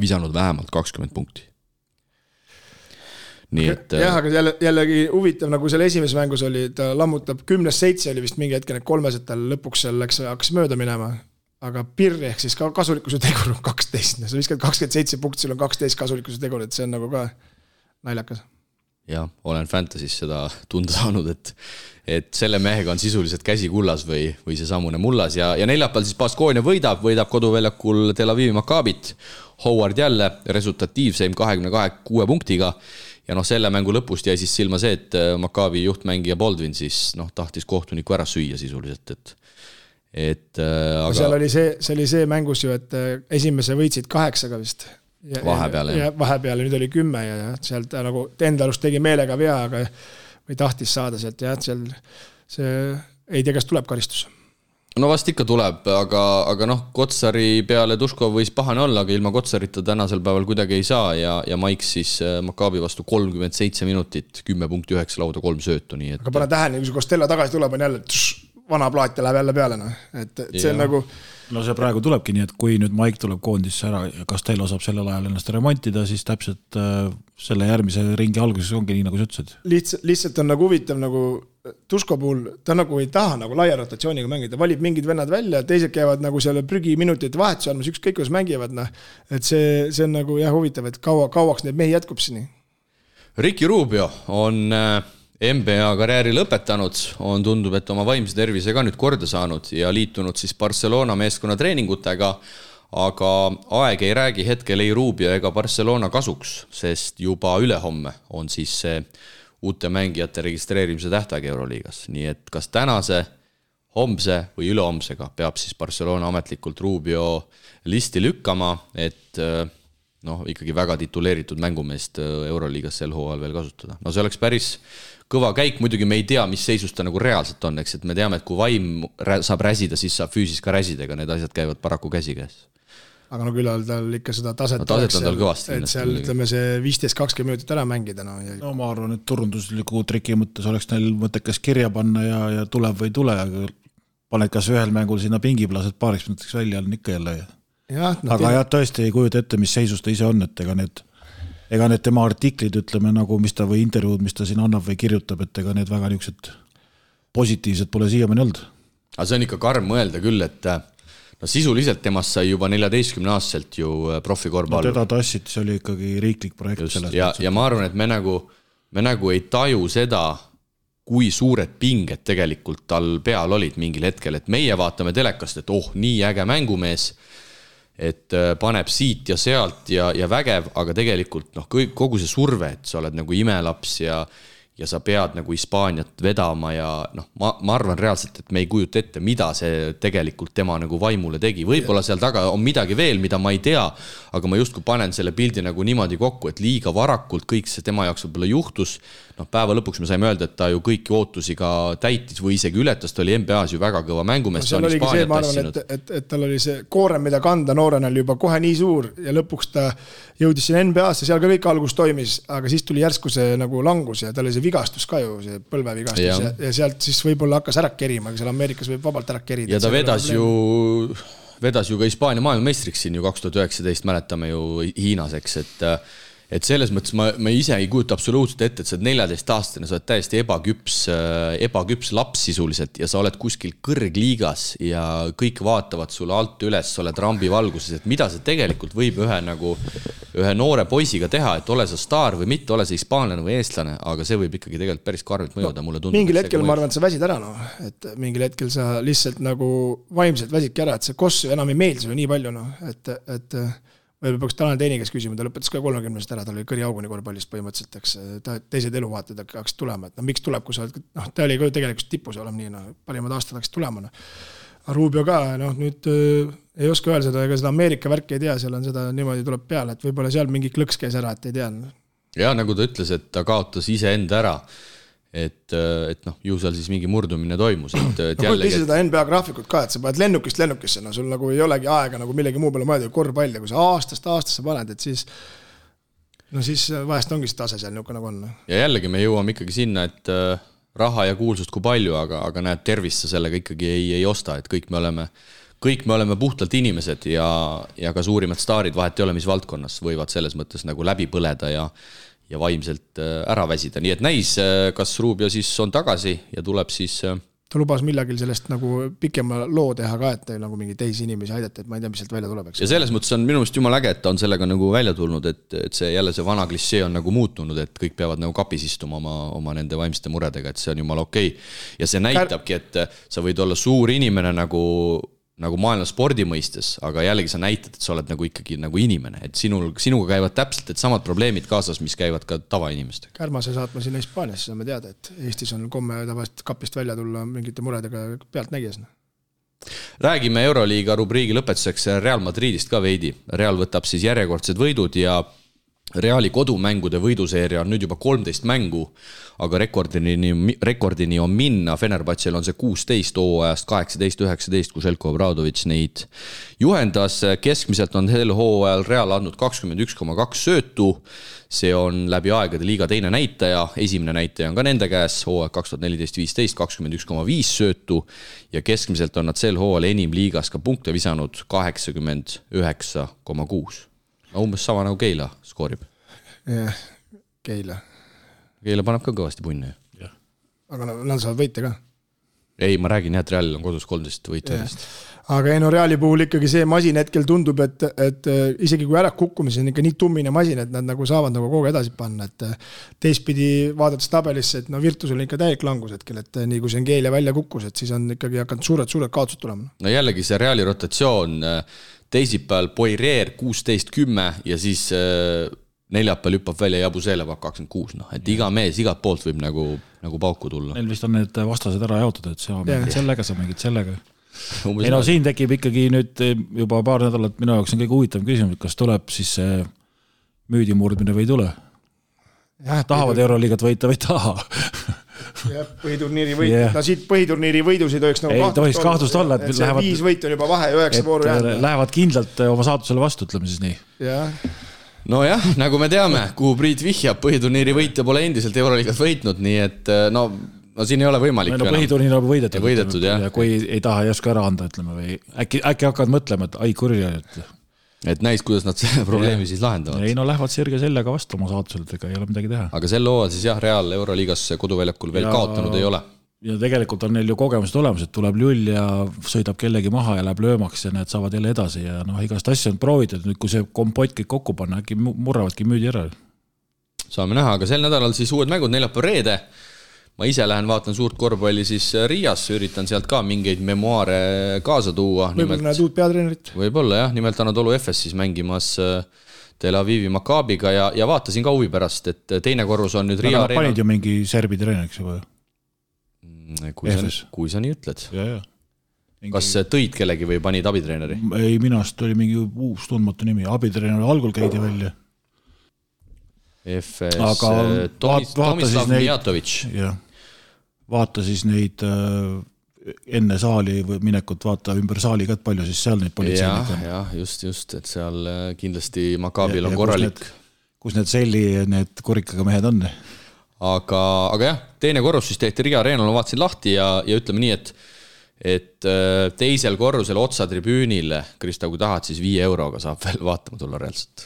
visanud vähemalt 20 punkti. Jah, aga jällegi huvitav, nagu selle esimeses mängus oli, ta lammutab 10-7 oli vist mingi hetke, need 3 tal lõpuks seal hakkas mööda minema, aga pirri ehk siis kasulikkuse tegur on 12, sa viskad 27 punkti, sul on 12 kasulikkuse tegur, et see on nagu ka naljakas. Ja, olen Fantasy's seda tunda saanud, et selle mehega on sisuliselt käsi kullas või see samune mullas ja neljapäeval siis Baskonia võidab koduväljakul Tel Avivi Maccabit. Howard jälle resultatiivseim 26 punktiga ja selle mängu lõpust jäi siis silma see, et Maccabi juhtmängija Baldwin siis tahtis kohtuniku ära süüa sisuliselt, aga seal oli see mängus ju, et esimese võitsid 8 vist. Vahepeal nüüd oli 10 ja seal ta nagu enda alust tegi meelega vea, aga või tahtis saada sealt ja seal see ei tea, kas tuleb karistus. No vast ikka tuleb, aga Kotsari peale Tuškov võis pahane olla, aga ilma Kotsarita tänasel päeval kuidagi ei saa ja Maiks siis Maccabi vastu 37 minutit, 10 punkti 9 lauda, 3 söötu. Nii aga pane tähele, kui see Costello tagasi tuleb, on jälle vana plaat ja läheb jälle peale. Et see on nagu No see praegu tulebki nii, et kui nüüd Maik tuleb koondisse ära ja Castello saab sellel ajal ennast remontida, siis täpselt selle järgmise ringi alguses ongi nii, nagu sa ütlesid. Lihtsalt on nagu huvitav nagu Tusko puhul, ta nagu ei taha nagu laia rotatsiooniga mängida, valib mingid vennad välja, teised käivad nagu selle prügiminutite vahetuse andmas, ükskõik kuidas mängivad, et see on nagu huvitav, et kauaks neid mehi jätkub sini. Ricky Rubio on NBA karjääri lõpetanud, on tundub, et oma vaimse tervise ka nüüd korda saanud ja liitunud siis Barcelona meeskonna treeningutega, aga aeg ei räägi hetkel ei Rubio ega Barcelona kasuks, sest juba ülehomme on siis see uute mängijate registreerimise tähtaeg Euroliigas. Nii et kas tänase, homse või ülehomsega peab siis Barcelona ametlikult Rubio listi lükkama, et ikkagi väga tituleeritud mängumeest Euroliigas sel hooajal veel kasutada. No see oleks päris kõva käik, muidugi me ei tea, mis seisus ta nagu reaalselt on, eks, et me teame, et kui vaim saab räsida, siis saab füüsis ka räsida, ega need asjad käivad paraku käsi käes. Aga no küll tal ikka seda taset oleks, on tal kõvasti. Et seal ütleme see 15-20 minutit ära mängida. No ma arvan, et turundusliku triki mõttes oleks neil mõttekas kirja panna ja tuleb või tule, aga paned kas ühel mängul sinna pingiplased paariks minutiks välja, on ikka jälle. Aga tõesti ei kujuta ette, mis seisus ta ise on, et ega need tema artiklid, ütleme nagu, mis ta või intervjuud, mis ta siin annab või kirjutab, et ega need väga niisugused positiivsed pole siiamaani olnud. Aga see on ikka karm mõelda küll, et sisuliselt temast sai juba 14-aastaselt ju profikorvpall. Teda tassid, see oli ikkagi riiklik projekt. Just, ja ma arvan, et me nagu ei taju seda, kui suured pinged tegelikult tal peal olid mingil hetkel, et meie vaatame telekast, et nii äge mängumees, et paneb siit ja sealt ja vägev, aga tegelikult kogu see surve, et sa oled nagu imelaps ja sa pead nagu Hispaaniat vedama ja ma arvan reaalselt, et me ei kujuta ette, mida see tegelikult tema nagu vaimule tegi. Võib-olla seal taga on midagi veel, mida ma ei tea, aga ma justkui panen selle pildi nagu niimoodi kokku, et liiga varakult kõik see tema jaoks võib-olla juhtus. Päeva lõpuks me saime öelda, et ta ju kõiki ootusi ka täitis või isegi ületas, ta oli NBA-s ju väga kõva mängumees. Seal oligi see, ma arvan, et tal oli see koorem, mida kanda noorena oli juba kohe nii suur ja lõpuks ta jõudis siin NBA-sse, seal ka kõik algus toimis, aga siis tuli järsku see nagu langus ja tal oli see vigastus ka ju, see põlvevigastus ja sealt siis võib-olla hakkas ära kerima, aga seal Ameerikas võib vabalt ära kerida. Ja ta vedas ju ka Hispaania maailmameistriks siin ju 2019, mäletame ju Hiinas, eks, et selles mõttes ma ise ei kujuta absoluutselt ette, et sa oled 14-aastane, sa oled täiesti ebaküps laps sisuliselt ja sa oled kuskil kõrgliigas ja kõik vaatavad sulle alt üles, sa oled rambi valguses, et mida see tegelikult võib ühe noore poisiga teha, et ole sa staar või mitte, ole sa hispaanlane või eestlane, aga see võib ikkagi tegelikult päris karmilt mõjuda, mulle tundub. Mingil hetkel ma arvan, et sa väsid ära, et mingil hetkel sa lihtsalt nagu vaimselt väsidki ära, et see koss enam ei meeldi sulle nii palju, et või peaks Tanel Teini käes küsima, ta lõpetas ka 30-st ära, ta oli kõriauguni korvpallist põhimõtteliselt, eks teised eluvaated hakkas tulema, et miks tuleb, kui sa oled, ta oli ka tegelikult tipus olema nii, parimad aastad hakkas tulema. Rubio ka, nüüd ei oska öelda seda, ega seda Ameerika värki ei tea, seal on seda niimoodi tuleb peale, et võib-olla seal mingi klõks käis ära, et ei tea. Ja nagu ta ütles, et ta kaotas ise enda ära, et ju seal siis mingi murdumine toimus. Kui seda NBA graafikut ka, et sa paned lennukist lennukisse, sul nagu ei olegi aega nagu millegi muu peale mõelda korvpall ja kui sa aastast aastasse paned, et siis vahest ongi see tase seal niuke nagu on. Ja jällegi me jõuame ikkagi sinna, et raha ja kuulsust kui palju, aga näed, tervist sa sellega ikkagi ei osta, et kõik me oleme puhtalt inimesed ja ka suurimad staarid vahet ei ole, mis valdkonnas võivad selles mõttes nagu läbi põleda ja vaimselt ära väsida. Nii et näis, kas Rubio siis on tagasi ja tuleb siis... Ta lubas millagil sellest nagu pikema loo teha ka, et nagu mingi teisi inimesi aidata, et ma ei tea, mis sealt välja tuleb. Ja selles mõttes on minu meelest jumal äge, et ta on sellega nagu välja tulnud, et see jälle see vana klissee on nagu muutunud, et kõik peavad nagu kapis istuma oma nende vaimsete muredega, et see on jumal okei. Ja see näitabki, et sa võid olla suur inimene nagu maailma spordi mõistes, aga jällegi sa näitad, et sa oled nagu ikkagi nagu inimene, et sinuga käivad täpselt et samad probleemid kaasas, mis käivad ka tavainimestega. Kärmase saatma sinna Hispaaniasse, saame teada, et Eestis on komme tavaliselt kapist välja tulla mingite muredega pealt nägies. Räägime Euroliiga rubriigi lõpetuseks Real Madridist ka veidi. Real võtab siis järjekordsed võidud ja Reali kodumängude võiduseeria on nüüd juba 13 mängu, aga rekordini on minna. Fenerbahčel on see 16 hooajast 18-19, kui Željko Obradović neid juhendas. Keskmiselt on sel hooajal Real andnud 21,2 söötu. See on läbi aegade liiga teine näitaja. Esimene näitaja on ka nende käes, hooaeg 2014-15, 21,5 söötu. Ja keskmiselt on nad sel hooajal enim liigas ka punkte visanud 89,6. Umbes sama nagu Keila skoorib. Jah, Keila paneb ka kõvasti punne. Aga nad saavad võita ka. Ei, ma räägin, et Real on kodus 13 võitjadest. Aga Reali puhul ikkagi see masin hetkel tundub, et isegi kui ära kukkumise on ikka nii tummine masin, et nad nagu saavad nagu kogu edasi panna. Et teistpidi vaadates tabelisse, et Virtusel on ikka täielik langus hetkel, et nii kui see Keila välja kukkus, et siis on ikkagi hakanud suured kaotused tulema. No jällegi see Reali rotatsioon teisipäeval Poirier 16-10 ja siis neljapäeval hüppab välja Jabusele 26. Et iga mees igat poolt võib nagu pauku tulla. Neil vist on need vastased ära jaotud, et sa mängid sellega, sa mängid sellega. Ei no siin tekib ikkagi nüüd juba paar nädalat minu jaoks on kõige huvitav küsimus, kas tuleb siis see müüdimurdmine või ei tule. Tahavad Euroliigat võita või taha. Põhiturniiri võit. No siit põhiturniiri võidusid oleks nagu kahtlust olla. Et see 5 võit on juba vahe 9 vooru jäänud. Lähevad kindlalt oma saatusele vastu, ütleme siis nii. No jah, nagu me teame, kuhu Priit vihjab, põhiturniiri võitja pole endiselt Euroliigat võitnud, nii et no siin ei ole võimalik. No põhiturniir on võidetud, jah. Ja kui ei taha ei oska ära anda, ütleme, või äkki hakkavad mõtlema, et ai kurja. Et näis, kuidas nad selle probleemi siis lahendavad. Ei no lähevad sirge sellega vastu oma saatuselt, ega ei ole midagi teha. Aga selle hooajal siis jah, Real Euroliigas koduväljakul veel kaotanud ei ole. Ja tegelikult on neil ju kogemused olemas, et tuleb lull ja sõidab kellegi maha ja läheb löömaks ja need saavad jälle edasi ja igast asja on proovitud. Nüüd kui see kompott kõik kokku panna, äkki murravadki müüdi ära. Saame näha, aga sel nädalal siis uued mängud neljapäev reede. Ma ise lähen vaatan suurt korvpalli siis Riias, üritan sealt ka mingeid memoaare kaasa tuua. Võib-olla näed uut peatreenerit? Võib-olla jah, nimelt Anadolu FS siis mängimas Tel Avivi Maccabiga ja vaatasin ka huvi pärast, et teine korrus on nüüd Riia Areena. Panid ju mingi serbi treeneriks juba? Kui sa nii ütled. Kas tõid kellegi või panid abitreeneri? Ei, minast oli mingi uus tundmatu nimi. Abitreeneri algul käidi välja. FS Tomislav Mijatović. Vaata siis neid enne saali minekut, vaata ümber saali ka, et palju siis seal neid politseinik on. Jah, just, et seal kindlasti Maccabil on korralik. Kus need selli, need kurikaga mehed on? Aga jah, teine korrus siis tehti Riia Areenal, ma vaatasin lahti ja ütleme nii, et teisel korrusel otsa tribüünile, Krista, kui tahad, siis 5 euroga saab veel vaatama tulla reaalselt.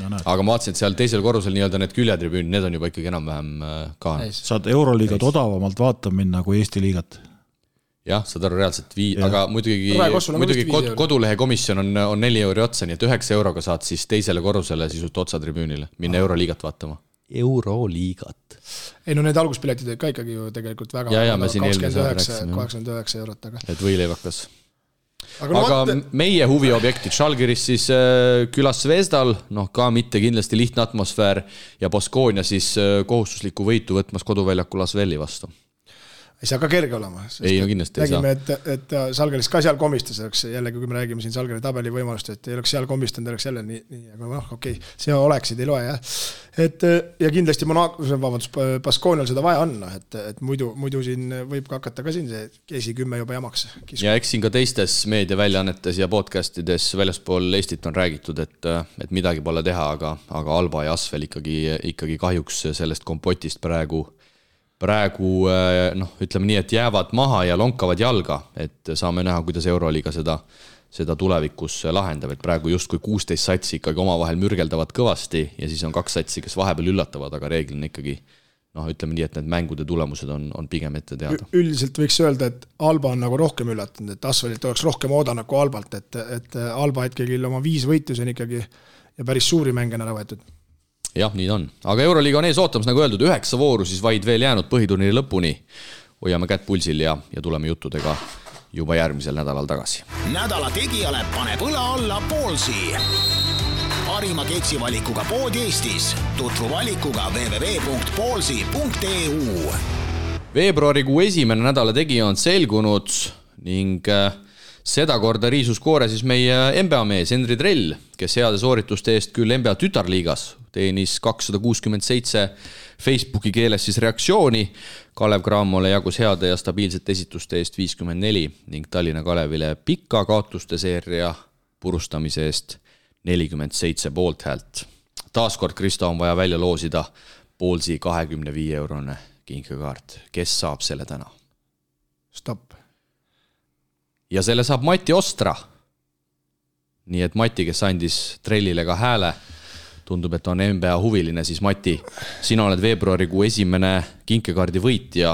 Aga ma vaatasin, et seal teisel korrusel nii-öelda need küljetribüünid, need on juba ikkagi enam-vähem ka. Saad Euroliigat odavamalt vaatama minna kui Eesti liigat. Jah, saad aru reaalselt aga muidugi kodulehe komisjon on 4 euro otsa, nii et 9 euroga saad siis teisele korrusele sisult otsa tribüünile, minna Euroliigat vaatama. Euroliigat. Ei no need alguspiletid ka ikkagi ju tegelikult väga 29 eurot. Et võileivakas. Aga meie huviobjektid Žalgiris siis külas Zvezdal, ka mitte kindlasti lihtne atmosfäär ja Baskonia siis kohustuslikku võitu võtmas koduväljakul Asveli vastu. Ei saa ka kerge olema. Ei, no kindlasti ei saa. Räägime, et Žalgiris ka seal komistas, jällegi kui me räägime siin Žalgiri tabeli võimalust, et ei oleks seal komistanud, oleks jälle nii, aga okei, see oleksid, ei loe, jah. Ja kindlasti Baskonial seda vaja on, et muidu siin võib ka hakata ka siin see keesi 10 juba jamaks. Ja eks siin ka teistes meediaväljaannetes ja podcastides väljaspool Eestit on räägitud, et midagi pole teha, aga Alba ja Asvel ikkagi kahjuks sellest kompotist praegu ütleme nii, et jäävad maha ja lonkavad jalga, et saame näha, kuidas Euroliiga seda tulevikus lahendab, et praegu just kui 16 satsi ikkagi omavahel mürgeldavad kõvasti ja siis on 2 satsi, kes vahepeal üllatavad, aga reeglina ikkagi ütleme nii, et need mängude tulemused on pigem ette teada. Üldiselt võiks öelda, et Alba on nagu rohkem üllatanud, et Asvelilt oleks rohkem oodanud kui Albalt, et Alba ikkagi oma 5 võitus on ikkagi ja päris suuri mänge on ära võetud. Jah, nii on. Aga Euroliiga on ees ootamas, nagu öeldud, 9 vooru siis vaid veel jäänud põhiturniiri lõpuni. Hoiame kätt pulsil ja tuleme juttudega juba järgmisel nädalal tagasi. Nädala tegijale paneb õla alla Poolsi. Parima keksivalikuga pood Eestis. Tutvu valikuga www.poolsi.eu. Veebruarikuu esimene nädala tegija on selgunud ning seda korda riisus koore siis meie NBA mees Henri Drell, kes heade soorituste eest küll NBA tütarliigas teenis 267 Facebooki keeles siis reaktsiooni. Kalev Cramole jagus heade ja stabiilsete esituste eest 54 ning Tallinna Kalevile pika kaotuste seeria purustamise eest 47 poolthäält. Taaskord, Kristo, on vaja välja loosida Poolsi 25-eurone kinkekaart. Kes saab selle täna? Stopp. Ja selle saab Mati Ostra. Nii et Mati, kes andis trellile ka hääle, tundub, et on NBA huviline, siis Mati, sina oled veebruarikuu esimene kinkekaardi võitja,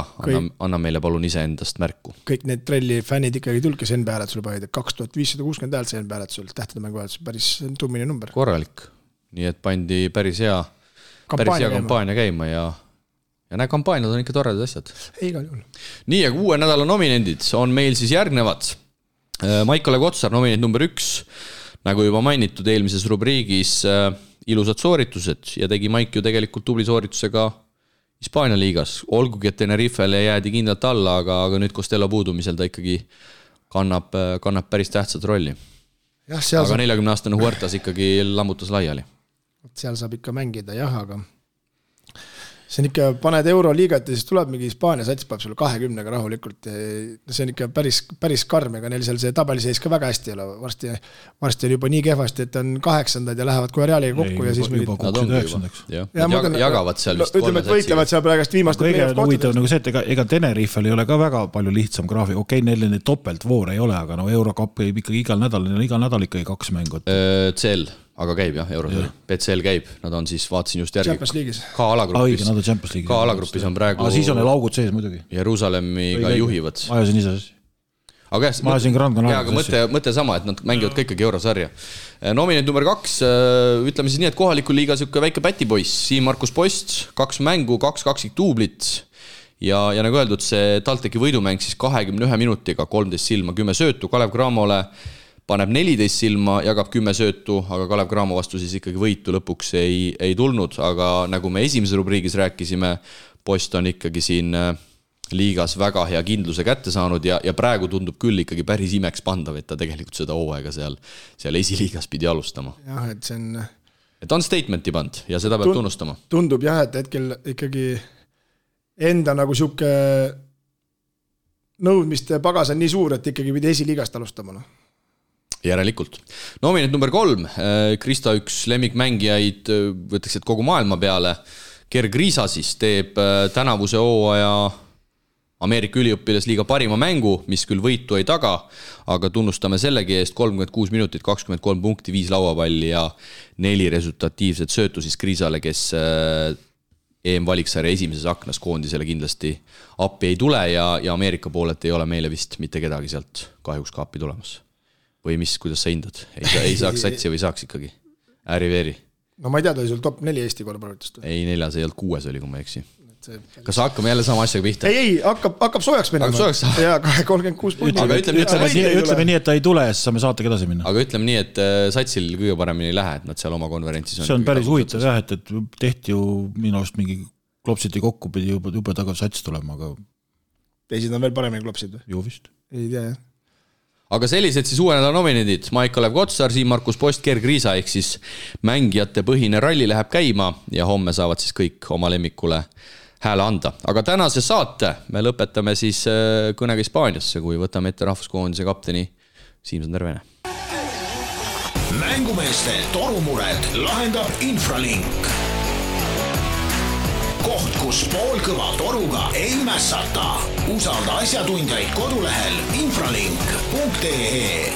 anna meile palun ise endast märku. Kõik need trelli fännid ikkagi tulge see NBA hääletusel panid, 2560 häält see NBA hääletusel, tähtede mängu hääletusel, päris tummine number. Korralik, nii et pandi päris hea kampaania käima ja need kampaaniad on ikka toredad asjad. Igal juhul. Nii, aga uue nädala nominendid on meil siis järgnevad. Maikole Kotsar, nominent number 1, nagu juba mainitud eelmises rubriigis, ilusad sooritused ja tegi Maik ju tegelikult tubli sooritusega Hispaania liigas. Olgugi, et Tenerifele jäädi kindlalt alla, aga nüüd Costello puudumisel ta ikkagi kannab päris tähtsat rolli. Aga 40-aastane Huertas ikkagi lammutas laiali. Seal saab ikka mängida, aga see on ikka, paned Euroliigat ja siis tuleb mingi Hispaania sats, paneb sulle 20-ga rahulikult. See on ikka päris karm, aga neil seal see tabeliseis ka väga hästi ei ole. Varsti on juba nii kehvasti, et on 8. ja lähevad kohe Realiga kokku. Ja siis juba kuksid 9. Jagavad seal vist ütleme, et võitlevad seal praegast viimast. Kõige huvitav nagu see, et ega Tenerifel ei ole ka väga palju lihtsam graafik. Okei, neil neid topeltvoor ei ole, aga Eurocup ei ikkagi igal nädal ikkagi 2 mängu. CL, aga käib jah, Eurosel. BCL käib, nad on siis, vaatasin just järgi. Champions League'is. Ka alagrupis on praegu. Siis on neil augud sees muidugi. Jeruusalemmiga juhivad. Ma ajasin ise. Aga mõte sama, et nad mängivad ka ikkagi Eurosarja. Nominent number 2, ütleme siis nii, et kohaliku liiga siuke väike pätipoiss, Siim-Markus Post, 2 mängu, 2 tuublit ja nagu öeldud, see TalTechi võidumäng siis 21 minutiga, 13 silma, 10 söötu, Kalev Cramole paneb 14 silma, jagab 10 söötu, aga Kalev Cramo vastu siis ikkagi võitu lõpuks ei tulnud, aga nagu me esimeses rubriigis rääkisime, Post on ikkagi siin liigas väga hea kindluse kätte saanud ja praegu tundub küll ikkagi päris imeks pandav, et ta tegelikult seda hooaega seal esiliigas pidi alustama. Jah, et see on... Et on statementi pand ja seda peab tunnustama. Tundub jah, et hetkel ikkagi enda nagu siuke nõudmiste pagas on nii suur, et ikkagi pidi esiliigast alustama. Järelikult. Nominent number 3, Krista üks lemmikmängijaid, võtaks, et kogu maailma peale, Gerg Riisa siis teeb tänavuse hooaja Ameerika üliõpilasliiga parima mängu, mis küll võitu ei taga, aga tunnustame sellegi eest 36 minutit, 23 punkti, 5 lauapalli ja 4 resultatiivset söötu siis Kriisale, kes EM-valiksarja esimeses aknas koondisele kindlasti appi ei tule ja Ameerika poolelt ei ole meile vist mitte kedagi sealt kahjuks ka appi tulemas. Või mis, kuidas sa hindad? Ei saaks satsi või saaks ikkagi? Ääri-veeri? No ma ei tea, ta oli sul top 4 Eesti korvpallitust. Ei, 4, see ei olnud 6 oli, kui ma eksi. Kas hakkame jälle sama asjaga pihta? Ei, hakkab soojaks minema. Ja 36 punkti. Ütleme nii, et ta ei tule ja siis saame saatega edasi minna. Aga ütleme nii, et satsil kõige paremini ei lähe, et nad seal oma konverentsis on. See on päris huvitav jah, et tehti ju minu arust mingi klopsiti kokku, pidi juba tagav sats tulema, aga... Teisid on veel paremini klopsid? Ju vist. Ei tea, jah. Aga sellised siis uue nädala nominendid, Maik-Kalev Kotsar, Siim-Markus Post, Gerg Riisa, ehk siis mängijate põhine ralli läheb käima ja homme saavad siis kõik oma lemmikule hääle anda. Aga tänase saate me lõpetame siis kõnega Hispaaniasse, kui võtame ette rahvuskoondise kapteni Siim-Sander Vene. Mängumeeste torumured lahendab Infralink. Koht, kus poolkõva toruga ei mässata. Usalda asjatundjaid kodulehel infralink.ee.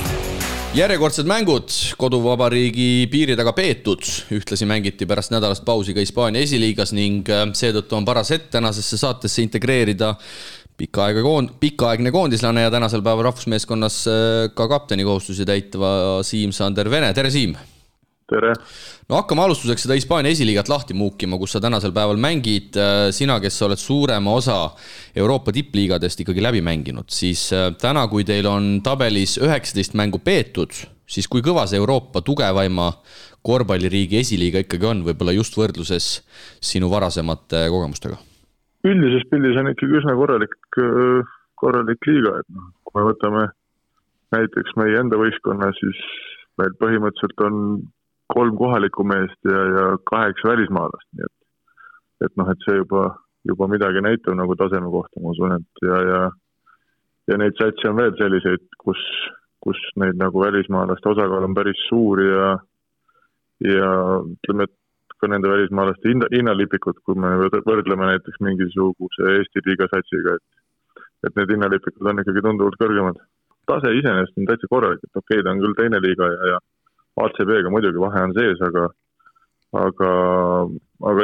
Järjekordsed mängud koduvabariigi piiri taga peetud. Ühtlasi mängiti pärast nädalast pausi ka Hispaania esiliigas ning seetõttu on paras hetk tänasesse saatesse integreerida pikaaegne koondislane ja tänasel päeval rahvusmeeskonnas ka kapteni kohustusi täitva Siim-Sander Vene. Tere, Siim! Tere! No hakkame alustuseks seda Hispaania esiliigat lahti muukima, kus sa tänasel päeval mängid. Sina, kes oled suurema osa Euroopa tippliigadest ikkagi läbi mänginud, siis täna, kui teil on tabelis 19 mängu peetud, siis kui kõva see Euroopa tugevaima korvpalliriigi esiliiga ikkagi on, võib-olla just võrdluses sinu varasemate kogemustega? Üldises pildis on ikkagi üsna korralik liiga. Et kui me võtame näiteks meie enda võistkonna, siis meil põhimõtteliselt on 3 kohalikku meest ja 8 välismaalast, nii et noh, et see juba midagi näitab nagu taseme kohta, ma usun, et ja neid satsi on veel selliseid, kus neid nagu välismaalaste osakaal on päris suur ja ütleme, et ka nende välismaalaste hinnalipikud, kui me võrdleme näiteks mingisuguse Eesti liiga satsiga, et need hinnalipikud on ikkagi tunduvalt kõrgemad. Tase iseenesest on täitsa korralik, et okei, ta on küll teine liiga ja ACB-ga muidugi vahe on sees, aga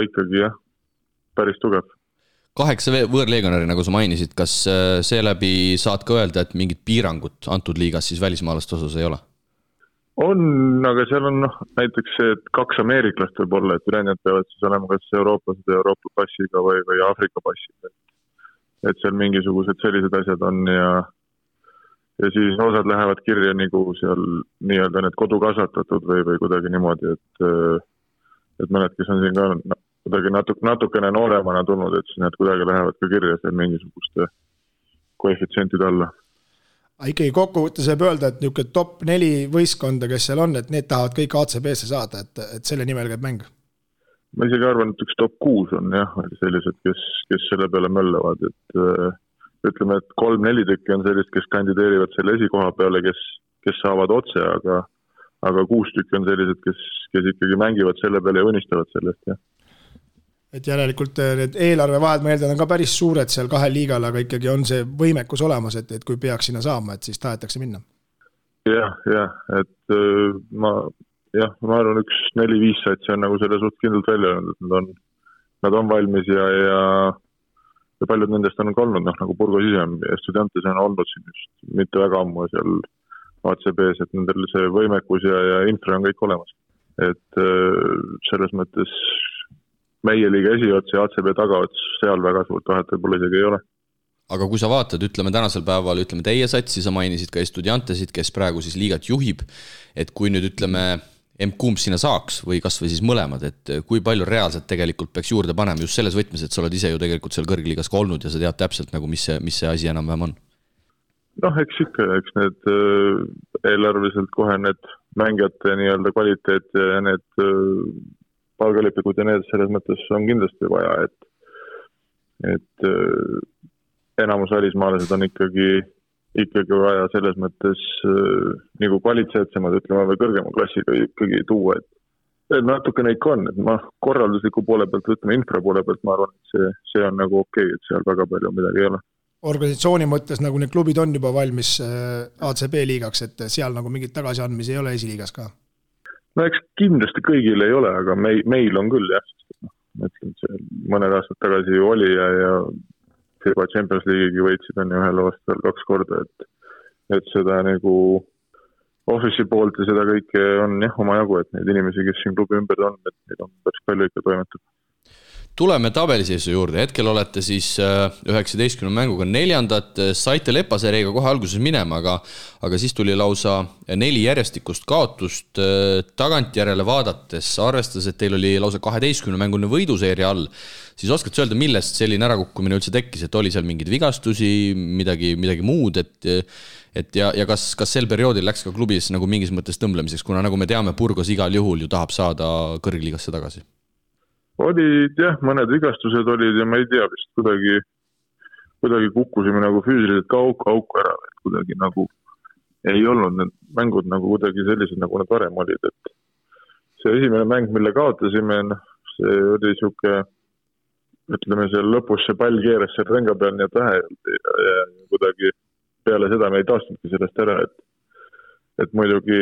ikkagi jah, päris tugev. 8 võõrleegionäri, nagu sa mainisid, kas seeläbi saad ka öelda, et mingid piirangut antud liigas siis välismaalaste osas ei ole? On, aga seal on näiteks see, et 2 ameeriklast võib olla, et ülejäänud peavad siis olema kas eurooplased Euroopa passiga või Aafrika passiga. Et seal mingisugused sellised asjad on ja siis osad lähevad kirja nagu seal nii-öelda need kodukasvatatud või kuidagi niimoodi, et mõned, kes on siin ka kuidagi natukene nooremana tulnud, et siis need kuidagi lähevad ka kirja seal mingisuguste koefitsientide alla. Ikkagi kokkuvõttes võib öelda, et niisugune top 4 võistkonda, kes seal on, et need tahavad kõik ACB-sse saada, et selle nimel käib mäng? Ma isegi arvan, et üks top 6 on jah, sellised, kes selle peale möllavad, et ütleme, et 3-4 tükki on sellist, kes kandideerivad selle esikoha peale, kes saavad otse, aga 6 tükki on sellised, kes ikkagi mängivad selle peale ja unistavad sellest, jah. Et järelikult need eelarvevahed, ma eeldan, on ka päris suured seal 2 liigal, aga ikkagi on see võimekus olemas, et kui peaks sinna saama, et siis tahetakse minna. Jah, et ma arvan, üks 4-5 satsi on nagu selle suht kindlalt välja öelnud, et nad on valmis ja paljud nendest on ka olnud, nagu Burgos ise ja Estudiantes on olnud siin just mitte väga ammu seal ACB-s, et nendel see võimekus ja infra on kõik olemas. Et selles mõttes meie liiga esiots ja ACB tagaots seal väga suurt vahet võib-olla isegi ei ole. Aga kui sa vaatad, ütleme tänasel päeval, ütleme teie satsi, sa mainisid ka Estudiantesid, kes praegu siis liigat juhib, et kui nüüd ütleme kumb sinna saaks või kas või siis mõlemad, et kui palju reaalselt tegelikult peaks juurde panema just selles võtmes, et sa oled ise ju tegelikult seal kõrgliigas ka olnud ja sa tead täpselt nagu, mis see asi enam-vähem on? Eks need eelarveliselt kohe need mängijate nii-öelda kvaliteet ja need palgalipikud ja need selles mõttes on kindlasti vaja, et enamus välismaalased on ikkagi vaja selles mõttes nagu kvaliteetsemad, ütleme, või kõrgema klassiga ikkagi tuua, et natukene ikka on, et korraldusliku poole pealt, ütleme, infra poole pealt, ma arvan, et see on nagu okei, et seal väga palju midagi ei ole. Organisatsiooni mõttes nagu need klubid on juba valmis ACB liigaks, et seal nagu mingit tagasiandmisi ei ole esiliigas ka? No eks kindlasti kõigil ei ole, aga meil on küll jah. Mõtlen, see mõned aastad tagasi ju oli ja FIBA Champions League'i võitsid on ju ühel aastal 2 korda, et seda nagu office'i poolt ja seda kõike on jah oma jagu, et neid inimesi, kes siin klubi ümber on, et neid on päris palju ikka toimetab. Tuleme tabeliseisu juurde, hetkel olete siis 19 mänguga 4, saite Lepaseeriga kohe alguses minema, aga siis tuli lausa 4 järjestikust kaotust tagantjärele vaadates, arvestades, et teil oli lausa 12 mängune võiduseeria all, siis oskad sa öelda, millest selline ärakukkumine üldse tekkis, et oli seal mingeid vigastusi, midagi muud, ja kas sel perioodil läks ka klubis nagu mingis mõttes tõmblemiseks, kuna nagu me teame, Burgos igal juhul ju tahab saada kõrgliigasse tagasi? Olid jah, mõned vigastused olid ja ma ei tea, vist kuidagi kukkusime nagu füüsiliselt ka auku ära, et kuidagi nagu ei olnud need mängud nagu kuidagi sellised, nagu nad varem olid, et see esimene mäng, mille kaotasime, see oli siuke, ütleme seal lõpus see pall keeras seal ränga peal nii et vähe ja kuidagi peale seda me ei taastunudki sellest ära, et muidugi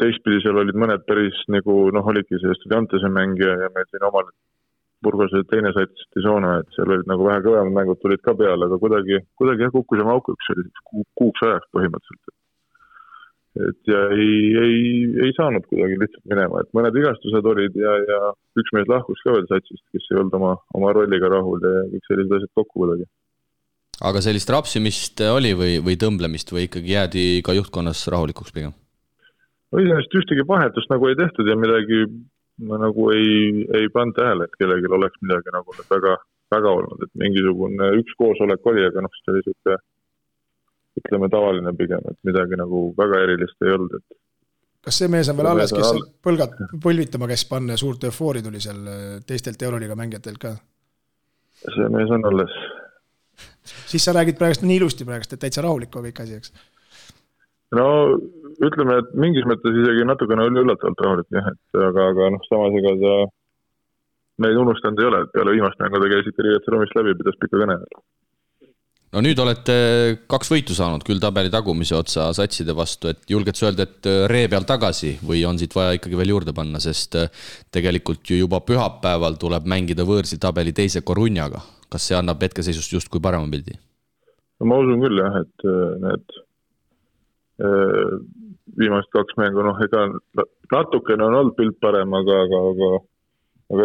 teistpidi seal olid mõned päris nagu, olidki see Estudiantese mäng ja meil siin omal Burgos teine sats Tisoona, et seal olid nagu vähe kõvemad mängud tulid ka peale, aga kuidagi kukkusime aukuks kuuks ajaks põhimõtteliselt. Et ja ei saanud kuidagi lihtsalt minema, et mõned vigastused olid ja üks mees lahkus ka veel satsist, kes ei olnud oma rolliga rahul ja kõik sellised asjad kokku kuidagi. Aga sellist rapsimist oli või tõmblemist või ikkagi jäädi ka juhtkonnas rahulikuks pigem? Iseenesest ühtegi vahetust nagu ei tehtud ja midagi nagu ei pannud tähele, et kellelgi oleks midagi nagu väga, väga olnud, et mingisugune üks koosolek oli, aga see oli siuke, ütleme tavaline pigem, et midagi nagu väga erilist ei olnud, kas see mees on veel alles, kes põlgad põlvitama käis panna ja suurt eufoori tuli seal teistelt Euroliiga mängijatelt ka? See mees on alles. Siis sa räägid praegust nii ilusti praegust, et täitsa rahulik on kõik asi, eks? No ütleme, et mingis mõttes isegi natukene oli üllatavalt rahulik, jah, et aga samas ega ta meid unustanud ei ole, et peale viimast mängu ta käisid riietruumist läbi, pidas pika kõne. No nüüd olete 2 võitu saanud küll tabeli tagumise otsa satside vastu, et julged sa öelda, et ree peal tagasi või on siit vaja ikkagi veel juurde panna, sest tegelikult ju juba pühapäeval tuleb mängida võõrsil tabeli teise Corunjaga. Kas see annab hetkeseisust just kui parema pildi? No, ma usun küll jah, et need viimast 2 mängu, ega natukene on olnud pilt parem, aga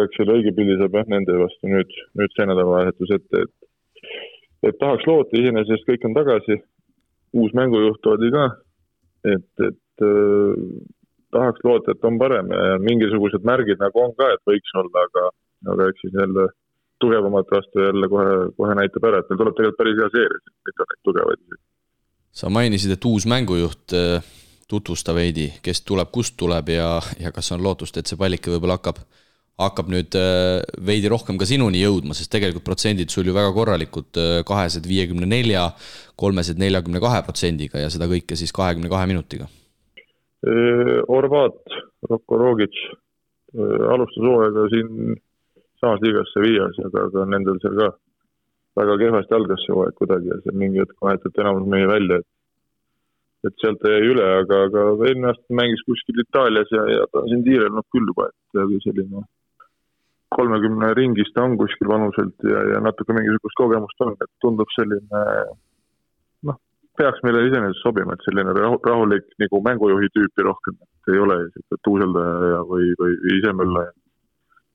eks selle õige pildi saab jah nende vastu nüüd see nädalavahetus ette, et tahaks loota, iseenesest kõik on tagasi, uus mängujuht oli ka, et tahaks loota, et on parem ja mingisugused märgid nagu on ka, et võiks olla, aga eks siis jälle tugevamat vastu jälle kohe näitab ära, et meil tuleb tegelikult päris hea seeria, mitte neid tugevaid. Sa mainisid, et uus mängujuht tutvusta veidi, kes tuleb, kust tuleb ja kas on lootust, et see pallike võib-olla hakkab nüüd veidi rohkem ka sinuni jõudma, sest tegelikult protsendid sul ju väga korralikud, 254, 342% ja seda kõike siis 22 minutiga. Orvat, Roko Rogic alustas hooaega siin samas liigas Sevillas, aga nendel seal ka väga kehvasti algas see hooaeg kuidagi ja see mingi hetk vahetati enamus meie välja, et sealt ta jäi üle, aga eelmine aasta mängis kuskil Itaalias ja ta on siin tiirelnud küll juba, et selline 30 ringis ta on kuskil vanuselt ja natuke mingisugust kogemust on, et tundub selline, peaks meile iseenesest sobima, et selline rahulik nagu mängujuhi tüüpi rohkem, et ei ole tuuseldaja või isemöllaja.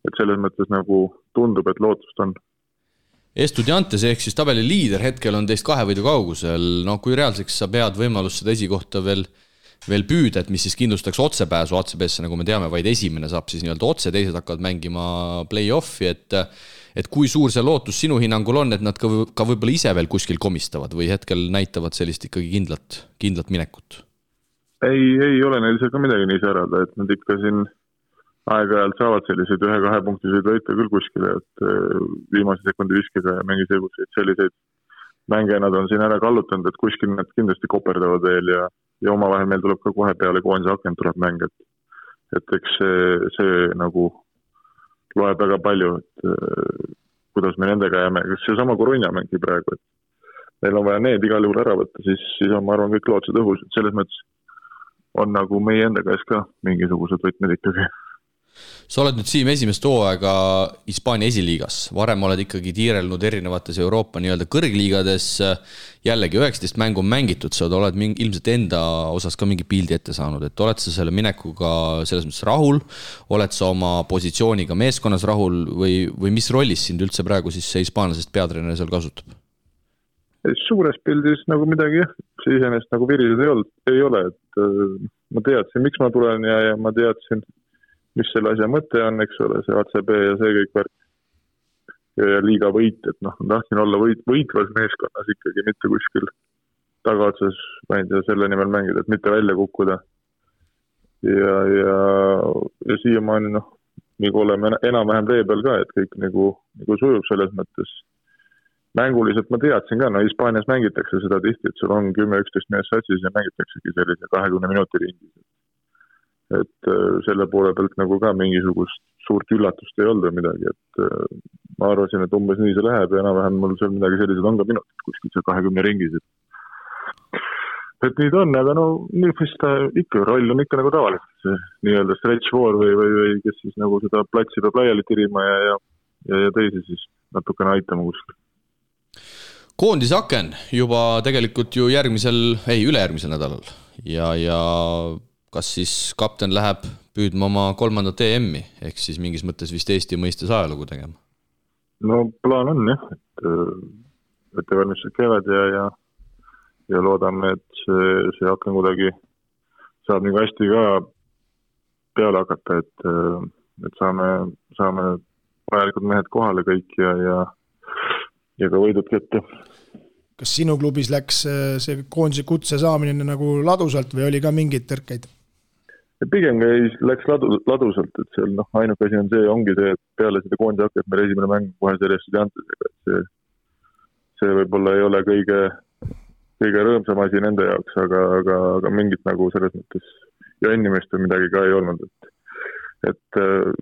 Et selles mõttes nagu tundub, et lootust on. Estudiantes ehk siis tabeli liider hetkel on teist 2 võidu kaugusel, kui reaalseks sa pead võimalust seda esikohta veel püüda, et mis siis kindlustaks otsepääsu ACB-sse, nagu me teame, vaid esimene saab siis nii-öelda otse, teised hakkavad mängima play-offi, et kui suur see lootus sinu hinnangul on, et nad ka võib-olla ise veel kuskil komistavad või hetkel näitavad sellist ikkagi kindlat minekut? Ei ole neil seal ka midagi nii särada, et nad ikka siin aeg-ajalt saavad selliseid 1-2 punktiseid võita küll kuskile, et viimase sekundi viskega ja mingi selliseid mänge nad on siin ära kallutanud, et kuskil nad kindlasti koperdavad veel ja omavahel meil tuleb ka kohe peale koondise akent tuleb mäng, et eks see nagu loeb väga palju, et kuidas me nendega jääme, kas see sama Corunja mängi praegu, et meil on vaja need igal juhul ära võtta, siis on, ma arvan, kõik lootused õhus, et selles mõttes on nagu meie enda käes ka mingisugused võtmed ikkagi. Sa oled nüüd Siim esimest hooaega Hispaania esiliigas, varem oled ikkagi tiirelnud erinevates Euroopa nii-öelda kõrgliigades, jällegi 19 mängu on mängitud, sa oled ilmselt enda osas ka mingi pildi ette saanud, et oled sa selle minekuga selles mõttes rahul, oled sa oma positsiooniga meeskonnas rahul või mis rollis sind üldse praegu siis see hispaanlasest peatreener seal kasutab? Suures pildis nagu midagi, see iseenesest nagu virised ei ole, et ma teadsin, miks ma tulen ja ma teadsin, mis selle asja mõte on, eks ole, see ACB ja see kõik värk. Ja liiga võit, et tahtsin olla võitvas meeskonnas ikkagi, mitte kuskil tagaotsas, ma ei tea, selle nimel mängida, et mitte välja kukkuda. Ja siiamaani, nagu oleme enam-vähem vee peal ka, et kõik nagu sujub selles mõttes. Mänguliselt ma teadsin ka, Hispaanias mängitakse seda tihti, et sul on 10-11 mees satsis ja mängitaksegi sellise 20 minuti ringis. Et selle poole pealt nagu ka mingisugust suurt üllatust ei olnud midagi, et ma arvasin, et umbes nii see läheb ja enam-vähem mul seal midagi sellised on ka minutid kuskil seal 20 ringis. Et nii ta on, aga nüüd ta ikka roll on ikka nagu tavaliselt see nii-öelda stretch four või kes siis nagu seda platsi peab laiali tirima ja teisi siis natukene aitama kuskil. Koondisaken juba tegelikult ju ülejärgmisel nädalal ja kas siis kapten läheb püüdma oma 3. EM-i, ehk siis mingis mõttes vist Eesti mõistes ajalugu tegema? No plaan on jah, et valmistused käivad ja loodame, et see aken kuidagi saab nii hästi ka peale hakata, et saame vajalikud mehed kohale kõik ja ka võidud kätte. Kas sinu klubis läks see koondise kutse saamine nagu ladusalt või oli ka mingeid tõrkeid? pigem läks ladusalt, et seal ainuke asi on see, ongi see, et peale seda koondise hakket meil esimene mäng kohe selle Estudiantesega, et see võib-olla ei ole kõige rõõmsam asi nende jaoks, aga mingit nagu selles mõttes ja inimest või midagi ka ei olnud, et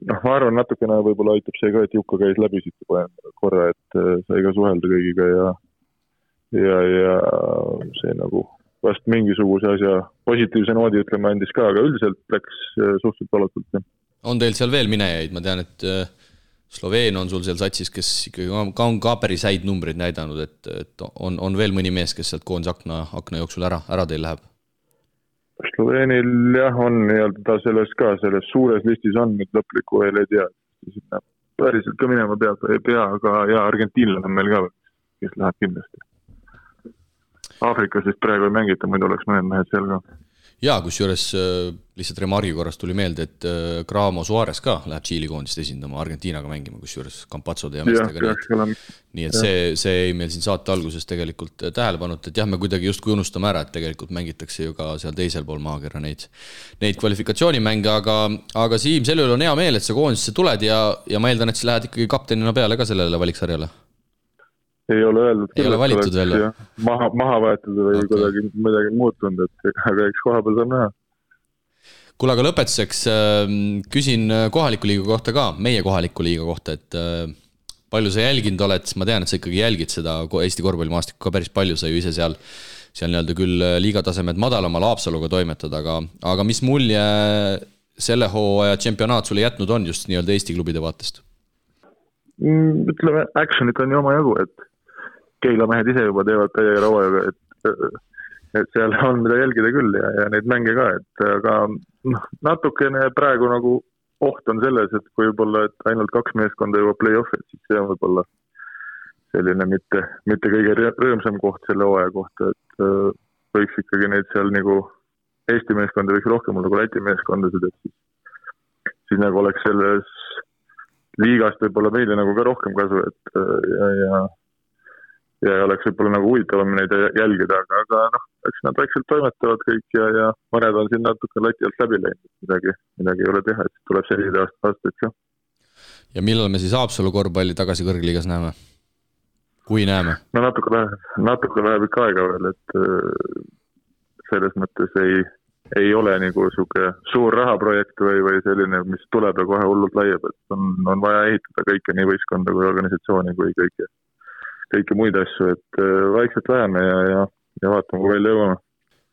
ma arvan, natukene võib-olla aitab see ka, et Jukka käis läbi siit juba korra, et sai ka suhelda kõigiga ja see nagu vast mingisuguse asja positiivse noodi ütlema andis ka, aga üldiselt läks suhteliselt valatult. On teil seal veel minejaid? Ma tean, et Sloveen on sul seal satsis, kes ikkagi on ka päris häid numbrid näidanud, et on veel mõni mees, kes sealt koondise akna jooksul ära teil läheb? Sloveenil jah on ta selles suures listis on, nüüd lõplikku veel ei tea. Päriselt ka minema ei pea, aga Argentiinlane on meil ka, kes läheb kindlasti. Aafrikas vist praegu ei mängita, muidu oleks mõned mehed seal ka. Jaa, kusjuures lihtsalt remargi korras tuli meelde, et Gramo Suarez ka läheb Tšiili koondist esindama Argentiinaga mängima, kusjuures Campazzode ja meestega. Nii et see ei meil siin saate alguses tegelikult tähelepannud, et jah, me kuidagi just kui unustame ära, et tegelikult mängitakse ju ka seal teisel pool maakera neid kvalifikatsioonimänge, aga Siim, selle üle on hea meel, et sa koondisse tuled ja ma eeldan, et sa lähed ikkagi kaptenina peale ka sellele valiksarjale. Ei ole öeldud, ei ole valitud veel maha võetud või kuidagi midagi muutunud, aga eks koha peal saab näha. Kuule, aga lõpetuseks küsin kohaliku liiga kohta ka, meie kohaliku liiga kohta, et palju sa jälginud oled, ma tean, et sa ikkagi jälgid seda Eesti korvpallimaastikku ka päris palju, sa ju ise seal nii-öelda küll liigatasemed madalamal Haapsaluga toimetad, aga mis mulje selle hooaja championaat sulle jätnud on just nii-öelda Eesti klubide vaatest? Ütleme, actionit on ju oma jagu, et Keila mehed ise juba teevad täie rauajaga, et seal on mida jälgida küll ja neid mänge ka, et aga natukene praegu nagu oht on selles, et kui võib-olla et ainult 2 meeskonda juba play-off, et siis see on võib-olla selline mitte kõige rõõmsam koht selle hooaja kohta, et võiks ikkagi neid seal nagu Eesti meeskonda võiks rohkem olla kui Läti meeskondasid, et siis nagu oleks selles liigast võib-olla meile nagu ka rohkem kasu, et ja oleks võib-olla nagu huvitavam neid jälgida, aga eks nad väikselt toimetavad kõik ja mõned on siin natuke lati alt läbi läinud, midagi ei ole teha, et tuleb sellised aastaid ka. Ja millal me siis Haapsalu korvpalli tagasi kõrgliigas näeme? Kui näeme? No natuke läheb ikka aega veel, et selles mõttes ei ole nagu suur rahaprojekt või selline, mis tuleb ja kohe hullult laiab, et on vaja ehitada kõike nii võistkonda kui organisatsiooni kui kõike muid asju, et vaikselt läheme ja vaatame, kui välja jõuame.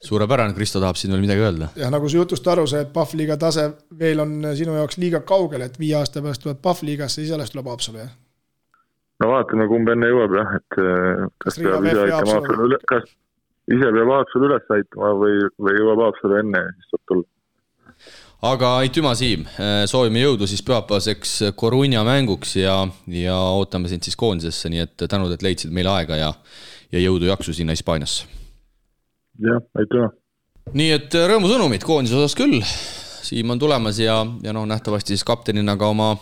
Suurepärane, Kristo tahab siin veel midagi öelda. Ja nagu su jutust aru see, et PAF-liiga tase veel on sinu jaoks liiga kaugel, et 5 aasta pärast tuleb PAF-liigasse, siis alles tuleb Haapsalu, jah? No vaatame, kumb enne jõuab, jah, et kas ise peab Haapsalu üles aitama või jõuab Haapsalu enne, siis saab tulla. Aga aitüma, Siim, soovime jõudu siis pühapäevaseks Coruña mänguks ja ootame sind siis koondisesse, nii et tänud, et leidsid meile aega ja jõudu jaksu sinna Hispaaniasse. Jah, aitüma. Nii et rõõmusõnumid koondise osas küll, Siim on tulemas ja nähtavasti siis kaptenina ka oma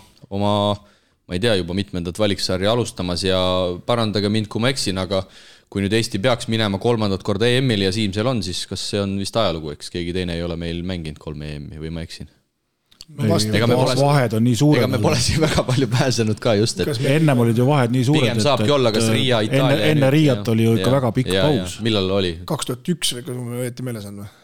ma ei tea juba mitmendat valiksarja alustamas ja parandage mind, kui ma eksin, aga kui nüüd Eesti peaks minema 3. korda EM-il ja Siim seal on, siis kas see on vist ajalugu, eks keegi teine ei ole meil mänginud 3 EM-i või ma eksin? Vahed on nii suured. Ega me pole siin väga palju pääsenud ka just, et ennem olid ju vahed nii suured, pigem saabki olla, kas Riia, Itaalia enne Riiat oli ju ikka väga pikk paus. Millal oli? 2001 või kui ma õieti meeles on või?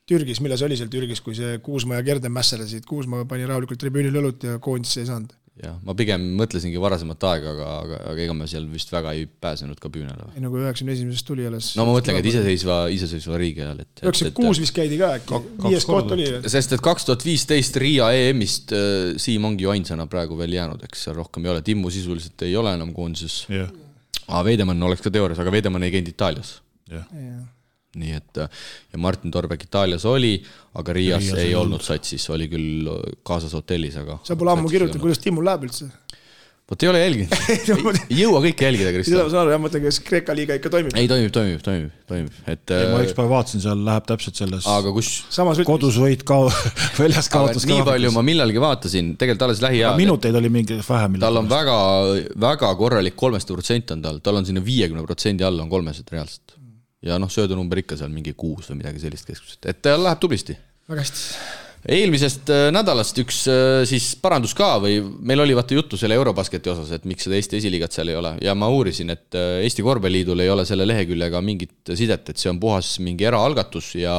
Türgis, milles oli seal Türgis, kui see Kuusma ja Gerden mässelesid, Kuusma pani rahulikult tribüünil õlut ja koondisse ei saanud. Ja, ma pigem mõtlesingi varasemat aega, aga ega me seal vist väga ei pääsenud ka püünele. Ei nagu 91. tuli alles. No ma mõtlengi, et iseseisva riigi ajal. 96 vist käidi ka äkki, 5 koht oli. Sest et 2015 Riia EM-ist Siim ongi ju ainsana praegu veel jäänud, eks seal rohkem ei ole. Timmu sisuliselt ei ole enam koondises. Veidemann oleks ka teoorias, aga Veidemann ei käinud Itaalias. Nii et ja Martin Torbek Itaalias oli, aga Riias ei olnud satsis, oli küll kaasas hotellis, aga sa pole ammu kirjutanud, kuidas Timmul läheb üldse? Vot ei ole jälginud. Ei jõua kõike jälgida, Kristo. Seda saan aru, jah, mõtlen, kas Kreeka liiga ikka toimib? Ei, toimib. Ma üks päev vaatasin, seal läheb täpselt selles kodus võit väljas kaotas. Nii palju ma millalgi vaatasin, tegelikult alles lähiajal. Minuteid oli mingi vähem. Tal on väga korralik 300% on tal on sinna 50% alla on 300 reaalselt. Ja söödunumber ikka seal mingi 6 või midagi sellist keskmiselt. Et tal läheb tublisti. Väga hästi. eelmisest nädalast üks siis parandus ka või meil oli vaata juttu selle Eurobasketi osas, et miks seda Eesti esiliigat seal ei ole ja ma uurisin, et Eesti Korvpalliliidul ei ole selle leheküljega mingit sidet, et see on puhas mingi eraalgatus ja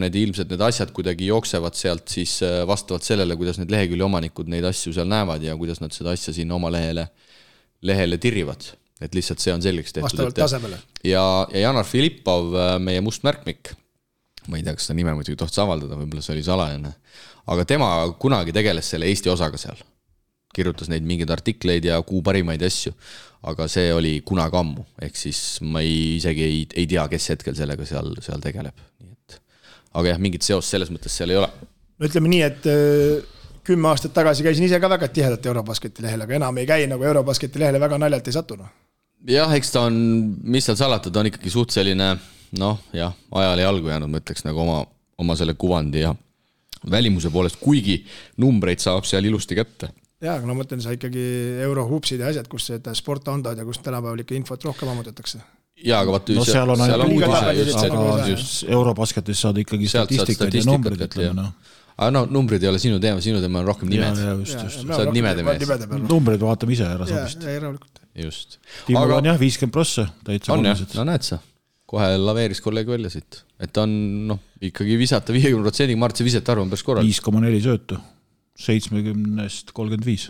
need ilmselt need asjad kuidagi jooksevad sealt siis vastavalt sellele, kuidas need lehekülje omanikud neid asju seal näevad ja kuidas nad seda asja siin oma lehele tirrivad. Et lihtsalt see on selgeks tehtud. Vastavalt tasemele. Ja Janar Filippov, meie mustmärkmik, ma ei tea, kas seda nime muidugi tohtis avaldada, võib-olla see oli salajane, aga tema kunagi tegeles selle Eesti osaga seal. Kirjutas neid mingeid artikleid ja kuu parimaid asju, aga see oli kunagi ammu, ehk siis ma isegi ei tea, kes hetkel sellega seal tegeleb. Aga jah, mingit seost selles mõttes seal ei ole. No ütleme nii, et 10 aastat tagasi käisin ise ka väga tihedalt Eurobasketi lehel, aga enam ei käi nagu Eurobasketi lehele väga naljalt ei satunud. Jah, eks ta on, mis seal salatud, on ikkagi suht selline, ajale jalgu jäänud, ma ütleks nagu oma selle kuvandi ja välimuse poolest, kuigi numbreid saab seal ilusti kätte. Jaa, aga mõtlen sa ikkagi eurohupsid ja asjad, kus seda sport andad ja kus tänapäeval ikka infot rohkem ammutatakse. Jaa, aga vaata, seal on just Eurobasketis saad ikkagi statistikat ja numbrid, ütleme. Aga numbrid ei ole sinu teema on rohkem nimed. Sa oled nimede mees. Numbrid vaatame ise ära sobist. Just. Tiimul on jah 50%, täitsa olulised. No näed sa, kohe laveeris kolleeg välja siit. Et on ikkagi visata 50%, ma arvan, et see visete arv on päris korral. 5,4 söötu, 70-st 35.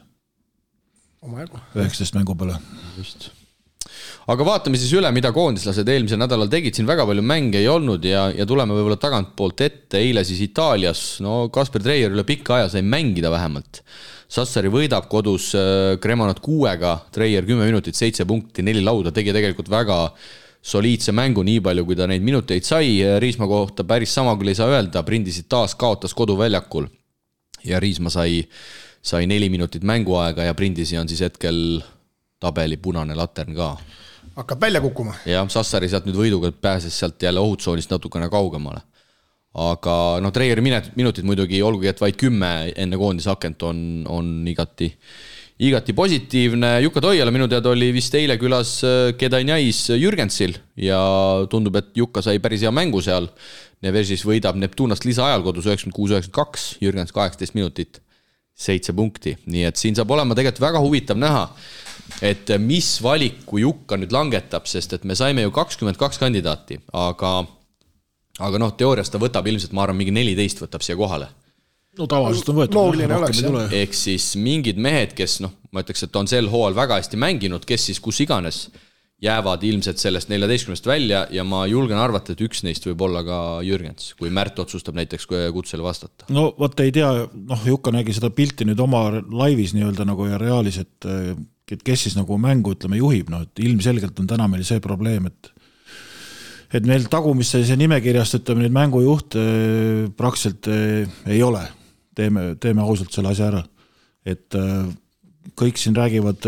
19 mängu peale. Just. Aga vaatame siis üle, mida koondislased eelmisel nädalal tegid, siin väga palju mänge ei olnud ja tuleme võib-olla tagant poolt ette, eile siis Itaalias, Kasper Treier üle pikka aja sai mängida vähemalt. Sassari võidab kodus Cremonat 6-ga, Treier 10 minutit, 7 punkti, 4 lauda, tegi tegelikult väga soliidse mängu, nii palju kui ta neid minuteid sai, Riisma kohta päris sama küll ei saa öelda, Prindisid taas kaotas koduväljakul ja Riisma sai 4 minutit mänguaega ja Prindisi on siis hetkel tabeli punane latern ka. Hakkab välja kukkuma. Ja Sassari sealt nüüd võiduga pääses sealt jälle ohutsoonist natukene kaugemale. Aga Treieri minutid muidugi, olgugi et vaid 10 enne koondisakent on igati positiivne. Jukka Toiala minu teada oli vist eile külas Kedanjais Jürgensil ja tundub, et Jukka sai päris hea mängu seal. Nevesis võidab Neptunast lisaajal kodus 96-92, Jürgens 18 minutit, 7 punkti. Nii et siin saab olema tegelikult väga huvitav näha, et mis valiku Jukka nüüd langetab, sest et me saime ju 22 kandidaati, aga teoorias ta võtab ilmselt, ma arvan, mingi 14 võtab siia kohale. No tavaliselt on võetud. Ehk siis mingid mehed, kes ma ütleks, et on sel hooal väga hästi mänginud, kes siis kus iganes jäävad ilmselt sellest 14 välja ja ma julgen arvata, et üks neist võib olla ka Jürgens, kui Märt otsustab näiteks kutsele vastata. No võtta ei tea, Jukka nägi seda pilti nüüd oma laivis nii-öelda nagu ja reaalis, et kes siis nagu mängu, ütleme, juhib, et ilmselgelt on täna meil see probleem, et meil tagumisse see nimekirjast, ütleme, nüüd mängujuht praktiliselt ei ole. Teeme ausalt selle asja ära. Et kõik siin räägivad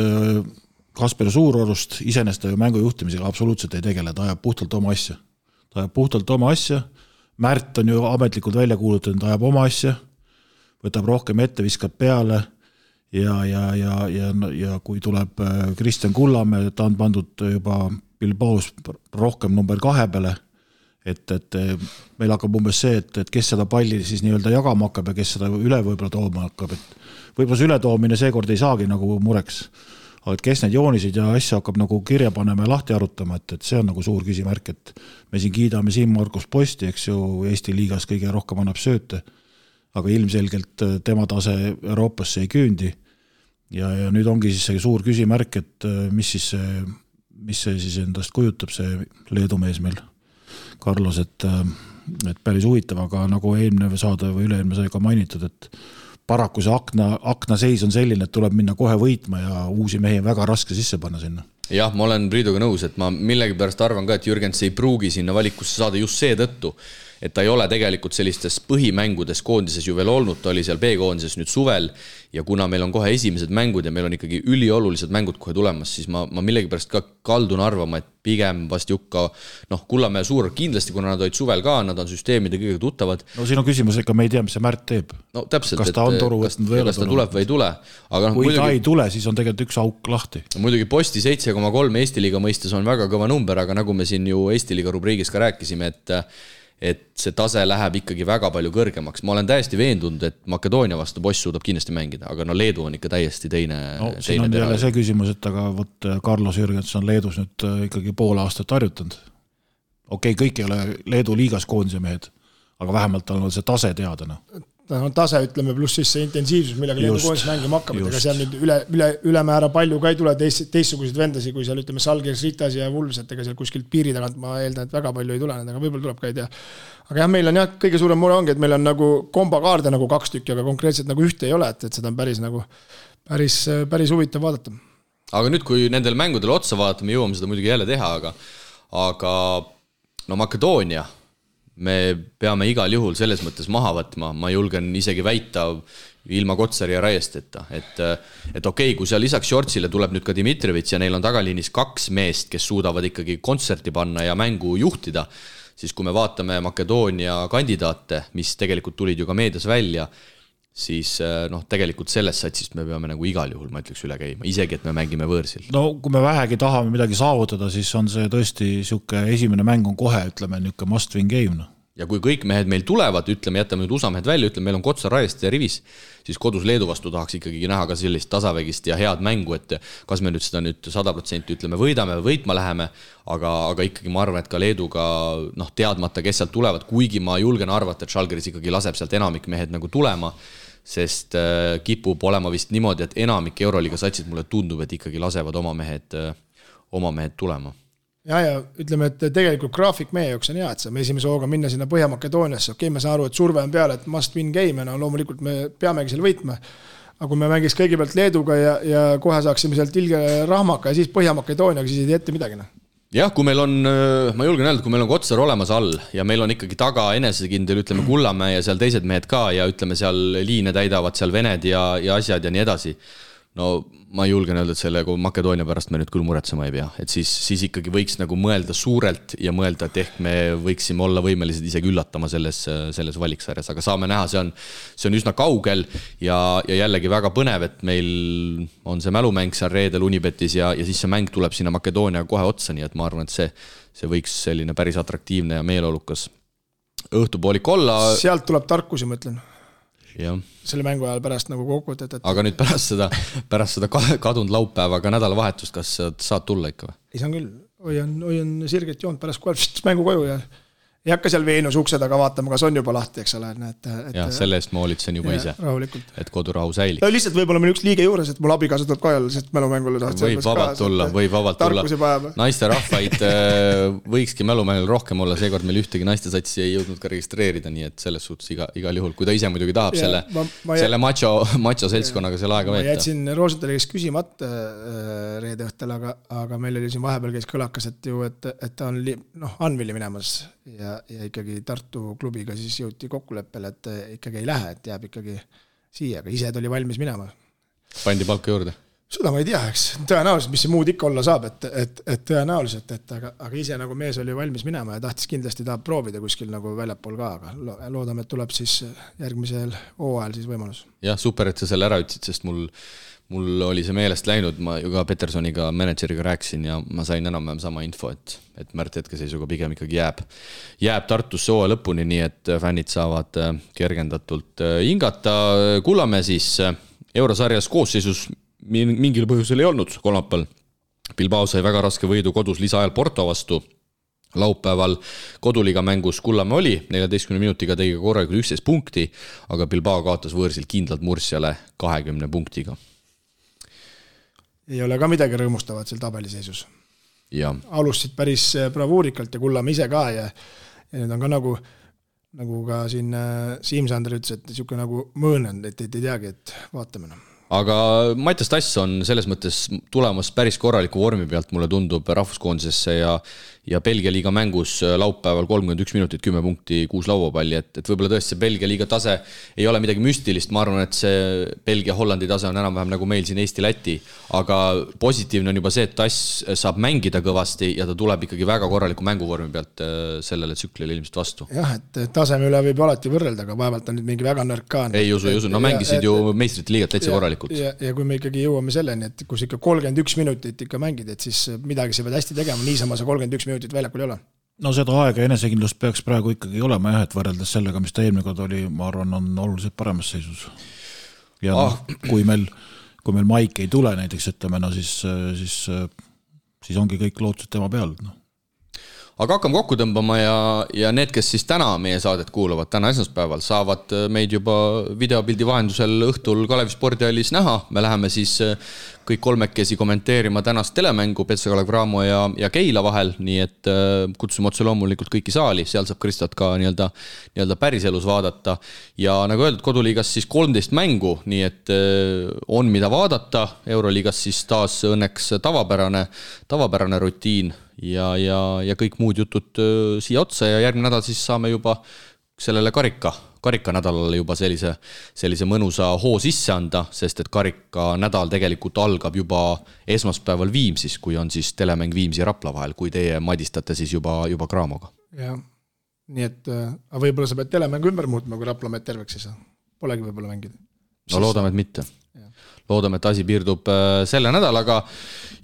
Kasper Suurorust, isenest ta ju mängujuhtimisega absoluutselt ei tegele, ta ajab puhtalt oma asja. Märt on ju ametlikult välja kuulutanud, ta ajab oma asja, võtab rohkem ette, viskab peale ja kui tuleb Kristjan Kullamäe, ta on pandud juba Bilbaos rohkem number 2 peale, et meil hakkab umbes see, et kes seda palli siis nii-öelda jagama hakkab ja kes seda üle võib-olla tooma hakkab, et võib-olla see ületoomine seekord ei saagi nagu mureks, aga kes need joonisid ja asja hakkab nagu kirja panema ja lahti arutama, et see on nagu suur küsimärk, et me siin kiidame Siim-Markus Posti, eks ju, Eesti liigas kõige rohkem annab sööte, aga ilmselgelt tema tase Euroopasse ei küündi ja nüüd ongi siis see suur küsimärk, et mis see siis endast kujutab see Leedu mees meil Carlos, et päris huvitav, aga nagu eelmine saade või üleelmine sai ka mainitud, et paraku see akna seis on selline, et tuleb minna kohe võitma ja uusi mehi väga raske sisse panna sinna. Jah, ma olen Priiduga nõus, et ma millegi pärast arvan ka, et Jürgens ei pruugi sinna valikusse saada just see tõttu, et ta ei ole tegelikult sellistes põhimängudes koondises ju veel olnud, ta oli seal B-koondises nüüd suvel ja kuna meil on kohe esimesed mängud ja meil on ikkagi üliolulised mängud kohe tulemas, siis ma millegi pärast ka kaldun arvama, et pigem vast Jukka, Kullamäe Suur kindlasti, kuna nad olid suvel ka, nad on süsteemide kõige tuttavad. No siin on küsimus, ega me ei tea, mis see Märt teeb. No täpselt, kas ta on toru võtnud või kas ta tuleb või ei tule. Aga kui ta ei tule, siis on tegelikult üks auk lahti. Muidugi Posti 7,3 Eesti liiga mõistes on väga kõva number, aga nagu me siin ju Eesti liiga rubriigis ka rääkisime, et see tase läheb ikkagi väga palju kõrgemaks. Ma olen täiesti veendunud, et Makedoonia vastu Boss suudab kindlasti mängida, aga no Leedu on ikka täiesti teine. Siin on jälle see küsimus, et aga võt Carlos Jürgens on Leedus nüüd ikkagi pool aastat harjutanud. Okei, kõik ei ole Leedu liigas koondise mehed, aga vähemalt on see tase teada. Tase, ütleme, pluss siis see intensiivsus, millega Leedu koondis mängima hakkab, ega seal nüüd ülemäära palju ka ei tule teistsuguseid vendasi, kui seal ütleme Salgiris, Ritas ja Vulves, et ega seal kuskilt piiri tagant ma eeldan, et väga palju ei tule, aga võib-olla tuleb ka ei tea. Aga jah, meil on jah, kõige suurem mure ongi, et meil on nagu kombakaarde nagu 2 tükki, aga konkreetselt nagu ühte ei ole, et seda on päris huvitav vaadata. Aga nüüd, kui nendel mängudel otsa vaatame, jõuame seda muidugi jälle teha, aga no Makedoonia me peame igal juhul selles mõttes maha võtma, ma julgen isegi väita ilma Kotsari ja Raiesteta, et okei, kui seal lisaks Shortsile tuleb nüüd ka Dimitrevits ja neil on tagaliinis 2 meest, kes suudavad ikkagi kontserti panna ja mängu juhtida, siis kui me vaatame Makedoonia kandidaate, mis tegelikult tulid ju ka meedias välja, siis tegelikult selles satsist me peame nagu igal juhul, ma ütleks, üle käima, isegi, et me mängime võõrsil. No kui me vähegi tahame midagi saavutada, siis on see tõesti siuke esimene mäng on kohe, ütleme, niuke must win game. Ja kui kõik mehed meil tulevad, ütleme, jätame nüüd USA mehed välja, ütleme, meil on Kotsar, Raiest ja Rivis, siis kodus Leedu vastu tahaks ikkagi näha ka sellist tasavägist ja head mängu, et kas me nüüd seda nüüd 100% ütleme võidame või võitma läheme, aga ikkagi ma arvan, et ka Leeduga teadmata, kes sealt tulevad, kuigi ma julgen arvata, et Žalgiris ikkagi laseb sealt enamik mehed nagu tulema, sest kipub olema vist niimoodi, et enamik Euroliiga satsid mulle tundub, et ikkagi lasevad oma mehed tulema. Ja ütleme, et tegelikult graafik meie jaoks on hea, et saame esimese hooga minna sinna Põhja-Makedooniasse. Okei, me saan aru, et surve on peale, et must win game, loomulikult me peamegi selle võitma. Aga kui me mängis kõigepealt Leeduga ja kohe saaksime sealt ilge rahmaka ja siis Põhja-Makedooniaga, siis ei tee ette midagi. Jah, kui meil on, ma julgen öelda, kui meil on Kotsar olemas all ja meil on ikkagi taga enesekindel, ütleme Kullamäe ja seal teised mehed ka ja ütleme seal liine täidavad seal vened ja asjad ja nii edasi. No ma julgen öelda, et selle Makedoonia pärast me nüüd küll muretsema ei pea, et siis ikkagi võiks nagu mõelda suurelt ja mõelda, et ehk me võiksime olla võimelised isegi üllatama selles valiksarjas, aga saame näha, see on üsna kaugel ja jällegi väga põnev, et meil on see mälumäng seal reedel Unibetis ja siis see mäng tuleb sinna Makedoonia kohe otsa, nii et ma arvan, et see võiks selline päris atraktiivne ja meeleolukas õhtupoolik olla. Sealt tuleb tarkusi, ma ütlen. Ja. Selle mängu ajal pärast nagu kokkuvõtet. Aga nüüd pärast seda kadunud laupäeva ka nädalavahetust, kas saad tulla ikka või? Ei saan küll, hoian sirget joont pärast kohe mängu koju ja ei hakka seal Veenus ukse taga vaatama, kas on juba lahti, eks ole. Ja selle eest ma olitsen juba ise, et kodurahu säilib. Lihtsalt võib-olla meil üks liige juures, et mul abikaasa tuleb ka jälle, sest mälumängule võib vabalt tulla. Naiste rahvaid võikski mälumängul rohkem olla, seekord meil ühtegi naiste satsi ei jõudnud ka registreerida, nii et selles suhtes igal juhul, kui ta ise muidugi tahab selle macho seltskonnaga selle aega veeta. Ma jätsin Roosentali kes küsimata reede õhtel, aga meil oli siin vahepeal käis kõlakas, et ta on Anvili minemas ja ikkagi Tartu klubiga siis jõuti kokkuleppele, et ikkagi ei lähe, et jääb ikkagi siia, aga ise tuli valmis minema. Pandi palka juurde? Seda ma ei tea, eks tõenäoliselt, mis see muud ikka olla saab, et tõenäoliselt, aga ise nagu mees oli valmis minema ja tahtis kindlasti tahab proovida kuskil nagu väljapool ka, aga loodame, et tuleb siis järgmisel hooajal siis võimalus. Jah, super, et sa selle ära ütsid, sest mul oli see meelest läinud, ma ju ka Petersoniga, manager'iga rääkisin ja ma sain enam-vähem sama info, et Märt hetkeseisuga pigem ikkagi jääb Tartusse hooaja lõpuni, nii et fännid saavad kergendatult hingata. Kullamäe siis eurosarjas koosseisus mingil põhjusel ei olnud kolmapäeval. Bilbao sai väga raske võidu kodus lisaajal Porto vastu. Laupäeval koduliga mängus Kullamäe oli, 14 minutiga tegi korralikult 11 punkti, aga Bilbao kaotas võõrsil kindlalt Mursiale 20 punktiga. Ei ole ka midagi rõõmustavat seal tabeliseisus. Ja. Alustasid päris bravuurikalt ja Kullamäe ise ka ja need on ka nagu ka siin Siim Sander ütles, et niisugune nagu mõõnend, et ei teagi, et vaatame. Aga Mattias Tass on selles mõttes tulemas päris korraliku vormi pealt, mulle tundub rahvuskoondisesse ja Belgia liiga mängus laupäeval 31 minutit, 10 punkti, 6 lauapalli, et võib-olla tõesti see Belgia liiga tase ei ole midagi müstilist, ma arvan, et see Belgia-Hollandi tase on enam-vähem nagu meil siin Eesti-Läti, aga positiivne on juba see, et Tass saab mängida kõvasti ja ta tuleb ikkagi väga korraliku mänguvormi pealt sellele tsüklile ilmselt vastu. Jah, et taseme üle võib alati võrrelda, aga vaevalt on nüüd mingi väga nõrk ka. Ei usu, no mängisid ju meistrite liigat täitsa korralikult. Ja kui me ikkagi jõuame selleni, et kus ikka 31 minutit ikka mängid, et siis midagi sa pead hästi tegema, niisama sa 31 minutit väljakul ei ole. No seda aega ja enesekindlust peaks praegu ikkagi olema jah, et võrreldes sellega, mis ta eelmine kord oli, ma arvan, on oluliselt paremas seisus. Ja kui meil Maik ei tule näiteks, ütleme, no siis ongi kõik lootused tema peal. No. Aga hakkame kokku tõmbama ja need, kes siis täna meie saadet kuulavad, täna esmaspäeval, saavad meid juba videopildi vahendusel õhtul Kalevi spordihallis näha. Me läheme siis kõik kolmekesi kommenteerima tänast telemängu Petsa Kalev Cramo ja Keila vahel, nii et kutsume otse loomulikult kõiki saali, seal saab Kristot ka nii-öelda päriselus vaadata. Ja nagu öeldud, koduliigas siis 13 mängu, nii et on mida vaadata. Euroliigas siis taas õnneks tavapärane rutiin ja kõik muud jutud siia otsa ja järgmine nädal siis saame juba sellele karika nädalale juba sellise mõnusa hoo sisse anda, sest et karika nädal tegelikult algab juba esmaspäeval Viimsis, kui on siis telemäng Viimsi ja Rapla vahel, kui teie madistate siis juba Cramoga. Jah, nii et võib-olla sa pead telemängu ümber muutma, kui Rapla meid terveks ei saa. Polegi võib-olla mängida. No loodame, et mitte. Loodame, et asi piirdub selle nädalaga.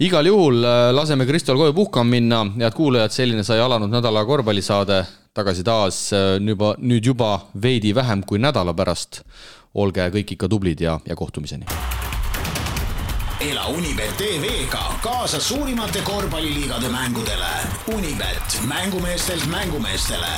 Igal juhul laseme Kristol koju puhkama minna. Head kuulajad, selline sai alanud nädala korvpallisaade. Tagasi taas nüüd juba veidi vähem kui nädala pärast. Olge kõik ikka tublid ja kohtumiseni. Ela Unibet TV-ga kaasa suurimate korvpalliliigade mängudele. Unibet, mängumeestelt mängumeestele.